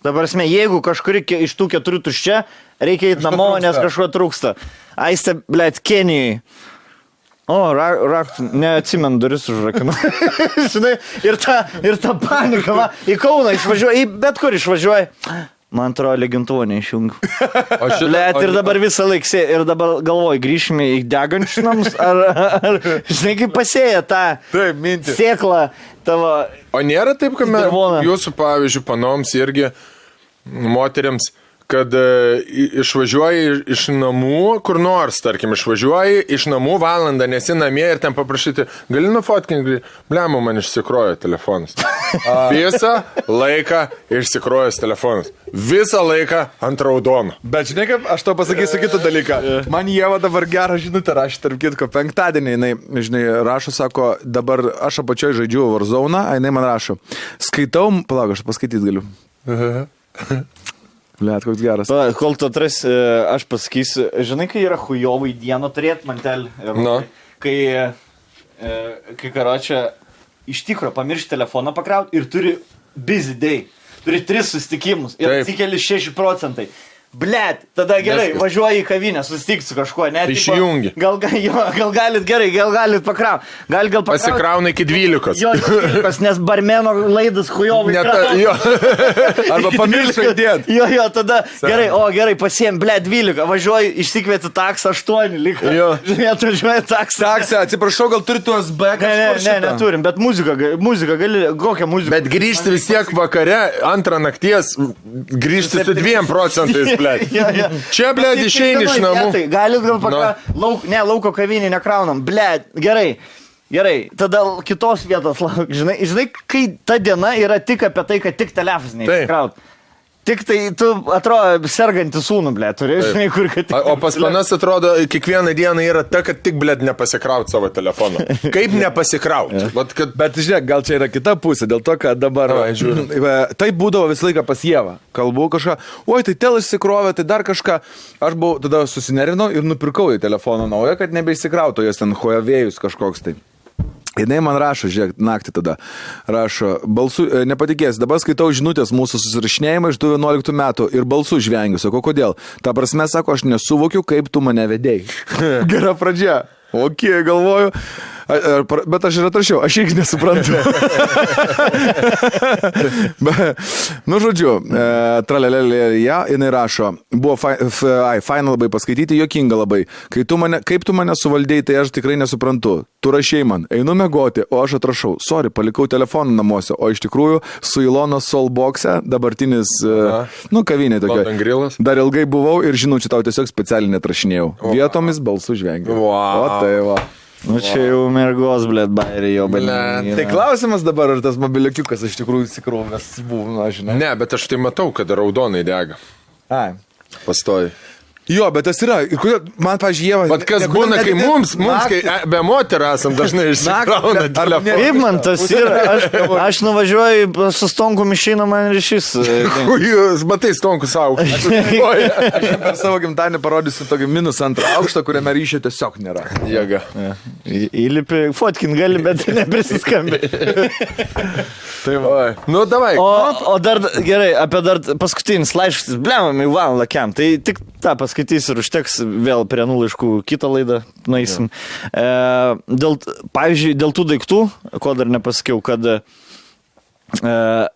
Dabar esmė, jeigu kažkuri iš tų 4 tuščia, reikia eiti namo, nes kažko trūksta. Aiste, Kenijai. O, raktų, neatsimenu, duris užrakinu. Žinai, ir ta panika, va, į Kauną išvažiuoja, bet kur išvažiuoja. Man atrodo, legintuvą neišjungiu. Blet, ir dabar visą laiką, ir dabar galvoju, grįšime į degančius namus, ar žinai, kaip pasėja tą sėklą tavo. O nėra taip, kad jūsų, pavyzdžiui, panoms irgi moteriams, kad išvažiuoji iš namų, kur nors, tarkim, išvažiuoji iš namų valandą, nesi namie ir ten paprašyti, gali nufotkinti, blemu, man išsikrojo telefonas. Visą laiką išsikrojęs telefonas. Visą laiką ant raudono. Bet žinai, kaip aš to pasakysiu kitą dalyką. Man Ieva dabar gerą žinutę rašė, tarp kitko, penktadienį, jinai, žinai, rašo, sako, dabar aš apačioj žaidžiu Warzone, jinai man rašo, skaitau, palauk, aš paskaityti galiu. Blet, koks geras. Kol tu atras, aš pasakysiu, žinai, kai yra hujovai dieną turėti mantelį. No. Kai karočią iš tikro pamiršti telefoną pakrauti ir turi busy day. Turi 3 susitikimus ir atsikeli 6%. Blet, tada gerai, važiuoji į kavinę, susitikti su kažkuo, ne? Išjungi. Gal galit gerai, gal galit pakrauti. Gal pakrauti. Pasikrauna iki 12. Jo, 12, nes barmeno laidas hujovai. Arba pamiršai dėt. Jo, tada gerai, pasiėm, blet, 12, važiuoji, išsikvieti taksą 8, liko. Jo. Žinai, atvažiuoji taksą. Taksą, atsiprašau, gal turi tuos B kažkur šitą? Ne, neturim, bet muzika gali, kokią muziką. Bet grįžti vis tiek vakare, 2 nakties, grįžti su 2%. Čia, blėd, išeini iš namų. Galit gal pakrauti. Lauko kavinį nekraunam. Blėd, gerai. Tada kitos vietos lauk. Žinai, kai ta diena yra tik apie tai, kad tik telefonai neįsikrauti. Tik tai tu atrodo sergantį sūnų, blėd, turi, žinai, kur kad... O pas manas atrodo, kiekvieną dieną yra ta, kad tik, blėd, nepasikrauti savo telefoną. Kaip nepasikrauti? Bet, žiūrėk, gal čia yra kita pusė, dėl to, kad dabar... Tai būdavo visą laiką pas Ievą. Kalbu kažką, oi, tai tel išsikrovė, tai dar kažką. Aš buvau, tada susinerinau ir nupirkau į telefoną naują, kad nebeįsikrautų, jos ten Huawei'us kažkoks tai. Jinai man rašo, žiūrėk, naktį tada rašo, nepatikės, dabar skaitau žinutės mūsų susirašinėjimą iš 11 metų ir balsų žvengiu, sako, kodėl? Ta prasme, sako, aš nesuvokiu, kaip tu mane vedėjai. Gera pradžia. Ok, galvoju. Bet aš ir atrašiau, aš irgi nesuprantu. Žodžiu, tralelelėje, jinai rašo, buvo faina labai paskaityti, jokinga labai. Kaip tu mane suvaldėjai, tai aš tikrai nesuprantu. Tu rašėjai man, einu mėgoti, o aš atrašau, sorry, palikau telefoną namuose, o iš tikrųjų su Ilono Soulboxe, dabartinis, kavinė tokia. Dar ilgai buvau ir žinau, čia tau tiesiog specialiai netrašinėjau. Vietomis balsų žvengiu. O tai va. Nu čia jau mergos, blėt, bairį jau, blėt. Tai klausimas dabar, ar tas mobiliukiukas iš tikrųjų įsikrovęs buvo, žinai. Ne, bet aš tai matau, kad raudonai dega. Ai. Pastoji. Jo, bet tas yra. Ir kodėl, man, pavyzdžiui, Ieva... Bet kas būna, kai mums kai be moterų esam dažnai išsikrauna telefoną. Kaip man tas yra? Aš nuvažiuoju su Stonkum išeina man ryšys. Jūs matai Stonku savo. Aš per savo gimtadienį parodysiu tokį -2 aukštą, kuriame ryšio tiesiog nėra. Jėga. Įlipi, fotkin gali, bet neprisiskambi. Tai va. Nu, davai. O dar, gerai, apie dar paskutinis laiškas, blemam, Ivan Lakiam. Tai tik tą paskaitysiu ir užteks vėl prie laiškų kitą laidą nueisim. Pavyzdžiui, dėl tų daiktų, ko dar nepasakiau, kad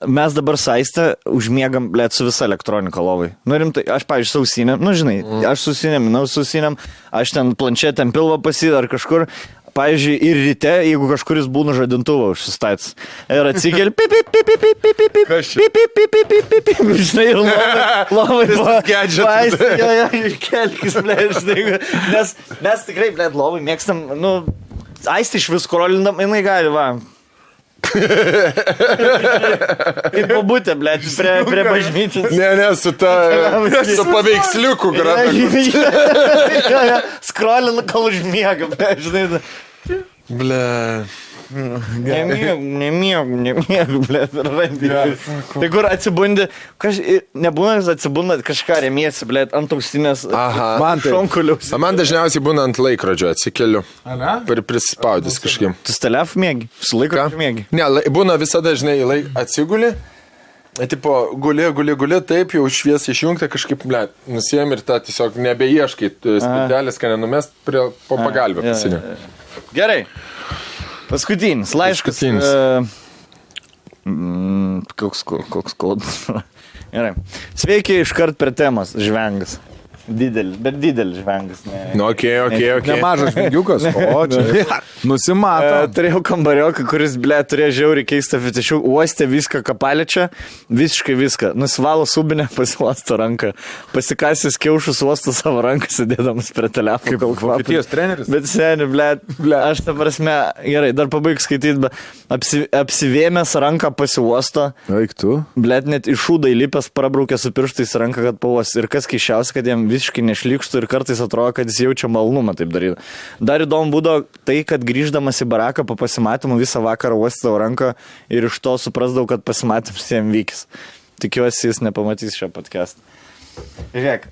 mes dabar saistę užmiegam, blėt, su visa elektronika lovai. Nu rimtai, aš, pavyzdžiui, sausinėm, nu žinai, aš susinėm, aš ten planšetėm pilvą pasidar kažkur. pavyzdžiui, ir ryte, jeigu kažkuris būna žadintuvą užsistaits. Ir atsikeli, žinai, ir labai kelkis, žinai, nes mes tikrai, labai mėgstam, aisti iš vis korolindam, jinai gali, va. Kaip pabūtė, prie bažnyčios. Ne, su paveiksliuku grada. Skrolina, kol užmiega, žinai. Nemiegu, Tai kur atsibundi, nebūna, atsibunda kažką remiesi, ant auksinės šonkuliaus. Man dažniausiai būna ant laikrodžio, atsikeliu. Prispaudys kažkim. Tu stelef mėgi? Su laikrodžiu mėgi? Ne, būna visada, žinai, atsiguli. Tipo, guli, taip jau šviesą išjungti, kažkaip, nusijėm ir tą tiesiog nebeieškai, spintelės, kad nenumest po pagalbę pasinė. Gerai. Paskutinis laiškas. Koks kodas. Gerai. Sveiki iškart per temas, žvengas. Didelis žvengas. Okay. Nemažas žvengiukas. O, čia. Nusimato. Turėjau kambarioką, kuris, turėjo žiauriai keistą fetišių. Uostė viską, ką paliečia. Visiškai viską. Nusivalo subinę, pasiuosto ranką. Pasikasęs kiaušus uosto savo ranką, sėdėdamas prie telefono. Kaip Vokietijos treneris. Bet seni, aš ta prasme, gerai, dar pabaig skaityti, bet apsivėmęs ranką pasiuosto. Eik tu. Net iš šūdą įlipęs prabraukė su pirštais ranką, kad pavos. Ir kas keiščiausia, kad jam visiškai nešlykštų ir kartais atrodo, kad jis jaučia malnumą taip daryti. Dar įdomu būdavo tai, kad grįždamas į baraką po pasimatymų visą vakarą uostydavo ranką ir iš to suprasdavau, kad pasimatymas jam vykis. Tikiuosi, jis nepamatys šio podcast'ą. Žiūrėk.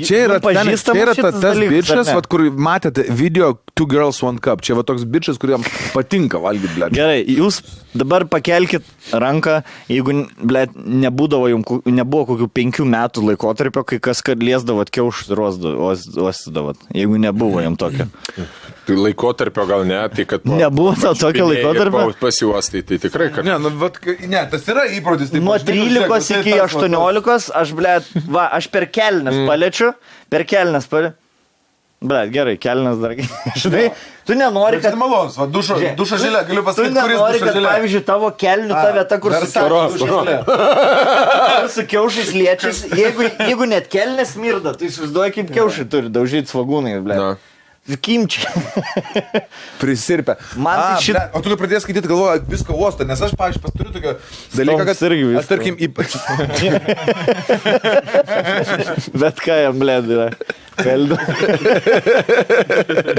Čia yra tas bičas, kur matėte video Two Girls One Cup. Čia va toks bičas, kuriam patinka valgyti, ble. Gerai, jūs dabar pakelkit ranką, jeigu, nebuvo kokių 5 metų laikotarpio, kai kas kad liesdavot kiaušus ir uostydavot. Jeigu nebuvo jam tokio. Tai laikotarpio gal ne, tai kad... Nebuvo tokio laikotarpio? Pasiuostai, tai tikrai, kad... Ne, tas yra įprotis. Nuo 13 iki 18 aš, aš per kelnes paliečiu, gerai, kelnes dar... Žinai, tu nenori, kad... Malonus, dušo žilė, galiu pasakyti, kuris dušo žilė. Tu nenori, kad, pavyzdžiui, tavo kelnių ta vieta, kur su kiaušais liečias, jeigu net kelnes mirda, tai įsivaizduoja, kaip kiaušai turi daužyti svagūnai, Kimčiai. Prisirpę. O tu pradėjai skaityti, galvoju, viską uostą, nes aš, pavyzdžiui, turiu tokio dalyką, kad aš, tarkim, Bet ką jam, yra. Kaldu.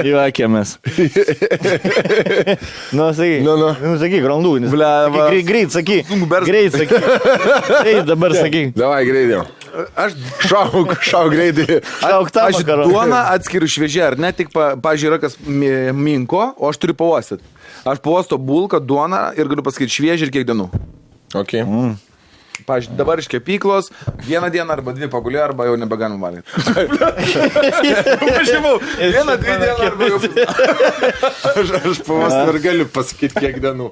Juokėmės. Sakyk, randų. Greit, sakyk. Dabar sakyk. Davai, greitai. Aš šau greitai. Aš duoną atskiriu šviežią, ar ne, tik, pavyzdžiui, yra kas minko, o aš turiu pauostyti. Aš pauosto bulką, duoną ir galiu pasakyti šviežią ir kiek dienų. Ok. Pavyzdžiui, dabar iš kepyklos, 1 dieną arba 2 pagulė, arba jau nebegalim valgyti. Pažymau, 1-2 dieną arba jau... Aš pavostą ir galiu pasakyti kiek dienų.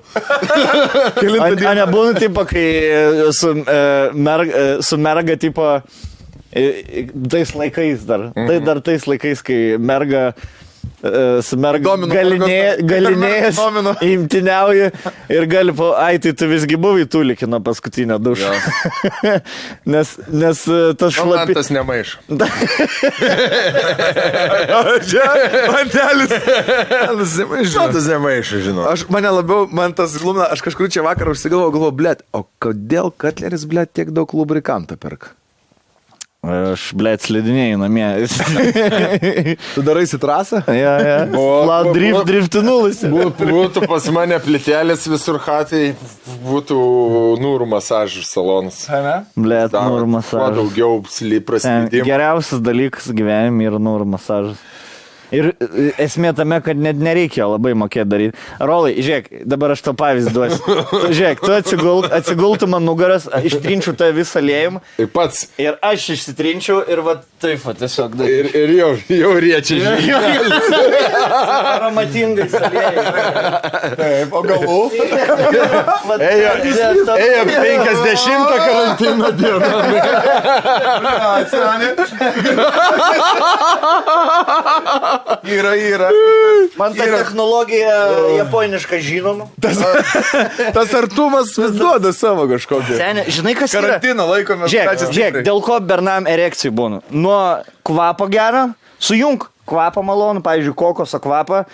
Nebūna tipo, kai su merga tipo tais laikais dar. Tai dar tais laikais, kai merga su merga galinėjas imtiniauja ir gali tai tu visgi buvai tūlikino paskutinę dušą. nes tas šlapi... Man tas nemaiš. Tas nemaiš, žinau. Man tas glumina, aš kažkur čia vakarą užsigalvoju, blet, o kodėl Katleris, blet, tiek daug lubrikantą perka? Aš, slidinėjau namie. Tu daraisi trasą? Ja. Driftinulis. Būtų pas mane plitelės visur hatai, būtų nūrų masažų salonas. Nūrų masažas. Kuo daugiau prasidėjimų. Geriausias dalykas gyvenime yra nūrų masažas. Ir esmė tame, kad net nereikia labai mokėti daryti. Rolai, žiūrėk, dabar aš to pavyzdį duosiu. Žiūrėk, tu atsigultum man nugaras, ištrinčiau tą visą aliejimą. Ir pats. Ir aš išsitrinčiau ir va taip, tiesiog daryti. Ir jau riečia žinai. Aromatingais aliejimais. Taip, o galų? Ėjo 50 karantino dieną. Yra. Man ta technologija japoniška žinoma. Tas artumas vis duoda savo kažkokį. Seni, žinai, kas yra? Karantino laikomės. Žiūrėk, dėl ko bernam erekcijų būna. Nuo kvapo gero, sujung kvapą malonų, pavyzdžiui, kokoso kvapą,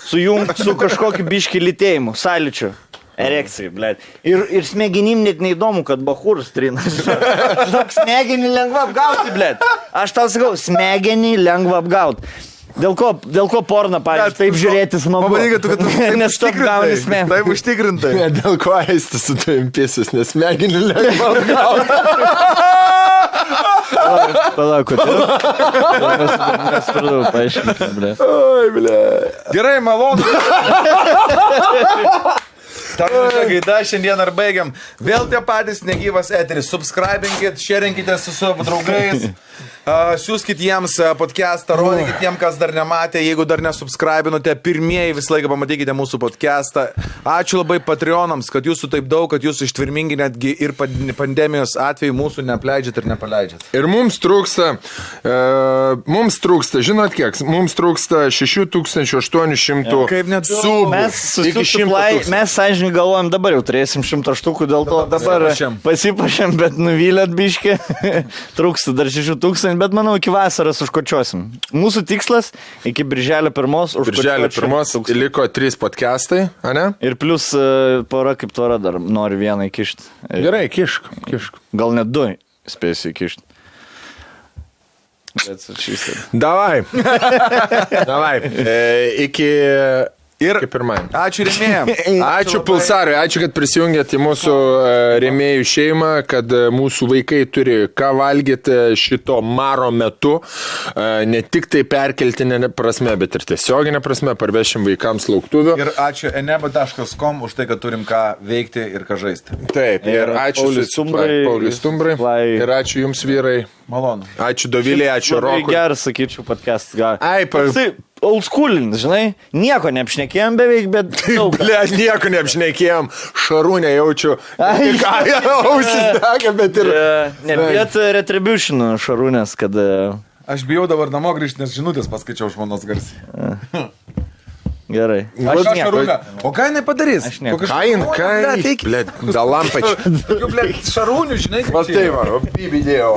sujung su kažkokiu biški lytėjimu, sąlyčiu. Erekcijai, blėt. Ir smegenim net neįdomu, kad bachūras trina. Žinok, smegenį lengva apgauti, blėt. Aš tau sakau, smegenį lengva apgauti. Dėl ko porno, pavyzdžiui, taip žiūrėti smagu. Pabandykit, kad tu taip nes tu gauni smegenį. Taip užtikrintai. Dėl ko eistis su tavim piesis, nes smegenį lengva apgauti. Palauk, nesupratau, paaiškinti, blėt. Oi, blė. Gerai, malonu. Gaida, šiandien ar baigiam. Vėl tie patys negyvas eteris. Subscribinkit, sharingkite su savo draugais. Siūskit jiems podcastą, rodykit jiems, kas dar nematė. Jeigu dar nesubscribinote, pirmieji visą laiką pamatykite mūsų podcastą. Ačiū labai Patreonams, kad jūsų taip daug, kad jūs ištvirmingi netgi ir pandemijos atveju mūsų neapleidžiat ir nepaleidžiat. Ir mums trūksta, žinot kiek, mums trūksta 6800 Kaip net subų. Mes sąžininkai galvojam, dabar jau turėsim 100 štukų, dėl to dabar pasipašėm, bet nuvylėt biškį. Trūksta dar 6000, bet manau, iki vasaros užkočiosim. Mūsų tikslas iki birželio 1 užkočioti. Birželio 1 liko 3 podcastai, ane? Ir plus pora kaip tvara dar nori vieną įkišti. Gerai, kišk. Gal net 2 spėsiu įkišti. Davai. Iki pirmąjį. Ačiū rėmėjams. Ačiū Pulsarui, ačiū, kad prisijungėt į mūsų rėmėjų šeimą, kad mūsų vaikai turi ką valgyti šito maro metu. Ne tik tai perkeltinė prasme, bet ir tiesioginė prasme, parvešim vaikams lauktuvių. Ir ačiū eneba.com už tai, kad turim ką veikti ir ką žaisti. Taip, ir ačiū Pauliui Stumbrai. Ir ačiū jums, vyrai. Malonu. Ačiū Dovilė, ačiū Rokui. Geras, sakyčiau, podcast. Old schoolin, žinai, nieko neapšnekėjom beveik, bet... Nieko neapšnekėjom, šarūnę jaučiu. Ausis dega, bet ir... Bet retribution šarūnės, kad... Aš bijau dabar namo grįžti, nes žinutės paskaičiau žmonos garsiai. Gerai. Aš Šarūnė. O ką jinai padarys? Aš ne. Blėt, dalampač. Šarūnių, žinai, kaip čia. Va tai va, bibidėjo.